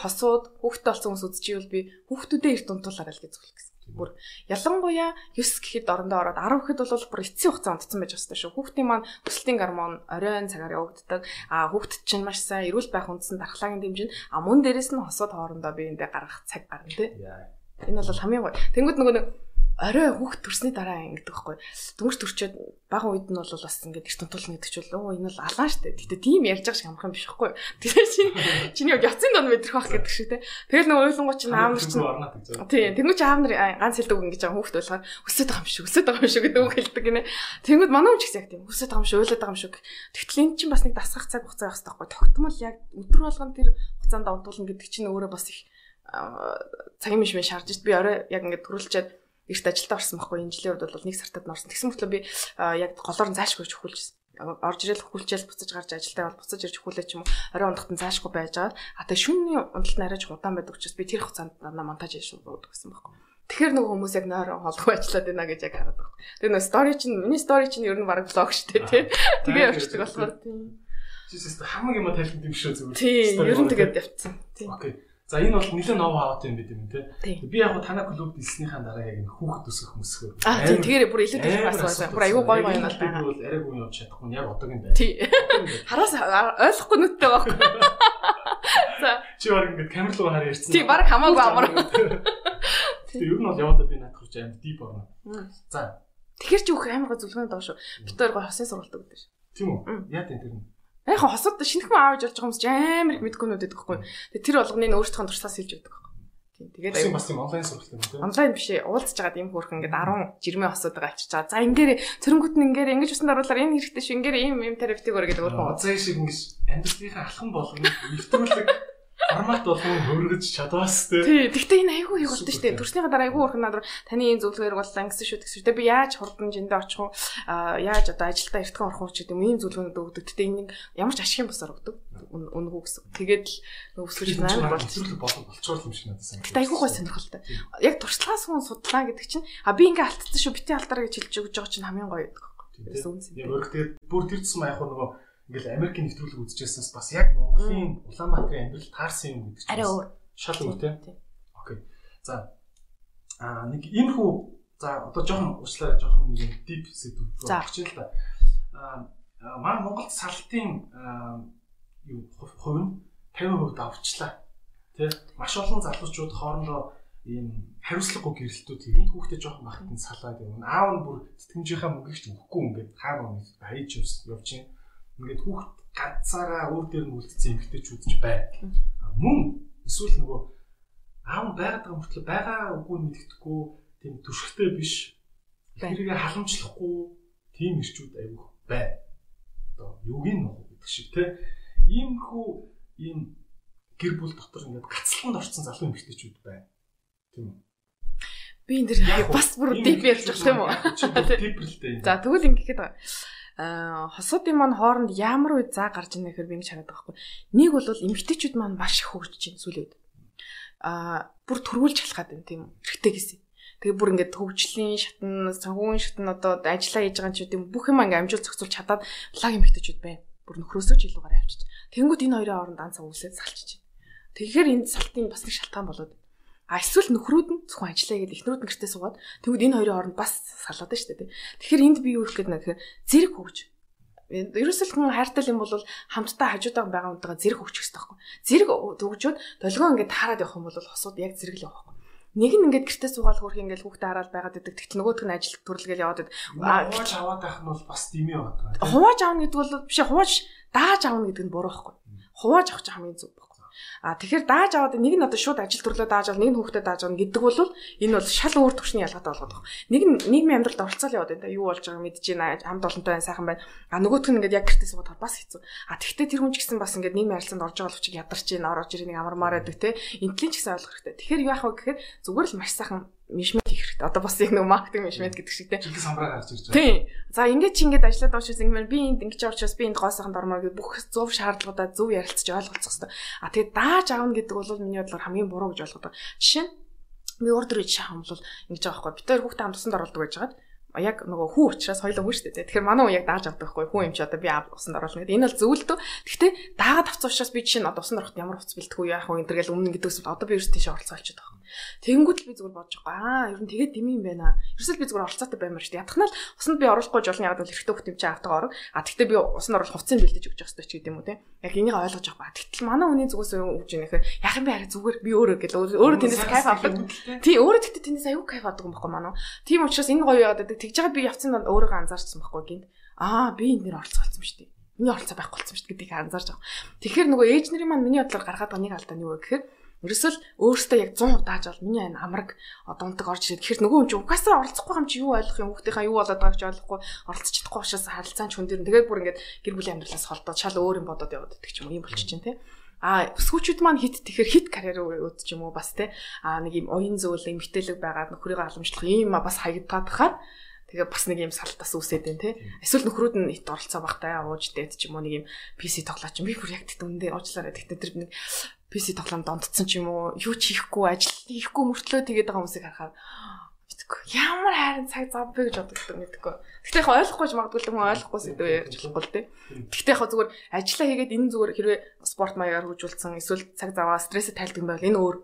хосууд хүүхдтэй болсон хүмүүс үзчихвэл би хүүхдүүдээ эрт унтуулаарай л гэж зөвлөх гэсэн. Бүр ялангуяа 9 гэхэд орондоо ороод 10 гэхэд бол бүр эцсийн хугацаа унтсан байж байгаа шүү. Хүүхдийн маань өсөлтийн гормон оройн цагаар явагддаг. Хүүхдэд чинь маш сайн эрүүл байх үндсэн дархлаагийн дэмжин. Мөн дээрэс нь хосууд хоорондоо биеиндээ гаргах цаг гарна тий. Энэ бол хамгийн гоё. Тэнгүүд нөгөө нэг орой хүүхд төрсний дараа ингэдэг байхгүй. Дөнгөж төрчөөд бага үед нь бол бас ингээд эрт унтуулна гэдэг чинь энэ бол алаан штэ. Гэтэ тийм ярьж байгаа шиг амарх юм биш байхгүй. Тэгэхээр чиний яцын дон мэдрэх байх гэдэг шиг те. Тэгэл нэг ойлонгоо чинь аав нар чинь тийм тэнгуү чи аав нар ганц хэлдэг ингэж байгаа хүүхд болохоор өсөд байгаа юм шүү гэдэг үг хэлдэг гинэ. Тэнгүүд манай хүн ч гэсэн яг тийм өсөд байгаа юм шүү ойлоод байгаа юм шүү. Тэгтэл энэ чинь бас нэг дасгах цаг хугацаа байх хэрэгтэй байхгүй. Тогтмол яг өдөр болгон тэр хугацаанд унтуулна гэдэг чинь өөрөө бас их цагийн мишмэн шаардж би орой яг ингээд төрүүлчихэд эрт ажилдаа орсон байхгүй энэ жилийн үед бол нэг сартад норсон. Тэгсэн мөртлөө би яг голоор нь заашгүй өгүүлжсэн. орж ирэл хөвлжэл буцаж гарч ажилдаа бол буцаж ирж хөвлөө ч юм уу орой ундахт нь цаашгүй байж байгаа. А тэгээ шөнийн унталт нь арайч удаан байдаг учраас би тэр хугацаанд монтаж хийж шууд гэсэн байхгүй. Тэгэхээр нөгөө хүмүүс яг нойрон холгүй ажиллаад байна гэж яг хараад байна. Тэгээ нөгөө стори чинь миний стори чинь ер нь баг блог шүү дээ тий. Тэгээ явчихдаг болохоор тий. Жишээс хамаг юм тайлбар юм шүү зүгээр. Тий, ер нь тэгээд явцсан. Тий. Окей. За энэ бол нэлээд нов хаваад юм бид юм тий. Би яг танаа клуб дэлснийхаа дараа яг энэ хүүхэд өсгөх мөсгөө. Тий, тэгэхээр бүр илүү их бас байна. Бүр аюу гоё гоё юм байна. Би бол арай гоо явж чадахгүй яг одоогийн байна. Тий. Хараас ойлгохгүй нүдтэй байхгүй. За чи баг ингэж камер руу хараа ярьсан. Тий, баг хамаагүй амар. Тий, ер нь бол явандаа би надад хүрч аим дип орно. За. Тэгэхээр чи бүх амар гоо зүлгөөнд доо шүү. Бид хоёр гоо хосын сургалт өгдөг шүү. Тийм үү? Яа тийм тэр нь. Яг хосод шинэхэн аавж болж байгаа хүмүүс амар их мэдгүйнүүд байдаг хгүй. Тэгээ тэр болгоныг өөрсдөө туршлаас хэлж байдаг хгүй. Тийм. Тэгээд аюу бас юм онлайн сургалт юм тийм. Онлайн биш ээ. Уулзж байгаад юм хөөрхөн ингээд 10 жирмээ хосоод байгаа авчиж байгаа. За ингээрээ цэрнгүүт нь ингээрээ ингэж усанд оруулаар энэ хэрэгтэй шүү. Ингээрээ ийм терапевтик өөр гэдэг өөрөө. Заа шиг ингэж амьдралынхаа алхам болгоно нэвтрүүлэг формат болгон хөргөж чадвас тээ. Тий, гэхдээ энэ айгүй их болтой шүү дээ. Төрснийхаа дараа айгүй урхан надруу таны энэ зөвлөгөөр боллаа гэсэн шүү гэсэн. Тэгээ би яаж хурдан жиндээ очих уу? Яаж одоо ажилдаа эртхэн орох уу гэдэг юм ийм зөвлөгөөнүүд өгдөг. Гэтэ энэ ямар ч ашигын босоор өгдөг. Үнгүү гэсэн. Тэгээд л өсвөж байна болчихлоо болчоор юм шиг надад санагдав. Гэтэ айгүй гой сонирхолтой. Яг туршлагаас хүн судлаа гэдэг чинь би ингээ алдсан шүү битээ алдаараа гэж хэлж өгж байгаа чинь хамгийн гоё гэдэг. Тэрээс үнсэн. Яг өөрөөр бүр тэр тусам яг нөгөө ингээл Америкийн нэвтрүүлэг үзчихсэнээс бас яг Монголын Улаанбаатарын амьдрал таарсан юм гэдэг чинь арай өөр. Шал өөр тийм. Окей. За нэг энэ хүү за одоо жоохон уучлаарай жоохон нэг дип сэдв рүү орчих л да. Манай Монголд салтын юу хувь нь 50% давчлаа. Тэ маш олон залуучууд хоорондоо ийм хариуцлагагүй гэрэлтүүд хийгээд хүүхдээ жоохон бахад нь салаад явна. Аав нь бүр тэтгэмжийнхаа мөнгөийг ч өгөхгүй ингээд хаана хайж явж чинь ингээд хүүхд ганцаараа өөр дээр нь үлдсэн эмэгтэйчүүд ч байна. Мөн эсвэл нөгөө аав байгаад байгаа мөртлөө байгаа үгүй мэддэхгүй тийм түшигтэй биш. Тэрийг халамжлахгүй тийм ирчүүд аюух байна. Одоо юугийн нөх гэдэг шиг те. Иймэрхүү ийм гэр бүл дотор ингээд гацлаханд орсон залуу эмэгтэйчүүд байна. Тийм үү? Би энэ дэр бас бүр дип ярьж байгаа юм уу? Диплтэй. За тэгвэл ингэхэд хосуудын маань хооронд ямар үе заа гарч ийнэ гэхээр би ингэж хараад байгаа байхгүй. Нэг бол эмэгтэйчүүд маань маш их хөгжиж байна сүүлийн үед. Бүр төрүүлж халахад байна тийм үү? Эрэгтэй гэсэн. Тэгээ бүр ингээд хөгжлийн шатн, санхүүгийн шатн одоо ажиллаа хийж байгаа ч тийм бүх юм ингээд амжилт зохицуулж чадаад лаг эмэгтэйчүүд байна. Бүр нөхрөөсөө ч илүү гараа авчиж. Тэнгүүд энэ хоёрын хооронд дан цаг үсээд салчиж байна. Тэгэхээр энэ салтын бас нэг шалтгаан болоод эсвэл нөхрүүд нь зөвхөн ажиллая гэдэг эхнэрүүд нь гэртээ суугаад тэгвэл энэ хоёрын хооронд бас салаад байна шүү дээ. Тэгэхээр энд би юу гэх гээд нэхэр зэрэг хөгж. Ерөөсөл хүн хайртай юм бол хамтдаа хажуудаа байгаа хүнтэйгээ зэрэг хөгжих хэрэгтэй байхгүй. Зэрэг төгжөөд долгион ингээд таарад явах юм бол хосууд яг зэрэг л явах. Нэг нь ингээд гэртээ суугаад хөрх ингээд хүүхдээ хараад байгаад байдаг. Тэгтэл нөгөөх нь ажил төрлөгээл яваад байдаг. Хувааж аваад байх нь бол бас тийм юм байна. Хувааж аавна гэдэг бол биш хувааж дааж аавна гэдэг нь буруу байхгүй. Хувааж авах чинь хамгийн зөв. Тэгэхээр дааж аваад нэг нь одоо шууд ажил төрлөө дааж авал нэг нь хүүхдэд дааж авна гэдэг бол энэ бол шал өөр төвшний ялгаатай болгоод байна. Нэг нь нийгмийн амьдралд оролцоол яваад байна. Юу болж байгааг мэдж байна. Хамт олонтой байна, сайхан байна. Нөгөөх нь ингээд яг гэртээ суугаад бас хэцүү. Тэгэхдээ тэр хүн ч гэсэн бас ингээд нийгмийн харилцаанд орж байгаа болчих ядарч ийн орж ирэх нэг амармаар байдаг те. Интеллигенц гэсэн ойлгох хэрэгтэй. Тэгэхээр яах вэ гэхээр зүгээр л маш сайхан мишмет хийх хэрэгтэй. Одоо бас яг нэг маркетинг мишмет гэдэг шиг те. Чихэн самбраа гарч ирж байгаа. Тийм. За ингээд чи ингээд ажиллаад байгаа учраас ингээд би энд ингэж явуулчихс би энд гоо сайхан дормоор гэдэг бүх зөв шаардлагуудаа зөв ярилцаж ойлгоцох хэрэгтэй. Тэгээд дааж аавна гэдэг бол миний бодлоор хамгийн буруу гэж ойлгодог. Жишээ нь би урд рүү шахам бол ингэж байгаа байхгүй. Бид хоёр хүүхдээ хамт усанд оруулдаг байж байгаа. Яг нөгөө хүү учраас хоёлоо хүү шүү дээ. Тэгэхээр манай хүн яг дааж авдаг байхгүй. Хүү юм чи одоо би усанд оруулна гэдэг. Энэ бол зөвлөдөө. Гэхдээ даагаад авцсан учраас би жишээ нь одоо усанд ороход ямар хувцас бэлтгэв яах вэ энэ төргээл өмнө гэдэгс одоо би ерөөс тийш оролцоо олчиход байгаа. Тэнгүүд л би зүгээр бодож байгаа. Ер нь тэгээд дими юм байна. Ерөөсөө би зүгээр оролцоотой баймаар шүү дээ. Ятхнаа л усанд би оруулахгүй жолны ягаад бол эрэгтэй хөлт юм чи автаа орог. Тэгтээ би усанд оруулах хувцсыг бэлдэж өгч явах хэрэгтэй ч гэдэг юм уу те. Яг энийг ойлгож байгаа. Тэгтэл манай хүний зүгээс өгж ийнэ гэхээр яах юм бэ хараа зүгээр би өөрөө гэл өөрөө тэндээс кайф авдаг. Тий өөрөө тэгтээ тэндээс аюу кайф авдаг юм баггүй манай. Тийм учраас энэ гоё яагаад гэдэг. Тэгж байгаа би явцсан донд өөрөө анзаарчихсан байхгүй гинт. Би энэ нэр оролцоолсон шүү дээ. Миний оролцоо байхгүй болсон шүү дээ гэдгийг анзаарч байгаа. Тэгэхээр нөгөө ээж нарын маань миний бодлоор гаргаад байгаа нэг алдаа нь юу вэ гэхээр ерөөсөл өөрөөсөө яг 100% дааж бол миний энэ амраг одонтог орж ирээд тэгэхээр нөгөө хүн чинь угаасаа оролцохгүй юм чи юу ойлгох юм хүүхдийнхаа юу болоод байгааг ч ойлгохгүй оролцож чадахгүй учраас харилцаан ч хүн дээр тэгээд бүр ингээд гэр бүлийн амьдралаас холдоод шал өөр юм бодоод яваад идэх ч юм уу юм болчих чинь тий. Өсгүүчүүд маань хит тэгэхээр хит карьер өөд ч юм уу бас тий. Нэг юм оюун зөвлөл эмгтээлэг байгаад нөхрийгөө халамжлах ийм бас хаягдаад хахаар Тэгээ бас нэг юм салтаас үсээд байна тий. Эсвэл нөхрүүд нь ит оролцоо багтай ууж дээд ч юм уу нэг юм PC тоглооч би бүр яг тэгт үндэ уучлаарай. Тэгтээ тэр нэг PC тоглоом дондцсон ч юм уу юу ч хийхгүй ажил хийхгүй мөртлөө тэгээд байгаа хүмүүсийг харахаар ямар хайрын цаг зав бэ гэж боддог мэдгүй. Гэхдээ яг ойлгохгүй ч магадгүй л хүн ойлгохгүй сэдв ярьж болохгүй л тий. Гэхдээ яг зүгээр ажиллаа хийгээд энэ зүгээр хэрвээ спорт маягаар хөгжүүлсэн эсвэл цаг заваа стрессэд тайлдаг юм байвал энэ өөр.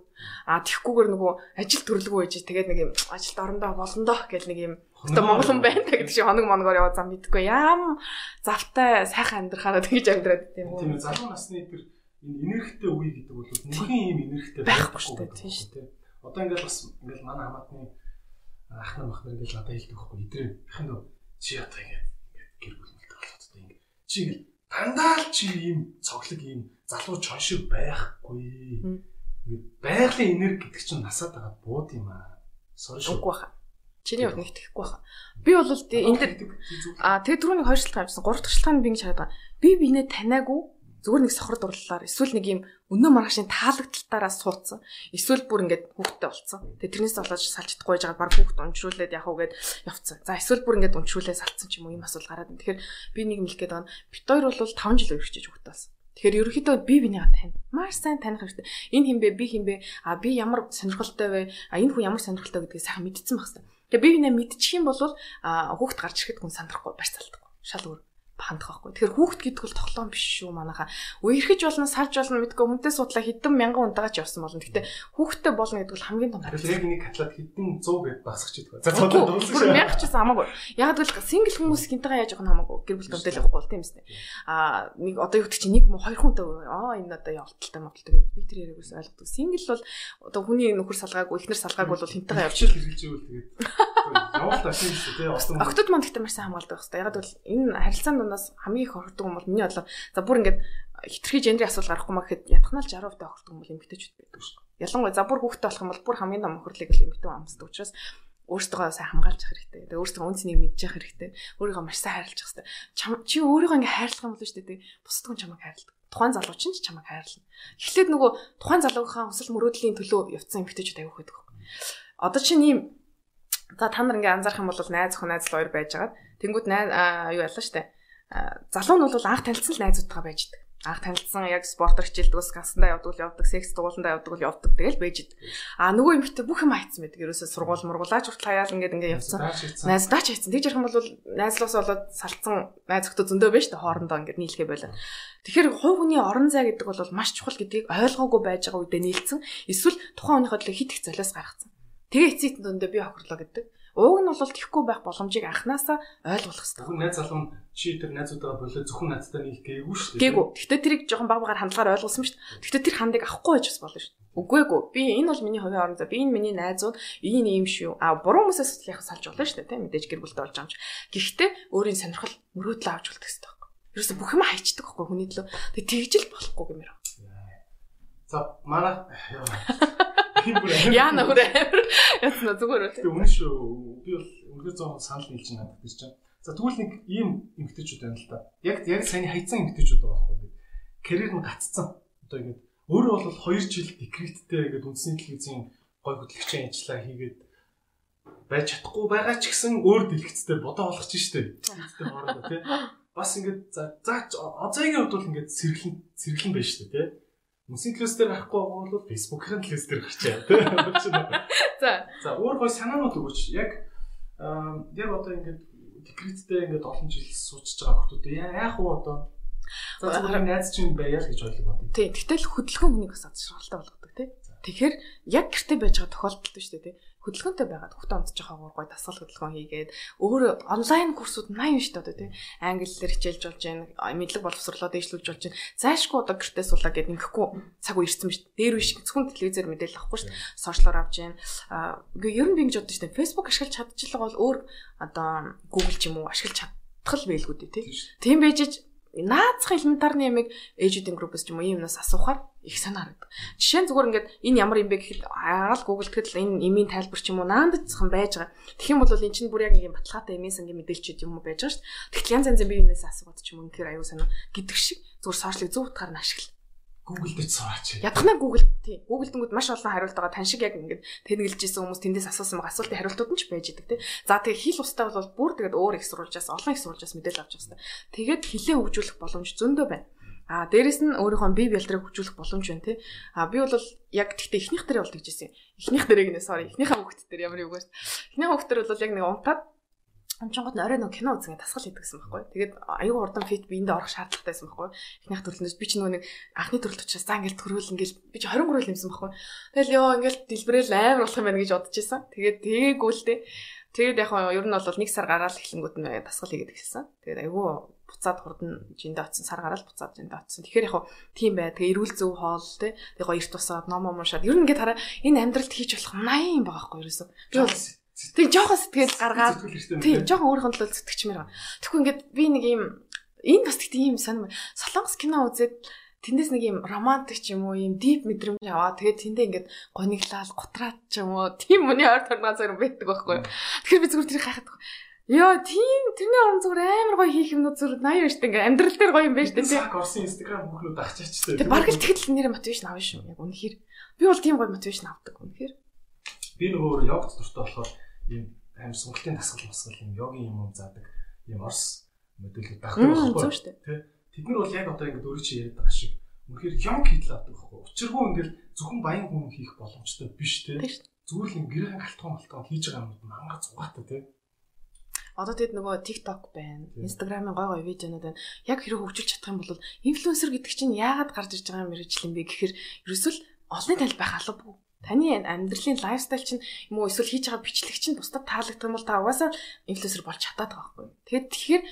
Тэгхгүйгээр нөгөө ажил төрлөгөө байж тэгээд нэг юм ажилд орондоо болондоо гэл нэг юм одоо монгол хүн байна гэдэг шиг хоног моногоор яваа зам мэдгүй. Ям завтай сайхан амьдрахаараа тэгж амьдраад тийм үү. Тийм залуу насны тэр энэ энергитэй үе гэдэг бол нөхөн юм энергитэй байхгүй шүү дээ тийм шүү дээ. Одоо ингээл бас ингээл манай хамаатны ахнаа махнар ингээл надад хэлдэг байхгүй идрээ ахын дөө чи одоо ингээд гэр бүлмэлтэй болоод одоо ингээд чи ингээл дандаа л чи ийм цоглог ийм залуу чон шиг байхгүй ингээд байгалийн энерги гэдэг чинь насаад байгаа бууд юм аа сорш үгүй баха чиний хувьд нэг тэхгүй баха би бол энэ тэр түрүүний 2 шалтгаан авчихсан 3 дахь шалтгаан би ингэж хараад байгаа би бинээ таниагүй зүгээр нэг сохор дурлалаар эсвэл нэг юм өнөө маргаашийн таалагдалтаараа суудсан. Эсвэл бүр ингээд хүүхдтэй болцсон. Тэгээ тэрнээс болоод салж чадахгүй байжгаад баг хүүхд уншруулээд яах вэ гэд явцсан. За эсвэл бүр ингээд уншруулээ салцсан ч юм уу ийм асуудал гараад байна. Тэгэхээр би нэг юм хэлэх гээд байна. Бид хоёр бол 5 жил өргөжж хүүхдтэй болсон. Тэгэхээр ерөнхийдөө би бинийгаа тань. Маш сайн таних хэрэгтэй. Энэ хин бэ, би хин бэ? Би ямар сонирхолтой вэ? Энэ хүн ямар сонирхолтой гэдгийг сайхан мэдсэн байх хэрэгтэй. Тэгээ би бинээ мэдчих юм бол хүүхд гарч ирэхэд хүн сандрахгүй барьц алдахгүй. Шал өөр хандах байхгүй. Тэгэхээр хүүхд гэдэг бол тоглоом биш шүү манайхаа. Үерхэж болно, салж болно мэдгүй хүнтэй судлаа хэдэн мянган унтаагач явсан болно. Гэхдээ хүүхдтэй болно гэдэг бол хамгийн том хариу. Яг нэг катлаад хэдэн 100 гэд багсах ч гэдэг. За цаадаа дуусах шүү. Мянгач гэсэн хамаагүй. Яг л сингл хүмүүс хинтэйгээ яаж явах нь хамаагүй. Гэр бүл дэвтэл явахгүй бол тийм эсэ. Нэг одоо юу гэдэг чи нэг 2 хүнтэй энэ одоо явалталтай мовталтай гэдэг би тэр яриагаас ойлгодог. Сингл бол одоо хүний нөхөр салгаагүй, эхнэр салгаагүй бол хинтэйгээ явчих хэрэгжилж ивэл тэгээд явалт ашиг шүү тий. Октод манд гэдэг маш сайн хамгаалдаг хэвээр. Яг л энэ харилцаанд нас хамгийн их хордог юм бол миний бодлоо за бүр ингээд хитрхи гендрийн асуудал гарахгүй маа гэхэд ятгахнаа 60% хордог юм бол эмэгтэйчүүд байдаг шүү. Ялангуяа за бүр хүүхдтэй болох юм бол бүр хамгийн том өхөрлөг л эмэгтэй амсдаг учраас өөртөө сайн хамгаалж явах хэрэгтэй. Тэгээ өөртөө үнцнийг мэдчих хэрэгтэй. Өөрийгөө маш сайн хайрлах хэрэгтэй. Чи өөрийгөө ингээд хайрлах юм бол шүү дээ. Бусдад хүн чамайг хайрладаг. Тухайн залуу ч чамайг хайрлана. Эхлээд нөгөө тухайн залуугийн хүсэл мөрөөдлийн төлөө явцсан эмэгтэйчүүд аяг хөөх. Одоо чинь ийм за та нар ингээд анзаарах юм бол найз охин найз л хоёр байжгаад тэнгууд юу ялла штэ. Залуу нь бол анх танилцсан л найзуудтайгаа байждаг. Анх танилцсан яг спортоор хичээлдэг, скасандаа явдаг, секс дугууландаа явдаг тэгэл байждаг. Нөгөө эмэгтэй бүх юм хайцсан байдаг. Ерөөсөө сургууль мургуулаач хүртэл хаяал ингээд явцсан. Найздаа ч хайцсан. Тэгж ярих юм бол найзлуус болоод салцсан найз өхтө зөндөө байж та хоорондоо ингээд нийлхээ байлаа. Тэгэхээр хувь хүний орон зай гэдэг бол маш чухал гэдгийг ойлгоогүй байж байгаа үедээ нийлцсэн. Эсвэл тухайн хүнийхээ төлөө хит их золиос гаргацсан. Тэгээ эцсийн дүндээ би хохирлоо гэдэг. Уг нь бол тэхгүй байх боломжийг анханасаа ойлгох хэрэгтэй. Хүн найз залуу чи тэр найзуудаа болоо зөвхөн надтай нийлэх гээгүй шүү дээ. Гээгүй. Гэхдээ тэрийг жоохон баг багаар хандлагаар ойлгуулсан шүү дээ. Гэхдээ тэр хандыг авахгүй байж бас болно шүү дээ. Үгүй ээ. Би энэ бол миний хувийн орон зай. Би энэ миний найзууд ийм юм шүү. Буруу хүмүүсээс яг салж болно шүү дээ. Тэ мэдээж гэр бүлтэй болж байгаа юм чи. Гэхдээ өөрийн сонирхол мөрөөдлөө авч үлдэх хэрэгтэй байхгүй. Ерөөсө бүх юм хайчдаг байхгүй хүний төлөө. Тэгээ тэгжил болохгүй гэмээр. За манай яа нөхөр яцна зүгээр үү. Тэгээ үнэн шүү. Би бол үнэхээр 100% санал нийлж надад гэж чинь. За тэгвэл нэг ийм эмгтээчүүд байна л да. Яг саяны хайцсан эмгтээчүүд байгаа байхгүй. Карьер нь гаццсан. Одоо ингэж өөрөө бол 2 жил декреттэй гэдэг үндэсний телевизийн гой хөтлөгчийн ажиллаа хийгээд байж чадахгүй байгаа ч гэсэн өөр дэлгэцтэй бодоо болгож штэ. Дэлгэцтэй хоорондоо тий. Бас ингэж за озайгийн хувьд бол ингэж сэргэлэн байж штэ тий. Мөсийн телевиз дээр гарахгүй байгаа бол Facebook-ын телевиз дээр гарчаа тий. За өөр гой санаанууд өгөөч. Яг одоо ингэж декреттэй ингэж олон жил суучж байгаа хүмүүс яах вэ одоо? За зөвхөн найз чинь байяа л гэж ойлгоо. Тий. Гэтэл хөдөлгөөн хүнийг бас адшралтай болгодог тий. Тэгэхээр яг гэртээ байж байгаа тохиолдолд шүү дээ тий. Хөдөлгөөнтэй байгаад хүүхдээ онцож байгаа гой дасгал хөдөлгөөн хийгээд өөрөө онлайн курсууд 80 шүү дээ тий. Англи хэлээр хичээлж болж байна, мэдлэг боловсруулаад дэвшлүүлж болж байна. Заашгүй одоо гэртээ суулаа гэд ингэхгүй цаг үе ирсэн биз. Дээр биш зөвхөн телевизээр мэдээлэл авахгүй шүү дээ. Сошиалоор авч байна. Ер нь би ингэж боддог шүү дээ. Facebook ашиглаж чадчихлаа бол өөр одоо Google ч юм уу ашиглаж чадах л байлгүй дээ тий. Тийм байж наацхан элементарны ямиг ээжүүдийн группс ч юм уу юмнаас асуухаар их санаа харагдав. Жишээ нь зүгээр ингээд энэ ямар юм бэ гэхэд хараад Google тэгэхэд энэ имийн тайлбар ч юм уу наандцхан байж байгаа. Тэгэх юм бол эн чинь бүр яг нэг юм баталгаатай имээс ингээд мэдээлчихэд юм уу байж байгаа шүү дээ. Тэгтэл янз янзын биенээс асуугаад ч юм уу үнэхээр аюу санаа гэдэг шиг зүгээр сошиалыг зөв утгаар нь ашигла. Google дээр сураач. Ядахна Google тий. Google дэнгүүд маш олон хариулт байгаа. Тань шиг яг ингээд тэнэглэжсэн хүмүүс тэндээс асуусан байгаа асуултын хариултууд нь ч байж идэг тий. За тэгээ хэл устай бол бүр тэгээд өөр их сурвалжаас олон их сурвалжаас мэдээлэл авч байгаа хэвээр. Тэгээд хэлээ хөгжүүлэх боломж зөндөө байна. Дээрэс нь өөрийнхөө бие бэлтрийг хөгжүүлэх боломж байна тий. Би бол яг тэгтээ эхнийх дээр бол тэгжсэн. Эхнийх дээрээ гинэ sorry. Эхнийхээ хүүхд дээр ямар юу гэж. Эхнийхээ хүүхд дээр бол яг нэг унтаад амчингууд орой нэг кино үзгээд тасгал хийдэгсэн байхгүй. Тэгээд аюу хурдан фит биендээ орох шаардлагатайсэн байхгүй. Эхнийх төрөлнөөс би ч нөгөө нэг анхны төрөлт учраас за ингээл төрүүл ингээл би ч 20 гөрөөл юмсан байхгүй. Тэгэл ёо ингээл дэлбэрэл амар болох юм байна гэж бодож исэн. Тэгээд тэгээгүй л дээ. Тэгээд яг ер нь бол нэг сар гараал эхлэнгүүд нь тасгал хийгээд гисэн. Тэгээд аюу буцаад хурдан жиндээ очсон сар гараал буцаад жиндээ очсон. Тэгэхээр яг тийм бай. Тэгээ эрүүл зөв хоол те. Тэгээ эрт тусаад ном уншаад ер нь ингээд хараа энэ амьдралд хийж болох 80 юм байгаа байхгүй ерөөсөө. Би бол тэг жоохон сэтгэл гаргаад тийм жоохон өөрийнхөө төлөө зүтгэчмээр байгаа. Тэгэхгүй ингээд би нэг юм энэ бас тэгт ийм сонирм солонгос кино үзээд тэндээс нэг юм романтик ч юм уу юм дип мэдрэмж аваа. Тэгээд тэндээ ингээд гониглал готраад ч юм уу тийм үний ойр торноо зэрэг байдаг байхгүй. Тэгэхээр би зүгээр тэрийг хайхад ёо тийм тэрний орон зүгээр амар гоё хийх юмнууд зүгээр 80 байж тээ ингээд амьдрал дээр гоё юм байж тээ. Цаг орсон Instagram бүхнүүд ахчихчтэй. Тэг бараг л тэгэл нэр мотивашн авна шүү. Яг үнэхээр би бол тийм гоё мотивашн авдаг үнэхээр. Би нөгөө йогт дуртай болохоор ийм амар сонголтын дасгал юм йогийн юм заадаг ийм орс мэдээлэл дагдаг байхгүй тий. Тэд нар бол яг одоо ингэ өөрөө чи яриад байгаа шиг үнэхээр йог хийдэл авдаг байхгүй. Учиргүй ингээл зөвхөн баян хүн хийх боломжтой биш тий. Зүгээр л гэрийн галтгон хийж байгаа юм мангар зугаатай тий. Одоо тэгэд нөгөө TikTok байна, Instagram-ын гой видеонууд байна. Яг хэрэг хөгжүүлж чадах юм бол инфлюенсер гэдэг чинь яагаад гарч ирж байгаа мэрэгжил юм бэ гэхээр ерөөсөл олонний танил байх албагүй. Таны амьдралын лайфстайл чинь юм уу эсвэл хийж байгаа бичлэг чинь бусдад таалагдах юм бол та угаасаа инфлюенсер болж чадаад байгаа байхгүй. Тэгэхээр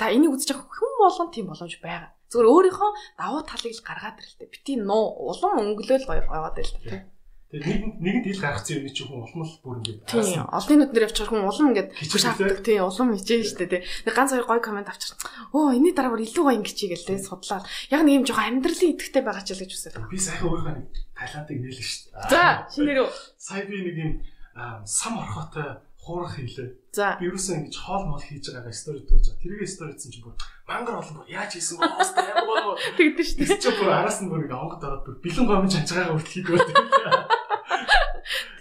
та энийг үзэж байгаа хүн болгон тийм боломж байгаа. Зүгээр өөрийнхөө давуу талыг л гаргаад ирлээ. Бити улам өнгөлөөл гоёгаад ирлээ. Тэгээд нэгэнт ил гаргацсан юм чи хүн улам л бүр ингэ. Тийм. Олонний нүднэр явчихар хүн улам ингэ хашаалтдаг. Тийм. Улам хичээн штэ тий. Ганц хоёр гоё комент авчир. Оо энэний дараагаар илүү гоё ингэчээ гэлээ судлаад. Яг нэг юм жоохон амьдралын идэвхтэй байгаа ч л гэж үсэлээ. Би сайхан өөрийнхөө нэг Таиландыг нээлээ штэ. За шинээр үү. Сая би нэг юм сам орхотой хуурах хийлээ. Би юусэн ингэж хоол мол хийж байгаагаа стори дүүж. Тэргээ стори хийсэн чинь бүр мангар олон бүр яаж хийсэн бэ? Хостой ямар гоо. Тэгдэж штэ. Чи бүр араас нь бүр ингэ онгод ороод бүр бэлэн гомж анчаагаа хүртэл хийдгөө.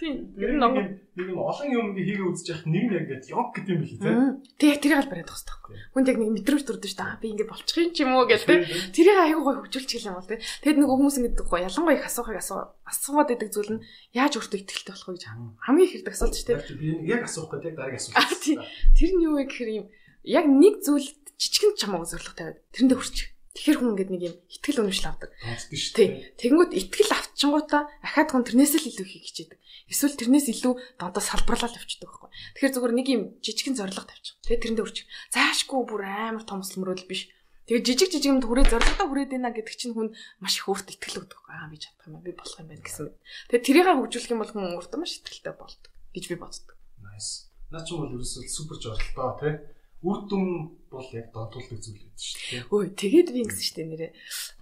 Тийм. Ер нь нэг олон юм хийгээ үзэж яхад нэг яг ингэж йог гэдэг юм билий тий. Тэг яг тэрийг аль бариад тахс таахгүй. Хүнд яг нэг мэдрэмж төрдөг шүү дээ. Би ингэ болчих юм ч юм уу гэдэг тий. Тэрийг айгүй гой хөгжүүлж хэлэх юм бол тий. Тэгэд нөгөө хүмүүс ингэ гой ялангуяа их асуухыг асуугаад байдаг зүйл нь яаж өөртөө ихтэй болох вэ гэж хамгийн их хэрэг асуулт шүү дээ. Би яг асуух гэдэг яг дараагийн асуулт. Тий. Тэр нь юу вэ гэхээр юм яг нэг зүйл жижигэн чамаагүй зорилго тавиад тэрэндээ хүрчих. Тэгэхээр хүн ингэдэг нэг юм итгэл үнэмшил авдаг. Тий. Тэгэнгүүт итгэл авчингуудаа ахаад хүн тэрнээс л илүү хийх хичээдэг. Эсвэл тэрнээс илүү дандаа салбарлал явчихдаг байхгүй. Тэгэхээр зүгээр нэг юм жижигэн зорилго тавьчих. Тэгээ тэрэндээ хүрчих. Заашгүй бүр амар том өсөлмөрөл биш. Тэгээ жижиг юмд хүрээ зорилгодоо хүрээд ийна гэдэг чинь хүн маш их өөртөө итгэл өгдөг. Би чадах юм байна. Би болох юм байна гэсэн. Тэгээ тэрийг хөгжүүлэх юм бол хүн өөртөө маш итгэлтэй болдог гэж би боддог. Nice. Наа ч бол ерөөсөө супер зорилготой тий. Үр дүн бол яг донтуулдаг зүйл байдаг шүү дээ. Өө тэгээд би ингэсэн шүү дээ нэрээ.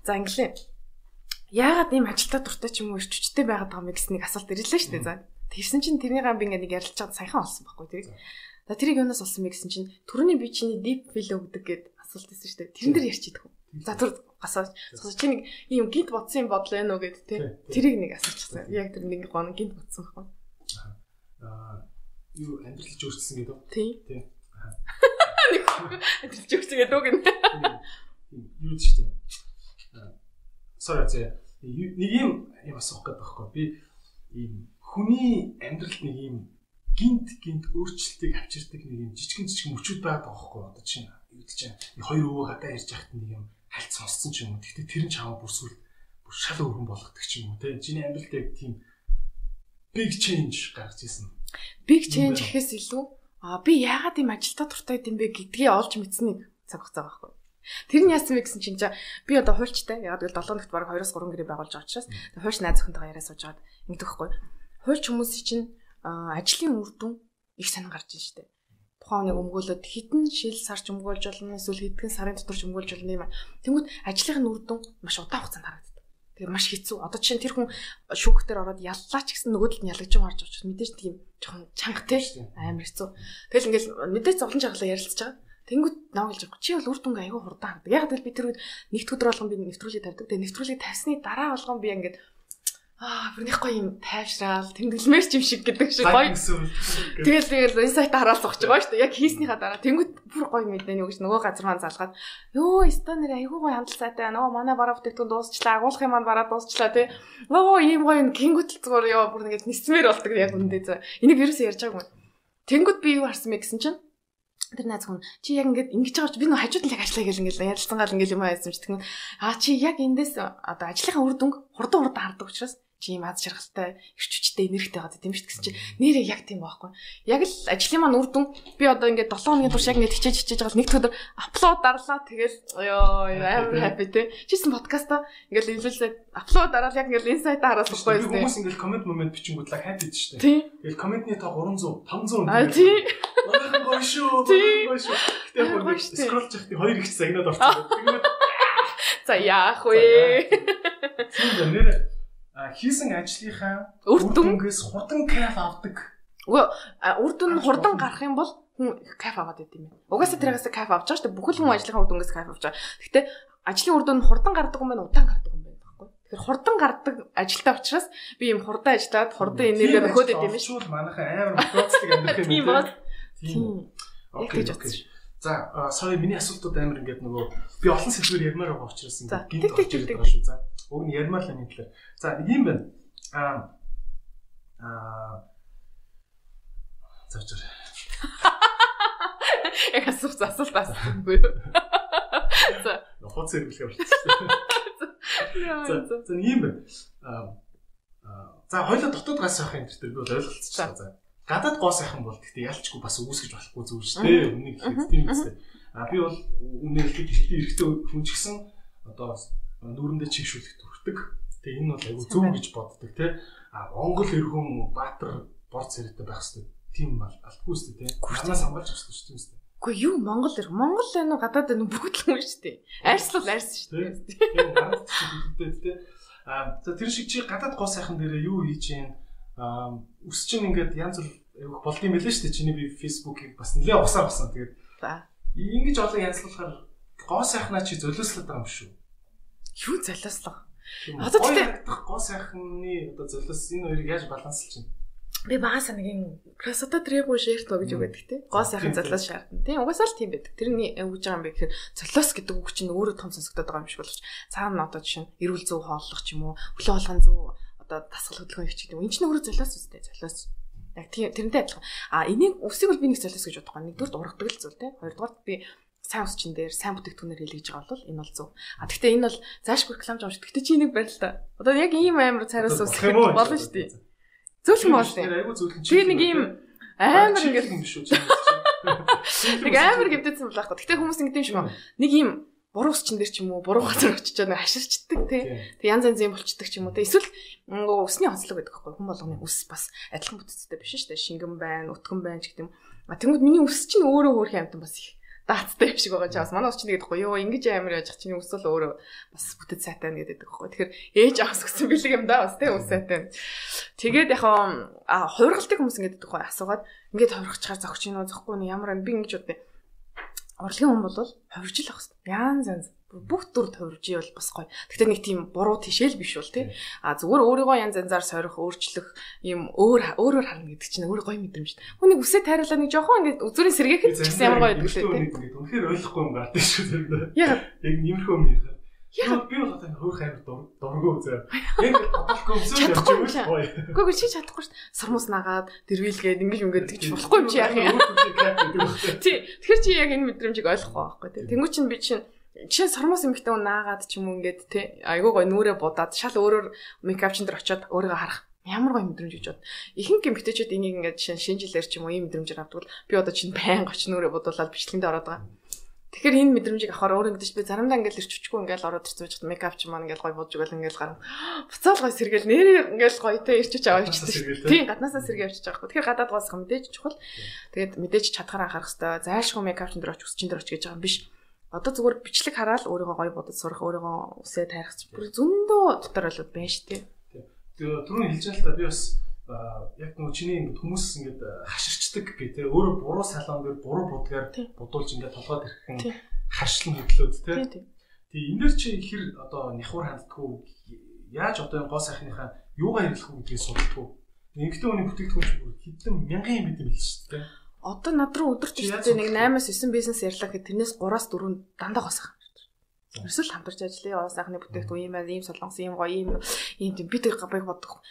За инглээ. Яагаад ийм ажилтаа дуртай ч юм уу ирчвчтэй байгаад байгаа юм гэснийг асуулт ирлээ шүү дээ. За тэгсэн чинь тэрний би ингээ нэг ярилж чад саяхан олсон байхгүй тэрийг. За тэрийг юунаас олсон бэ гэсэн чинь түрүүний би чиний deep feel өгдөг гэд асуулт байсан шүү дээ. Тэрэн дээр ярьж идэх үү. За түр гасаа чи нэг ийм гинт бодсон юм бодлоо ээ нөө гэд тэ. Тэрийг нэг асуучихсан. Яг тэр нэг гоо гинт бодсон байхгүй. Юу амьдралж өөрчлөсөн гэдэг үү? Тий. Амьдралж өөрчлөсөн гэдэг үг юм. Юу ч тийм. Sorry нэг юм асуух гэдэг байхгүй. Би ийм хүний амьдралд нэг ийм гинт өөрчлөлтийг авчирдаг нэг юм жижигэн мөчүүд байдаг байхгүй. Одоо чинь хоёр өвөө гадаа ярьж байхад нэг юм хальт сонссон ч юм уу. Гэхдээ тэр нь чамаа бүр шал өргөн болгодог ч юм уу. Тэ чиний амьдралд яг тийм big change гарч ирсэн. Big change гэхээс илүү би яагаад ийм ажилтаа дуртай юм бэ гэдгийг олж мэдсэнийг цаг хугацаа байхгүй. Тэр нь яасан бэ гэсэн чинь би одоо хуульчтай яагаад гэвэл 7 өнөخت бараг 2-3 гэрээ байгуулж байгаа учраас хуульч найз охинтойгоо яриа сууж байгаад ингэдэг байхгүй. Хуульч хүмүүсийн чинь ажлын үр дүн их сонин гарч ийн штэ. Тухайн нэг өмгөөлөд хитэн шил сарч өмгөөлж болно эсвэл хэдхэн сарын дотор ч өмгөөлж болно юм. Тэнгүүд ажлын үр дүн маш удаан хугацаанд харагддаг. Тэгээ маш хэцүү. Одоо чинь тэр хүн шүүхтэр ороод яллаа ч гэсэн нөгөөдөл нь ялгаж байгаа харж байгаа ч мэдээж тийм жоохон чанга тий амар хэцүү. Тэгэл ингээл мэдээж зовлон жаглаа ярилцж байгаа. Тэнгүүд навгалж байгаа. Чи бол үр дүнг аягүй хурдан хардаг. Яг л би тэр үед нэгд өдөр болгон би нэвтрүүлэг тавьдаг. Тэгээ нэвтрүүлэг тавьсны дараа болгон би ингээд бүрнийхгүй юм тайвшраал тэмдэглэмээр ч юм шиг гэдэг шиг гоё. Тэгэл инсайт хараал зогч байгаа шүү дээ. Яг хийснийхаа дараа тэнгүүд бүр гоё мэднэ юу гэж нөгөө газар маань залгаад ёо станер айгүй гоё хандлт сайтай байна. Манай бараа бүтээгдэхүүн дуусчлаа. Агуулгын маань бараа дуусчлаа тий. Ийм гоё гингүүтэл зүгээр ёо бүр ингээд нисмээр болдог яг үндэ зөө. Энийг ерөөсөө ярьж байгаагүй. Тэнгүүд би юу харсан бэ гэсэн чинь тэр найз хүн чи яг ингэж байгаа чи би нөө хажууд нь яг ажиллая гэл ингэж ярилцсан гал ингэж юм байсан ч тэгвэл чи яг эндээс одоо ажлынхаа үр дүнг хурдан хардаг учраас чи юм аз жаргалтай, эрч хүчтэй, энергитэй байгаа тийм шүү дээ гэсэн чи нэрээ яг тийм байхгүй. Яг л ажлын маань үр дүн би одоо ингээд 7 хоногийн турш яг ингээд хичээж байгаа нэг өдөр апплод дарлаа тэгэл ёо амар happy те. Чисэн подкаста ингээд илүүлээд апплод дараал яг ингээд инсайт хараас байхгүй юм. Хүмүүс ингээд комент момент бичингүүдлээ happy дээ шүү дээ. Тэгэл комментний тоо 300, 500 аа тий. Манайхан гоё шүү. Гэтэ яг скролл чахтын 2 их загнаад орчихсон. Тэгээд за яах вэ? Тийм нэр хийсэн ажлынхаа үр дүнгээс хурдан кайф авдаг. Үр дүн хурдан гарах юм бол хүн кайф аваад байт юм байна. Угаасаа тэрээс кайф авч байгаа шүү дээ. Бүхэл хүн ажлынхаа үр дүнгээс кайф авч байгаа. Гэхдээ ажлын үр дүн хурдан гардаг юм байна, удаан гардаг юм байна байхгүй. Тэгэхээр хурдан гардаг ажилтай учраас би юм хурдан ажиллаад хурдан энерги өгөөд байт юм шүү. Манайхан амар мотоцлог амьдрах юм. Тийм ба. Тийм. Окей. За, sorry миний асуултууд амар ингээд нөгөө би олон сэдвээр ярмаар байгаа учраас ингээд гинт орж ирээд байгаа шүү. За, уг нь ярмаар л энэ талаар. За, нэг юм байна. Зачаар. Яг асуулт асуухгүй юу? За, нохоц зэрэглэх болчихсон. За, нэг юм байна. За, хоёулаа дотоод гас авах юм дээр би бол ойлголцчихлаа. За. Гадаад гоо сайхан бол гэхдээ ялчгүй бас үүсгэж болохгүй зүйл шүү дээ. Үнийг хэлэх тийм үстэй. Би бол үнээр хэлэхэд эрэгтэй хүн ч гэсэн одоо нүүрэндээ чигшүүлэх төрхдөг. Тэгээ энэ бол айгүй зөв гэж боддог тий. Монгол эр хүн баатар бор царайтай байх хэрэгтэй. Тийм бол алтгүй шүү дээ тий. Ханаас хамгаалж авах хэрэгтэй шүү дээ. Үгүй юу Монгол эр Монгол энэ гадаад энэ бүгд л юм шүү дээ. Арьслал арьс шүү дээ. Тийм гараад чигшүүлдэг тий. За тэр шиг чи гадаад гоо сайхан дээрээ юу хийж юм өс чинь ингээд янз бүр болд юм байлээ шүү дээ. Чиний би фэйсбүүкийг бас нэлээ угсаар басан. Тэгээд ингэж олон янзлуулахаар гоо сайхнаа чи золиослоод байгаа юм шүү. Юу золиослох? Одоо тэгээд гоо сайхны одоо золиос энэ хоёрыг яаж баланслж чинь? Би багасаа нэг юм красота требу шэртөө гэж үгээд те. Гоо сайхан золиос шаардна. Тийм угаасаа л тийм байдаг. Тэрний өгж байгаа юм бэ гэхээр золиос гэдэг үг чинь өөрөө том сонсогдоод байгаа юм шиг боловч цаана одоо жишээ нь эрүүл зөв хооллох ч юм уу, хөглөө болгон зөв одоо дасгал хөдөлгөөн хийх гэдэг. Энэ чинь өөрөө золиос үстэй золиос. Яг тэрнтэй адилхан. Энийг үсийг бол би нэг золиос гэж бодохгүй. Нэгдүгээр ургадаг л зүйл те. Хоёрдугаар би сайн ус чин дээр сайн бүтээгдэхүүнээр хэлгэж байгаа бол энэ бол зөв. Гэхдээ энэ бол заашгүй рекламж авч. Гэхдээ чи энийг барь л та. Одоо яг ийм амар цараас ус болно шүү дээ. Зөвлөн боос тийм. Би нэг ийм амар ингэ юм шүү. Нэг амар гэмтээсэн болох гоо. Гэхдээ хүмүүс ингэ юм шиг нэг ийм буруу ус чин дээр ч юм уу буруу газар очиж байгаа хаширчдаг тий. Тэг янз янзын болчдөг ч юм уу тий. Эсвэл усны онцлог гэдэг байхгүй. Хүн болгоны ус бас адилхан бүтцтэй биш шүү дээ. Шингэн байна, өтгөн байна ч гэдэг юм. Тэнгүүд миний ус чинь өөрөө хөөрхөн амтан бас их даацтай юм шиг байгаа ч бас манай ус чинь гэдэг байхгүй. Йоо ингэж амар яж чиний ус бол өөрөө бас бүтэц сайтай нэгэдэг байхгүй. Тэгэхээр ээж авах гэсэн бэлэг юм да бас тий ус сайтай. Тэгээд яг хувиргалтыг хүмүүс ингэдэг байхгүй. Асуугаад ингээд хувиргачихаар зогч юм уу зохгүй нь ямар би ингэж бодъё. Урлагийн хүн бол хувирж л ах хэвээр. Янз янз бүх дүр хувирж ивэл бас гоё. Гэхдээ нэг тийм буруу тишэл биш бол тий. Зүгээр өөрийгөө янз янзаар сорих, өөрчлөх юм өөрөөр харна гэдэг чинь өөр гоё мэдрэмж. Хүнийг үсээ тайруулаад нэг жоохон ингэ зүрийн сэргээхэд ч гэсэн ямар гоё гэдэг лээ тий. Үнэхээр ойлгохгүй юм гардаг шүү дээ. Яг иймэрхүү юм яа. Яг би бол одоо хөөх амир дурггүй зөө. Яг бодохгүй өмсөж явж байгаа гоё. Гэхдээ чи чадахгүй шүү дээ. Сармус нагаад дэрвэлгээд ингэж ингээд тэгж болохгүй юм чи яах юм. Тий. Тэгэхээр чи яг энэ мэдрэмжийг ойлгохгүй байхгүй тий. Тэнгүү чин би чинь жишээ сармус эмхтэн наагаад ч юм уу ингээд тий. Айгуу гоё нүрээ будаад шал өөрөөр мейкап чин дээр очиод өөрийгөө харах. Ямар гоё мэдрэмж гэж бод. Ихэнх эмхтэйчүүд энийг ингээд шинжилээр ч юм уу ийм мэдрэмжээр авдаг бол би одоо чинь байнга оч нүрээ будуулаад бичлэгэндээ ороод байгаа. Тэгэхээр энэ мэдрэмжийг авахаар өөр ингэдэж би заримдаа ингээл ирчихгүй ингээл ороод ирцүүж хат мейкап ч маань ингээл гоё бодж өгөөл ингээл гарна. Буцаал гоё сэргээл нэрээ ингээл гоётой ирчиж аваад ирчихсэн. Тийм гаднаасаа сэргээ авчиж байгаа. Тэгэхээр гадаад гоосх мэдээж чухал. Тэгээд мэдээж чадхаараа харах хэрэгтэй. Зайлшгүй мейкап чин дээр оч үсчин дээр оч гэж байгаа юм биш. Одоо зүгээр бичлэг хараад өөрийгөө гоё бодож сурах, өөрийгөө үсээ тайрах бүр зөндөө дотор болоод байна шүү дээ. Тэгээ түрүүн хэлж байгаа л та би бас яг нөгөө чиний ингэ хүмүүс ингэ хаширчдаг гэх тээ өөрөө буруу салон дээр буруу будгаар будуулж ингэ толгойд ирэхэн хашлан хөдлөөд тээ. Тэгээ энэ дэр чи хэр одоо няхуур ханддаггүй яаж одоо энэ гоо сайхныхаа юугаар ирэх үү гэдгийг судалдаггүй. Эмэгтэй хүний бүтээгдэхүүн ч бүр хэдэн мянган юм бид юм л шүү дээ. Одоо над руу өдөрт ихтэй нэг 8-9 бизнес ярьлаа гэхэд тэрнээс 3-4 дандаа гоо сайхан. Ерөөсөө л хамтарч ажиллая. Гоо сайхны бүтээгдэхүүн ийм ийм солонгос ийм гоё ийм би тэр габыг бодох.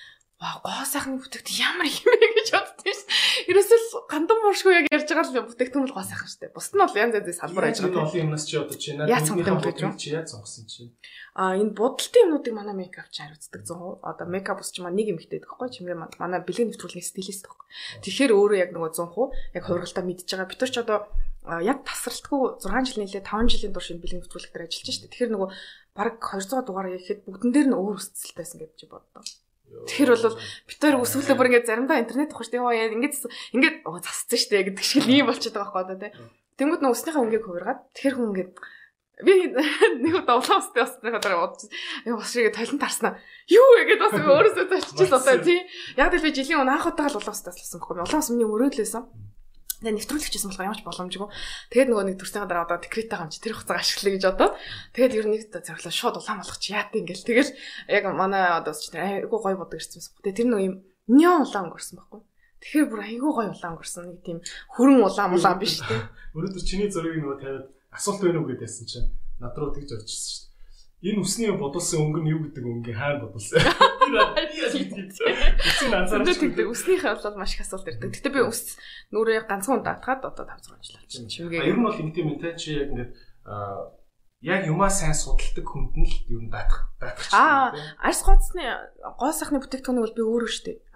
Гоо сайхны бүтээгдэхүүн ямар юм бэ гэж боддоо ш. Ерөөсөө гандан буушгүй яг ярьж байгаа л бүтээгдэхүүн л гоо сайхан штэ. Бусд нь бол янз янзын салбар ажиллаж байгаа. Олон юмнаас чи одоо чи надад чи яаж сонгосон чи. Энэ бодолтын юмнуудыг манай мейкап ч хариуцдаг 100%. Одоо мейкап ус чи нэг юм ихтэй байхгүй чимгээ манай бэлгийн нэвтрүүлгийн стилист байхгүй. Тэгэхээр өөрөө яг нөгөө 100% яг хувиргалтаа мэдж байгаа. Бид нар ч одоо яг тасралтгүй 6 жил нийлээ 5 жилийн турш энэ бэлгийн нэвтрүүлэг дээр ажиллаж штэ. Тэгэхээр нөгөө бараг 200 дугаар яхэд бүгдэн дээр нь өөр өсцөлтэйсэн гэж чи боддоо. Тэгэхээр бол бид хоёр өсвөлөө бүр ингээд заримдаа интернет авах штэ. Яа ингээд засцсан штэ гэдэг шиг ийм болчиход байгаа байхгүй одоо тий. Тэнгүүд нөө өснийхээ өнгийг хувиргаад тэгэхээр хүн ингээд би нэг удаа улаанстай басныхаа дараа бодсон. Бас шиг талент тарснаа. Юу вэ гэдээ бас өөрөөсөө зоччихсон одоо тий. Яг л би жилийн өмнө анх удаага л улаанстайс болсон байхгүй. Улаанс миний өрөөлөөсөн. Тэгээ нэвтрүүлэгчсэн болохоор ямарч боломжгүй. Тэгээд нөгөө нэг төрсний дараа одоо декреттэй хамч тэр хугацааг ашиглая гэж одоо. Тэгээд ер нь нэг зөвлөө шууд улаан болгоч яат ингээл. Тэгэл яг манай одоо ч айгүй гоё бодог ирсэн байсан. Тэгээд тэр нөгөө юм неон улаан өнгөрсөн байхгүй. Тэгэхээр бүр айгүй гоё улаан өнгөрсөн. Нэг тийм хүрэн улаан биш тий. Өнөөдөр чиний зургийг нөгөө тавиад асуулт байна уу гэдээсэн чинь над руу тэгж орж ирсэн шүү дээ. Энэ үсний бодулсан өнгө нь юу гэдэг өнгө хаана бодулсан? Үснийхээ бол маш их асуулт ирдэг. Гэтэ би үс нүрээ ганцхан даатгаад одоо 5-6 жил болчихсон. Чимгээ. Ер нь бол ингэ тийм юм те чи яг ингээд яг юмаа сайн судалдаг хүнд нь л ер нь даатах чинь. Арьс гоцны гоо сайхны бүтээгдэхүүнийг бол би өөрөө штэ.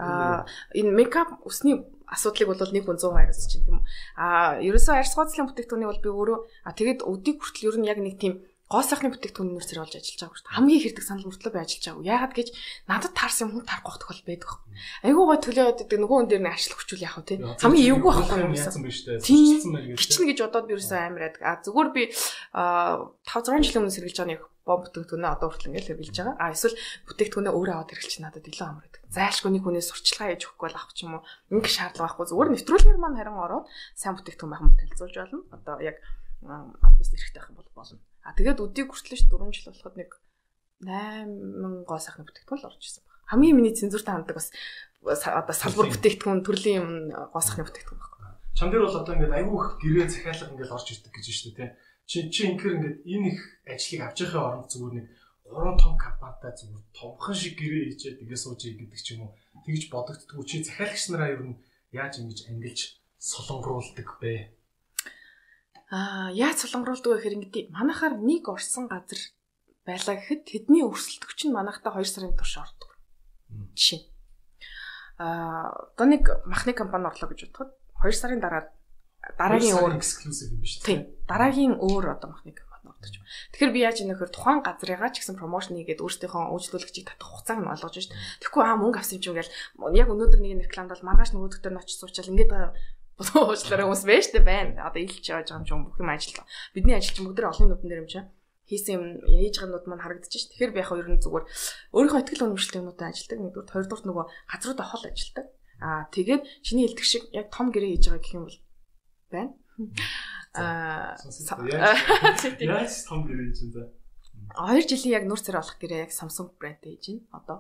Энэ мейкап үсний асуудлыг бол нэг хүн 100% хариуцж чинь тийм үү. Ерөөсөө арьс гоцлын бүтээгдэхүүнийг бол би өөрөө тэгээд өдийг хүртэл ер нь яг нэг тийм гоо сайхны бүтээгдэхүүн нэр зэрэг олж ажиллаж байгаа шүү дээ. Хамгийн их хэрэг санал мөртлөө би ажиллаж байгаа. Яагаад гэж надад таарсан хүн тарах тохиол байдаг. Айгуу гой төлөөд байдаг нөгөө хүн дээр нэг ачлах хүчүүл яах вэ те. Хамгийн эвгүй байхгүй юм яасан биш те. Гिचнэ гэж бодоод би ерөөсөө амар байдаг. Зүгээр би 5-6 жилийн өмнө сэргэлж байгаа нэг бомб бүтээгдэхүүнээ одоо хүртэл ингээл хэрэгжилж байгаа. Эсвэл бүтээгдэхүүнээ өөрөө аваад хэрэглэж надад илүү амар байдаг. Зайлшгүй нэг хүнээс сурчлагаа хийж өгөхгүй бол авах ч юм уу. Ингээ шаардлага байхгүй. Зүгээр нэвтрүүлгээр маань харин ороод сайн бүтээгдэхүүн байх юм бол танилцуулж болно. Одоо яг албаст эрэхтэй байх юм бол болно. Тэгээд өдийг хүртэл ш 4 жил болоход нэг 8 гоо сайхны бүтээгдэхүүн л орж ирсэн баг. Хамгийн миний цензуртай ханддаг бас одоо салбар бүтээгдэхүүн төрлийн юм гоо сайхны бүтээгдэхүүн баг. Чам дээр бол одоо ингээд айгүй их гэрээ захиалга ингээд орж ирдэг гэж байна шүү дээ тий. Чи ингээр ингээд энэ их ажлыг авч явахын оронд зүгээр нэг 3 том компанитай зүгээр томхон шиг гэрээ хийчихэд ингээд сууж гэдэг ч юм уу тэгж бодогддгүү. Чи захиалагч нараа ер нь яаж ингэж ангилж солонгоруулдаг бэ? Яаж солонгоруулдаг вэ гэхээр ингэдэг. Манайхаар нэг орсон газар байлаа гэхэд тэдний өрсөлдөгч нь манайхтай 2 сарын турш ордог. Жишээ. Одоо нэг махны компани орлоо гэж бодоход 2 сарын дараа дараагийн өөр эксклюзив юм биш үү? Тийм. Дараагийн өөр одоо махны компани ордог юм. Тэгэхээр би яаж ийм нөхөр тухайн газрыгаа ч гэсэн промошн хийгээд өөрсдийнхөө үйлчлүүлэгчийг татах хугацааг нь олгож шүү дээ. Тэгэхгүй мөнгө авсан юм чинь ингээл яг өнөөдөр нэг рекламад бол маргааш нөгөөдөгтөр нь очиж суучаал ингээд уучлаарай хүмүүс байж тээ байна. Одоо илж явж байгаа юм бүх юм ажиллаа. Бидний ажил чинь бүгд олон нүдэн дээр юм чинь хийсэн юм яаж байгаа нүд маань харагдаж ш. Тэгэхээр би яг ер нь зүгээр өөрийнхөө ихтгэл үнэмшилтэй юмудаа ажилладаг. Нэгдүгээр, хоёрдугаар нөгөө газруудаа хол ажилладаг. Тэгээд чиний хэлдэг шиг яг том гэрээ хийж байгаа гэх юм бол байна. Яаж том гэрээ хийж байна? 2 жилийн яг нуур царай болох гэрээ яг Samsung брэндтэй хийж байна. Одоо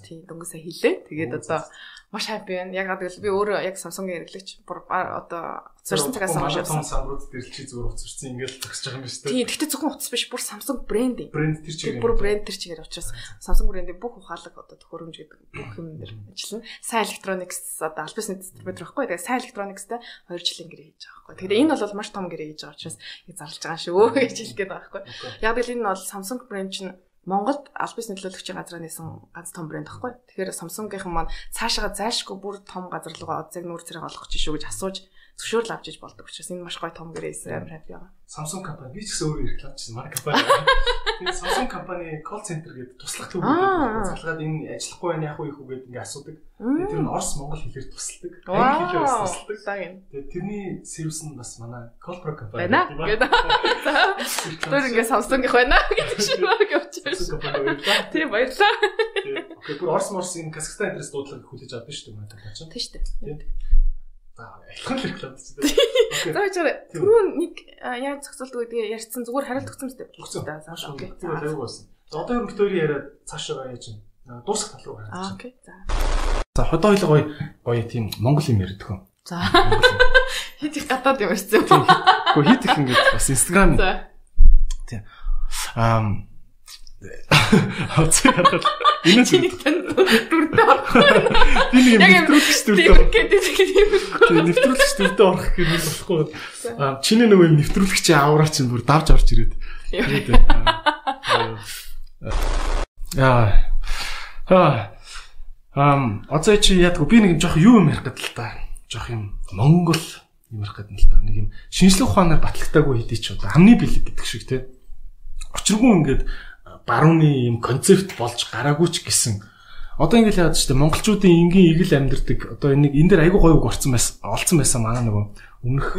тийм дөнгөсөө хэлээ. Тэгээд одоо маш happy байна. Яг гэвэл би өөрөө яг Samsung-ийн хэрэглэгч одоо зорьсон цагаас хойш том самрууд дээр чи зүгээр уцарсан ингээл төгсөж байгаа юм биш үү? Тийм. Гэхдээ зөвхөн утас биш, бүр Samsung брэнд. Брэнд тэр чигээр. Бүр брэнд тэр чигээр учраас Samsung брэндийн бүх ухаалаг одоо төхөөрөмж гэдэг бүх юм дээр ажиллана. Сайн electronics одоо албасны дистрибьютор байхгүй. Тэгээд сайн electronics-тай 2 жилийн гэрээ хийж байгаа байхгүй. Тэгээд энэ бол маш том гэрээ хийж байгаа учраас яг зарлж байгаа шүү гэж хэлэх гээд байгаа байхгүй. Яг л энэ бол Samsung брэнд чинь Монголд албас нөлөөлөгчийн газраа нээсэн ганц том брэнд байхгүй. Тэгэхээр Samsung-ийн маань цаашаа зайлшгүй бүр том газар руугаа оцыг нүүр зэрэг олгох чинь шүү гэж асууж зөвшөөрөл авч иж болдог учраас энэ маш гоё том гэрээс амар happy байгаа. Samsung компани би ч гэсэн өөрөө рекламчсан манай компани. Тэгээд Samsung компани call center гэдэг туслах төв гэдэг залгаад энэ ажиллахгүй байх яах вэ гэдэг ингээ асуудаг. Тэгээд тэр нь Орос Монгол хэлээр тусалдаг. Англи хэлээр тусалдаг. Тэгээд тэрний сервис нь бас манай Colpro компани гэдэг. Тэр ингээ Samsung-ийнх байна гэдэг шиг баг явчихсан. Тийм баярлаа. Окей, бүр Орос энэ Казахстан энэс дуудлага хүлээж авдаг шүү дээ манай талаа чинь. Тийм шүү дээ. За, ялхан л реклам чинь. Окей. За чараа түрүү нэг яаж зохицуулдаг гэдгийг ярьсан зүгээр хариулт өгсөн мэт. За, окей. Тэр аюу болсон. За одоо ер нь битүүрийн яриад цаашаа яаж юм. Дуусах тал руу гараад. Окей. За. За хот ойлго гоё тийм монгол юм ярьдаг хүн. За. Хит их гадаад юм ярьсан. Гэхдээ хит их ингэж бас Instagram. За. Тийм. Хацаа хараад энэ чиний дүрдээ орох. Би нэг нэвтрүүлэгч дүрдээ орох. Тийм нэвтрүүлэгч дүрдээ орох гэх юм болохгүй. Чиний нөгөө нэвтрүүлэгчийн авраа чинь бүр давж орж ирээд. Одоо чи яадаг би нэг жоох юу юм ярих гэдэг л та. Жоох юм Монгол юм ярих гэдэг л та. Нэг юм шинжлэх ухаанаар батлагтаагүй хэдий ч одоо амны бэлэг гэдэг шиг те. Учиргүй ингээд барууны юм концепт болж гараагүй ч гэсэн одоо ингээд яадаг ч те монголчуудын энгийн игэл амьдэрдэг одоо энэ дээр айгүй гоё үг олцсон байсан манай нөгөө өмнөх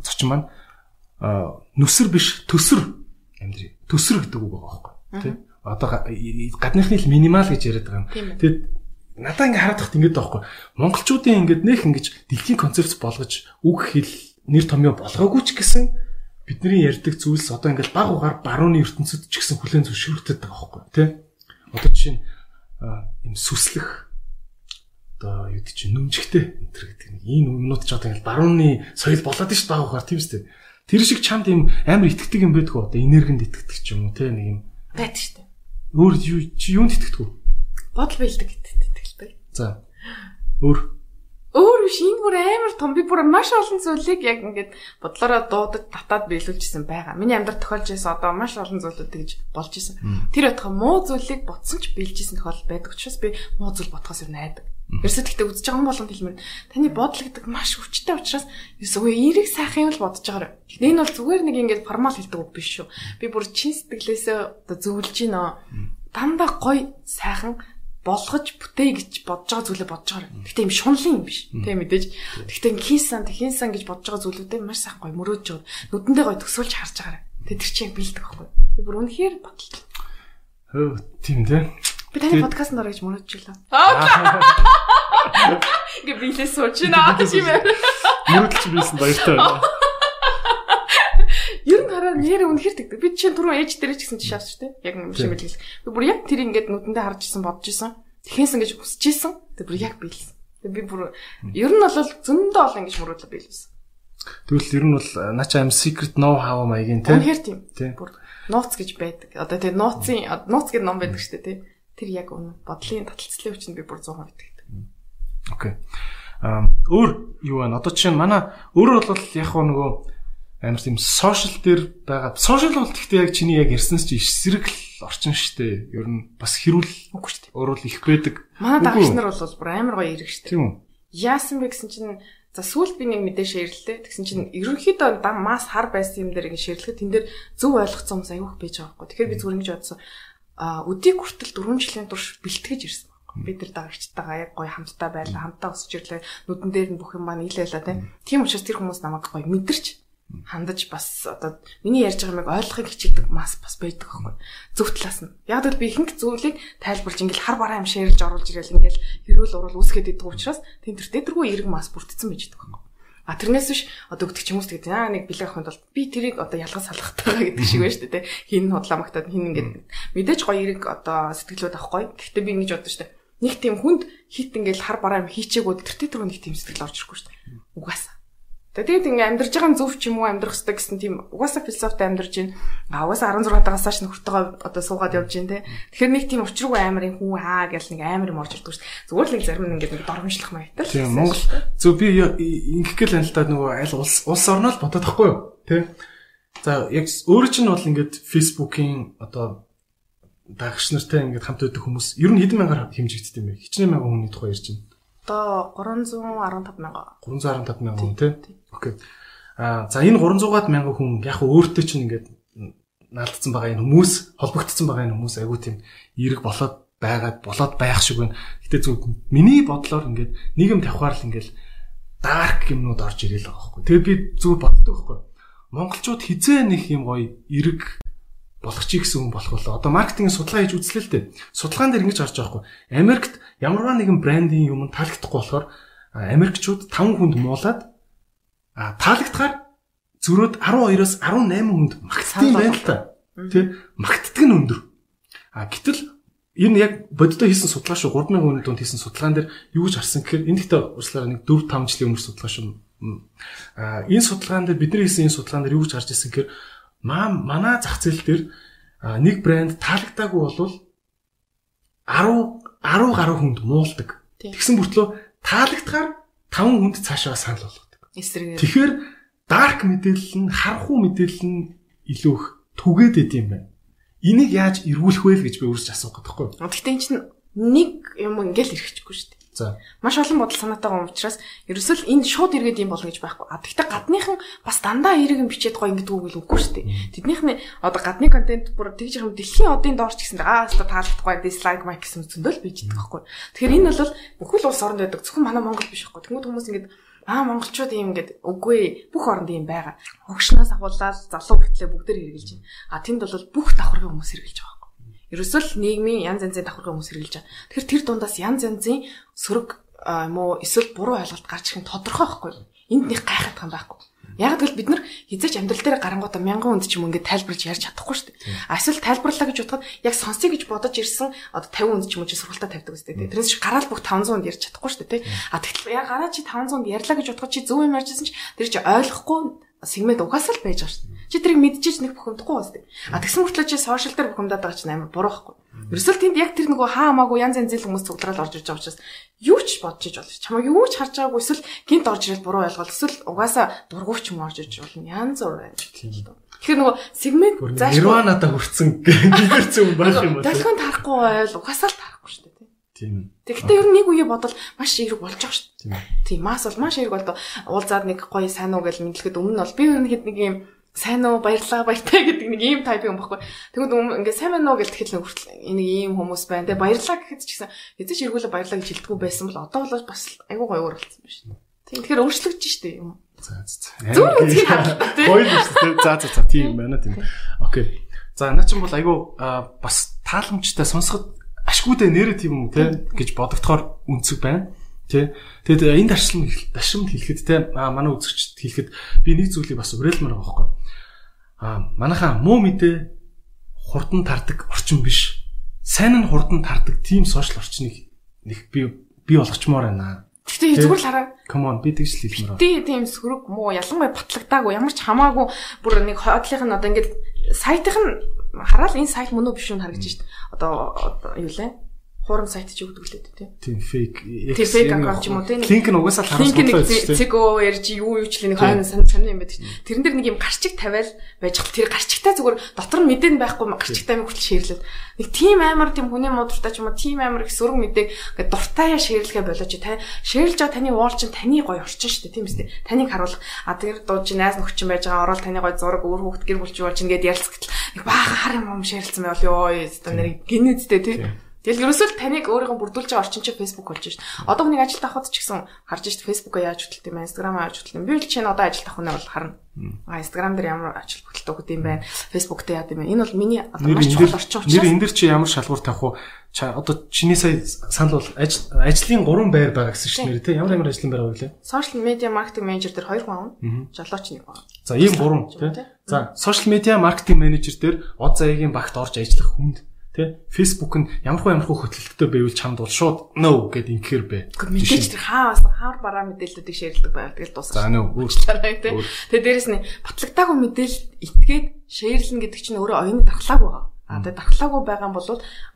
зочин маань нүсэр биш төсөр амьдрий. Төсөр гэдэг үг байгаа байхгүй тий. Одоо гадныхны л минимал гэж яриад байгаа юм. Тэгээд надаа ингээд хараад тахт ингээд байгаа байхгүй. Монголчуудын ингээд нэх ингэж дэлхийн концепц болгож үг хэл нэр томьёо болгоогүй ч гэсэн бидний ярьдаг зүйлс одоо ингээд баг угаар барууны ертөнцид ч гэсэн хүлээн зөвшөөрөгдөд байгаа байхгүй тий. Одоо жишээ нь юм сүслэх одоо юу гэж нүмжигтэй энэ гэдэг нэг ийм юмнууд ч одоо ингээд барууны соёл болоод ш баг угаар тийм үстэй. Тэр шиг чамд юм амар итгэдэг юм байдгүй одоо энергинд итгэдэг ч юм уу тий нэг юм байдаг шүү дээ. Өөр юунд итгэдэг вэ? Бодол бэлдэг итгэлтэй. За. Өөр биш энэ бүр амар том би бүр маш олон зүйлийг яг ингээд бодлороо дуудаж татаад биелүүлжсэн байгаа. Миний амьдрал тохиолж байсан одоо маш олон зүйлүүд гэж болж исэн. Тэр байтугай муу зүйлийг ботсон ч биелжсэн тохиол байдаг учраас би муу зүйл ботхоос юу найдаг. Ерөөсөө тэгтээ үзэж байгаа болгонд хэлмээр таны бодол гэдэг маш хүчтэй учраас үгүй эерэг сайхан юм л бодож байгаа. Энэ бол зүгээр нэг ингээд формал хэлдэг үг биш шүү. Би бүр чин сэтгэлээсээ одоо зөвлөж гинөө. Дандаа гоё сайхан болгож бүтээ гэж бодож байгаа зүйлээ бодож байгаа. Гэхдээ юм шунлын юм биш. Тэ мэдээж. Гэхдээ хинсан гэж бодож байгаа зүйлүүдээ маш сайхан гоё мөрөөж жоо. Нүдэндээ гоё төсөөлж харж байгаа. Тэ тэр чинь бэлдэг байхгүй. Би бүр үнэхээр бодлоо. Хөө тийм дээ. Би таны подкастт орж мөрөөж жилээ. Гэ билээ суучна тийм ээ. Мөрөдлж билсэн баяртай байна. Ер нь хараа нэр үнэхэр тэгдэг. Би чинь түрүү ээж дээр ч гэсэн тийш авч штэ. Яг юм шиг билээ. Би бүр яг тэр ингээд нүдэндээ харж исэн бодож исэн. Тэхээсэн гэж хүсэж исэн. Тэг бүр яг биелсэн. Тэг би бүр ер нь бол зөндөө олон ингэж мөрөөдлөө биелсэн. Тэгвэл ер нь бол начаа am secret know how маягийн тийм. Үнэхэр тийм. Бүр нууц гэж байдаг. Одоо тэг нууц гэдэг ном байдаг штэ тий. Тэр яг үнэ бодлын таталцлын хүчинд би бүр 100% итгэдэг. Окей. Өөр юу вэ? Одоо чинь манай өөрөө бол яг нөгөө амар тийм сошиал дээр байгаа. Сошиал бол гэхдээ яг чиний яг ярьсанс чи эсрэг л орчин штэ. Ер нь бас хэрүүл үгүй штэ. Өөрөө л их байдаг. Манай дагч нар бол бүр амар гоё ирэх штэ. Тийм үү? Яасан бэ гэсэн чинь за сүүлд би нэг мэдээ шеэрлээ. Тэгсэн чинь ерөнхийдөө мас хар байсан юм дээр ингэ шеэрлэхэд тэн дээр зөв ойлгоцсон хүмүүс аюух байж байгаа байхгүй. Тэгэхээр би зүгээр ингэж бодсон. Өдийг хүртэл 4 жилийн турш бэлтгэж ирсэн байна. Бид нар дагагчтайгаа яг гоё хамтдаа байлаа, хамтдаа өсөж ирлээ. Нүдэн дээр нь бүх юм маань нийлээлээ тийм учраас тэр хүмүүс намайг гоё мэдэрч хандаж бас одоо миний ярьж байгаа юмыг ойлгохыг хичээдэг бас байдаг байхгүй. Зөв талаас нь. Яг л би ихэнх зүйлийг тайлбарж ингээл хар бараа юм шеэрлж оруулж ирээл ингээл хэрүүл урал үүсгээд идэг учраас тентэрдэггүй эерэг мас бүрдсэн байж идэг байхгүй. А тэрнээс биш одоо өгдөг хүмүүс тэгээд нэг бэлэг ахынд бол би тэрийг одоо ялгаж салгахтайгаа гэдэг шиг байна шүү дээ. Хин худлаамагтаад хин ингээд мэдээж гоё эерэг одоо сэтгэлүүд авахгүй. Гэхдээ би ингэж бодсон шүү дээ. Нэг тийм хүнд хит ингээл хар бараа юм хийчээгүүд тэртээ түрүү нэг тийм сэтгэл орж ирэхгүй шүү дээ. Угаасаа. Тэгээд ингээ амьдарч байгаа зөв ч юм уу амьдрах хэрэгтэй гэсэн тийм угаасаа философитой амьдарч байна. Угаасаа 16 дагасааш нөхөртөөгөө одоо суугаад явж байна те. Тэгэхээр нэг тийм учиргүй амарын хүн гэл нэг амар юм орж ирдэг шүү дээ. Зүгээр л нэг зарим нэг ингээ доромжлох маягтай. Тийм Монгол зөв би ингэх гэл анилтаад нөгөө аль улс орноо л бодоод тахгүй юу те. За яг өөрөө чинь бол ингээд Facebook-ийн одоо дагагч нартай ингээд хамт байдаг хүмүүс ер нь хэдэн мянгаар хэмжигддэг юм бэ? Хичнээн мянган хүний тухай ярьж байна. Одоо 315,000 хүн тий. Окей. За энэ 300-аад мянган хүн яг өөртөө чинь ингээд наалдсан байгаа энэ хүмүүс, холбогдсон байгаа энэ хүмүүс айгүй тийм эерэг болоод байх шиг байна. Гэтэ зөв миний бодлоор ингээд нийгэм тавхаар л ингээд дарк юмнууд орж ирэл байгаа байхгүй. Тэгээд би зөв боддог байхгүй. Монголчууд хизээ нэг юм гоё эерэг болох чи гэсэн хүн болох болоо. Одоо маркетингийн судалгаа хийж үзлээ л дээ. Судалгаан дээр ингэж харж байгаа хгүй. Америкт ямарваа нэгэн брендийн юм таалагдахгүй болохоор Америкчууд 5 хүнд муулаад таалагдахаар зөрөөд 12-оос 18 хүнд магтдаг байна л та. Тэ магтдаг нь өндөр. Гэтэл энэ яг бодиттой хийсэн судалгаа шүү 3000 хүний дунд хийсэн судалгаан дээр юу гэж харсан гэхээр энэ дэхтэй урьслаараа нэг 4-5 жилийн өмнөх судалгаа шүү. Энэ судалгаан дээр бидний хийсэн энэ судалгаан дээр юу гэж харж ирсэн гэхээр манай зах зээл дээр нэг брэнд таалагдаагүй болвол 10 гаруй хүнд муулдаг. Тэгсэн бүртлөө таалагдахаар 5 хүнд цаашаа санал болгодог. Тэгэхээр дарк мэдээлэл нь харанхуй мэдээлэл нь илүү их түгээд идэм байна. Энийг яаж эргүүлэх вэ гэж би өөрсдөө асуух гэдэг байхгүй. Гэхдээ энэ чинь нэг юм ингээл ирэхгүй шүү дээ. За. Маш олон бодол санаатайгаа уучраас ерөөсөл энэ шууд иргэд юм болно гэж байхгүй. Гэхдээ гадныхан бас дандаа эргэн бичээд гоё ингэдэг үг л үгүй шүү дээ. Тэднийхний одоо гадны контент бүр тэгж юм дэлхийн одын доорч гэсэн одоо таалагдахгүй дислайк майк гэсэн зөндөл бичдэг байхгүй. Тэгэхээр энэ бол бүхэл улс оронд байдаг. Зөвхөн манай Монгол биш байхгүй. Тэнгүүд хүмүүс ингэдэг монголчууд юм ингээд үгүй бүх оронд юм байгаа. Хогшноос ахуулаад залуу хүртлээ бүгдээр хэрглэж байна. Тэнд бол бүх давхаргын хүмүүс хэрглэж байгаа. Ерөөсөл нийгмийн янз янзын давхаргын хүмүүс хэрглэж байгаа. Тэгэхээр тэр дундаас янз янзын сөрөг юм уу эсвэл буруу ойлголт гарч ирэх нь тодорхой байхгүй. Энд нэг гайхах юм байхгүй. Яг л бид нар хизээч амьдрал дээр гарангуудаа 1000 хүнд ч юм ингээд тайлбарж ярьж чадахгүй шүү дээ. Эсвэл тайлбарлаа гэж бодоход яг сонсъё гэж бодож ирсэн одоо 50 хүнд ч юм уу сургалтаа тавьдаг үстэй. Тэрнээс гараал бүх 500 хүнд ярьж чадахгүй шүү дээ. Тэгтэл яг гараа чи 500 хүнд ярьлаа гэж бодоход чи зөв юм ярьжсэн чи тэр чи ойлгохгүй сегмент угаасаа л байж байгаа шүү дээ. Чи тэрийг мэдчихэж нэг бухимдахгүй байна шүү дээ. Тэгсэн мөртлөө чи сошиал дээр бухимдаад байгаа чинь амар буруу байхгүй. Ерөөсөл тэнд яг тэр нөгөө хаамаагүй янз янзын хүмүүс цуглараад орж ирж байгаа учраас юу ч бодож иж болно. Чамаа юу ч харж байгаагүй эсвэл гинт орж ирэл буруу ойлголт эсвэл угаасаа дургуйч юм орж ирж болно. Янз бүр байна. Тэгэхээр нөгөө сегмент зааш нирванада хүрсэн гэрцэн байх юм байна. Дахин тарахгүй байл угаасаа л тарахгүй шүү дээ. Тийм. Тэгэхдээ ер нь нэг үе бодвол маш эерэг болж байгаа шүү дээ. Тийм. Мас бол маш эерэг болдог. Уулзаад нэг гоё сайн уу гэж мэдлэхэд өмнө нь бол би ер нь хэд нэг юм сайн уу баярлаа баяртай гэдэг нэг ийм тайп юм баггүй. Тэгвэл ингээд сайн байна уу гэж тэгэхэл хүртэл энийг ийм хүмүүс байна. Тэгээ баярлаа гэхэд ч гэсэн эзэж эргүүлээ баярлаа гэж хэлдэггүй байсан бол одоо бол бас айгүй гоё болсон байна шүү. Тийм. Тэгэхээр өөрчлөгдөж штэ юм. За. Зөв үзгийг харлаа тий. Гоё шүү дээ. За тийм байна тийм. Окей. За наа чинь бол айгүй бас тааламжтай сонсоход ашгүйдээ нэрэ тийм юм те гэж бодогдохоор үнцэг байна. Тэ. Тэгээд энэ дашрамд хэлэхэд те манай үзэгчд хэлэхэд би нэг зүйлийг бас уриалмаар байгаа байхгүй. Манайхаа муу мэдээ хурдан тардаг орчин биш. Сайн нь хурдан тардаг тийм сошиал орчныг нэг би болгочмоор байна. Гэхдээ зүгээр л хараа. Come on би тэгж хэлмээр байна. Тийм сөрөг муу ялангуяа батлагдаагүй ямар ч хамаагүй бүр нэг хойдлынх нь одоо ингээд сайтынх нь хараад энэ сайт мөн үү биш үү харагдаж шít. Одоо юу лээ? Хурам сайт ч өгдөг лээ тийм. Тийм фейк. Тийм фейк аккаунт юм уу тийм. Линк нь угаасаа харуулсан байна. Линк нь цэго ярьж юу ч л нэг хойно сонь юм байдаг. Тэрэн дээр нэг юм гарчиг тавиал байж хэл тэр гарчигтай зүгээр дотор нь мэдэн байхгүй гарчигтай юм хүртэл шеэрлээд нэг тийм амар тийм хүний муудтай ч юм уу тийм амар их сөрөг мэдээг ингээд дуртаяа шеэрлэхэ болооч та шеэрлж байгаа таны уул чинь таны гоё орчин шүү дээ тийм үстэй. Таныг харуулах тэр дуу чи найз нөхчин байж байгаа орол таны гоё зураг өөр хүүхд гэр бүлч болж ингээд ярилцгал нэг баахан хар юм шеэрлсэн байвал ёо өстө нэр гинэдтэй тийм. Тэгэл ерөөсөө таныг өөрийгөө бүрдүүлж байгаа орчин чи Facebook болж шít. Одоо хүний ажилд авахд ч гэсэн харж шít Facebook-аа яаж хөтөлт юм бэ? Instagram-аа яаж хөтөлт юм бэ? Би л чинь одоо ажилд авах нь бол харна. Instagram дээр ямар ажил хөтөлт өгд юм бэ? Facebook дээр яад юм бэ? Энэ бол миний одоо маш чухал орчин учраас. Нэр энэ дэр чи ямар шалгуур тавих уу? Одоо чиний сая санал бол ажлын 3 байр байгаа гэсэн чинь нэр тий ямар ажлын байр вэ? Social media marketing manager дээр 2 хүн авна. Жолооч 1 хүн. За ийм 3 тий. За social media marketing manager дээр од заяагийн багт орж ажиллах хүнд тэ Facebook нь ямархуу хөтөлбөртэй байвал чамд бол шууд no гэд инхээр бэ. Мэдээж тэр хаар бараа мэдээллүүдийг шеэрлдэг байгаад тэгэл дуусах. За нөө өөрчлөлтэй тэ. Тэгээ дээрэс нь батлагдаагүй мэдээлэл итгээд шеэрлэн гэдэг чинь өөрөө оюуны дархлааг байгаа. Тэгээ дархлаагүй байгаа юм бол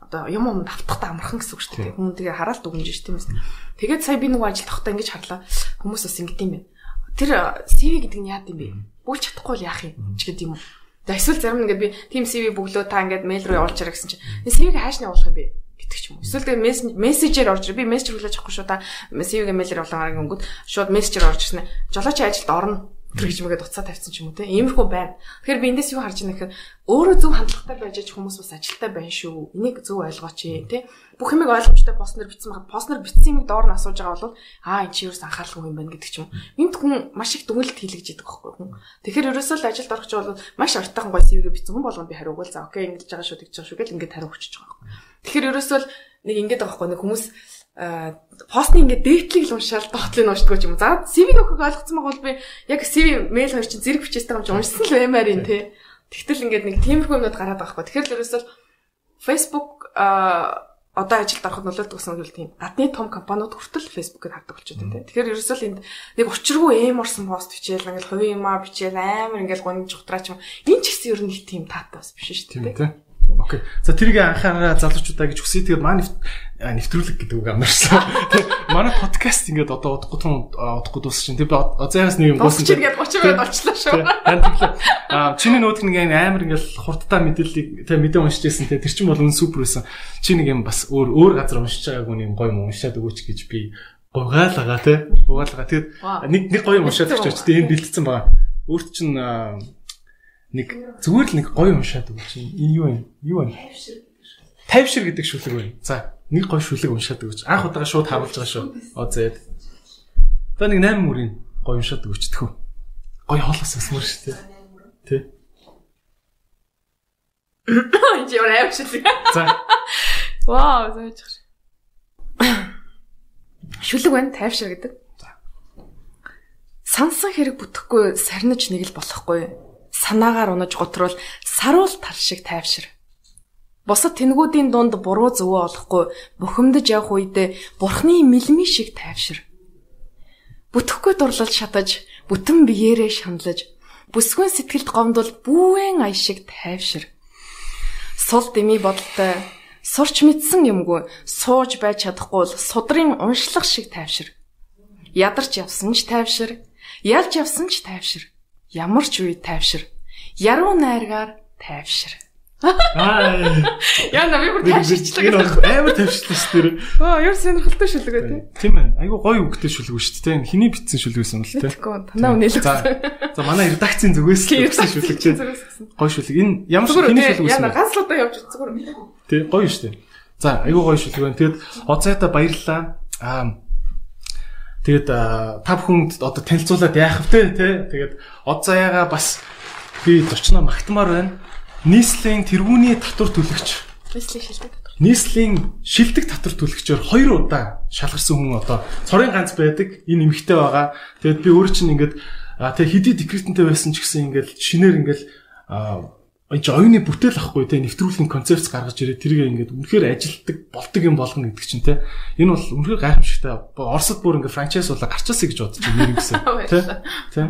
одоо юм давтахтаа амархан гэсэн үг шүү дээ. Хүн тэгээ хараалт өгнөж ш тийм ээ. Тэгээд сая би нэг ажил тахтаа ингэж харлаа. Хүмүүс бас ингэдэм юм байна. Тэр CV гэдэг нь яад юм бэ? Бүлж чадахгүй л яах юм ч гэдэг юм уу. Эсвэл зарим нэгэд би team CV бөглөө та ингээд мэйл рүү явуулчаар гэсэн чинь CV-г хааш нь явуулах юм бэ гэдэг ч юм уу. Эсвэл тэгээ мессежээр орж би мессеж хүлээж авахгүй шүү та CV-г мэйлээр явуулаагаар гингүүд шууд мессежээр орж ирсэн. Жолооч ажилд орно. гэж мэгээд уцаа тавьсан ч юм уу те. Иймэрхүү байна. Тэгэхээр би эндээс юу харж байна гэхээр өөрөө зөв хандлагатай байж хүмүүс бас ажилттай байна шүү. Энийг зөв ойлгооч те. Бүх юмыг ойлгомжтой постнер бичсэн байхад постнер бичсэн юмыг доор нь асууж байгаа бол энэ чи юус анхааралгүй юм байна гэдэг ч юм. Энд хүн маш их дүгнэлт хийлгэж идэг байхгүй хүн. Тэгэхээр ерөөсөө л ажилд орох ч бол маш ортойхон гоё CV-гээ бичсэн хүн болгоно би хариуг л за окей ингэж байгаа шүү тэгж байгаа шүү гэл ингээд хариу өгчөж байгаа байхгүй. Тэгэхээр ерөөсөө л нэг ингээд байгаа байхгүй нэг хүмүүс постны ингээд дээтлийг л уншаал доотлыг уншдаг юм. За CV-г өгөхөг ойлгоцсон байгаа бол би яг CV мэйл хоёр чинь зэрэг бичээстэй юм чи уншсан л баймаар юм те. Тэгтэл ингээд нэг тиймэрхүү юмнууд гараад байгаа байхгүй. Тэгэхээр л ерөөсөө Facebook одоо ажилд ороход нөлөөлдөг гэсэн үг тийм. Гадны том компаниуд хүртэл Facebook-ыг хардаг болчиход байна. Тэгэхээр ерөөсөө л энд нэг учиргүй эморсон пост бичээл ингээл хувийн юмаа бичээл амар ингээл гонж ухтраач юм. Энэ ч гэсэн ер нь тийм таатай бас биш шүү дээ. Окей. За тэрийг анхаараа залуучуудаа гэж хүсье. Тэгээд маань нэвтрүүлэг гэдэг үг амарсан. Тэгээд манай подкаст ингээд одоо удахгүй дуусах чинь. Тэгээд заяас нэг юм гоосон чинь ингээд 30 минут очлоо шүү. Чиний нүүдг нэг амар ингээд хурдтай мэдээллийг тэг мэдээ уншиж байсан. Тэр чинь бол супер байсан. Чи нэг юм бас өөр газар уншиж байгаагүй нэг гоё юм уншаад өгөөч гэж би гуйгаалгаа тий. Гуйгаалгаа. Тэгээд нэг гоё юм уншаад өгч тий энэ бэлдсэн байгаа. Өөрт чинь нэг зүгээр л нэг гоё уншаад өгч энэ юу вэ? Юу вэ? Тайвшир гэдэг шүлэг байна. За, нэг гоё шүлэг уншаад өгч. Анх удаага шууд харуулж байгаа шүү. Зээд. Одоо нэг 8 мөрийн гоё уншаад өгч тхөө. Гоё хоолоос өсмөр шүү дээ. Тэ. Энд юу нэ шүлэг. За. Вау, зөөж. Шүлэг байна, тайвшир гэдэг. За. Сансан хэрэг бүтэхгүй сарниж нэг л болохгүй. Санаагаар унаж готрол саруул тал шиг тайвшир. Босод тэнгүүдийн дунд буруу зөвөө олохгүй бухимдаж явах үедээ бурхны мэлми шиг тайвшир. Бүтэхгүй дурлал шатаж, бүтэн биеэрээ шаналж, бүсгүйн сэтгэлд гомдол бүүвэн ая шиг тайвшир. Сул дэмий бодолтой, сурч мэдсэн юмгүй, сууж байж чадахгүй л судрын уншлах шиг тайвшир. Ядарч явсан ч тайвшир, ялж явсан ч тайвшир. Ямар ч үе тайвшир. Яруу найргаар тайвшир. Яа намайг бүр тайвширчлаа. Амар тайвширлаа шүү дээ. Яар сонирхолтой шүлэг үү те. Тийм ээ. Айгу гоё үгтэй шүлэг шүү дээ. Хиний бичсэн шүлэг байсан юм л те. Танаа үнэлсэн. За манай редакцийн зүгээс бичсэн шүлэг чинь. Гоё шүлэг. Энэ ямар хиний шүлэг байсан бэ? Яа ганцлуудаа явж зүгээр. Тий, гоё шүү дээ. За, айгу гоё шүлэг байна. Тэгэд оцайта баярлалаа. Тэгээд та бүхэнд одоо танилцуулаад яах вэ те? Тэгээд од заяага бас би зочноо магтмаар байна. Нийслэлийн тэргүүний татвар төлөгч. Нийслэлийн шилдэг татвар төлөгчөөр 2 удаа шалгарсан хүн одоо цорын ганц байдаг. Энэ эмэгтэй байгаа. Тэгээд би өөрөө чинь ингээд тэг хэдий декретэнтэй байсан ч гэсэн ингээд шинээр ингээд оюуны бүтээл ахгүй те нэвтрүүлгийн концепц гаргаж ирээ тэрийг ингээд үнэхээр ажилтдаг болдог юм болгоно гэдэг чинь те энэ бол үнэхээр гайхамшигтай Оросд бүр ингээд франчайз болоо гарчаасаа гэж бодож байна гэсэн те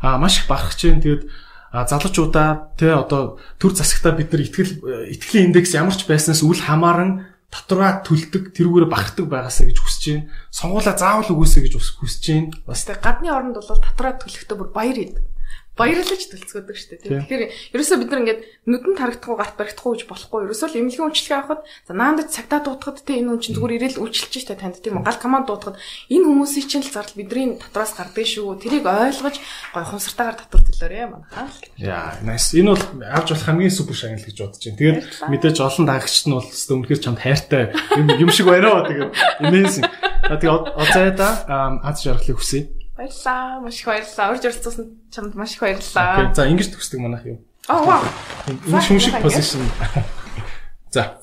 маш их барах чинь тэгээд залуучуудаа те одоо төр засагтаа бид нар итгэлийн индекс ямар ч байснаас үл хамааран татвараа төлдөг тэрүүгээр багтдаг байгаасаа гэж хүсэж байна сонгуулаа заавал өгөөсэй гэж хүсэж байна бас те гадны оронд бол татвараа төлөхдөө бүр баяр идэг баярлаж төлцгөөдөг шүү дээ. Тэгэхээр ерөөсөө бид нар ингээд нүдэнд харагдахгүй гарт баригдахгүй гэж болохгүй. Ерөөсөө л эмнэлгийн үйлчлэгээ авахад за наандад цагтаа дуутахад те энэ хүн чинь зүгээр ирээл үйлчилж штэ танд тийм гал команд дуутахад энэ хүмүүсийн чинь л зардал бидний татвараас гардаг шүү. Тэрийг ойлгож гой хумсартаагаар татвар төлөөрэй манайхаа. Яа, nice. Энэ бол авч болох хамгийн супер шагнал гэж бодож байна. Тэгээд мэдээж олон даагчд нь бол өстө үнэхээр чамд хайртай юм шиг байна. Тэгээд amazing. Тэгээд оцайда аз жаргалыг хүсье. Баярлалаа. Маш их баярлалаа. Урьж оролцсон чамд маш их баярлалаа. Окей. За ингэж төгсдөг манайх юу? Вау. Энэ шүмшиг позишн. За.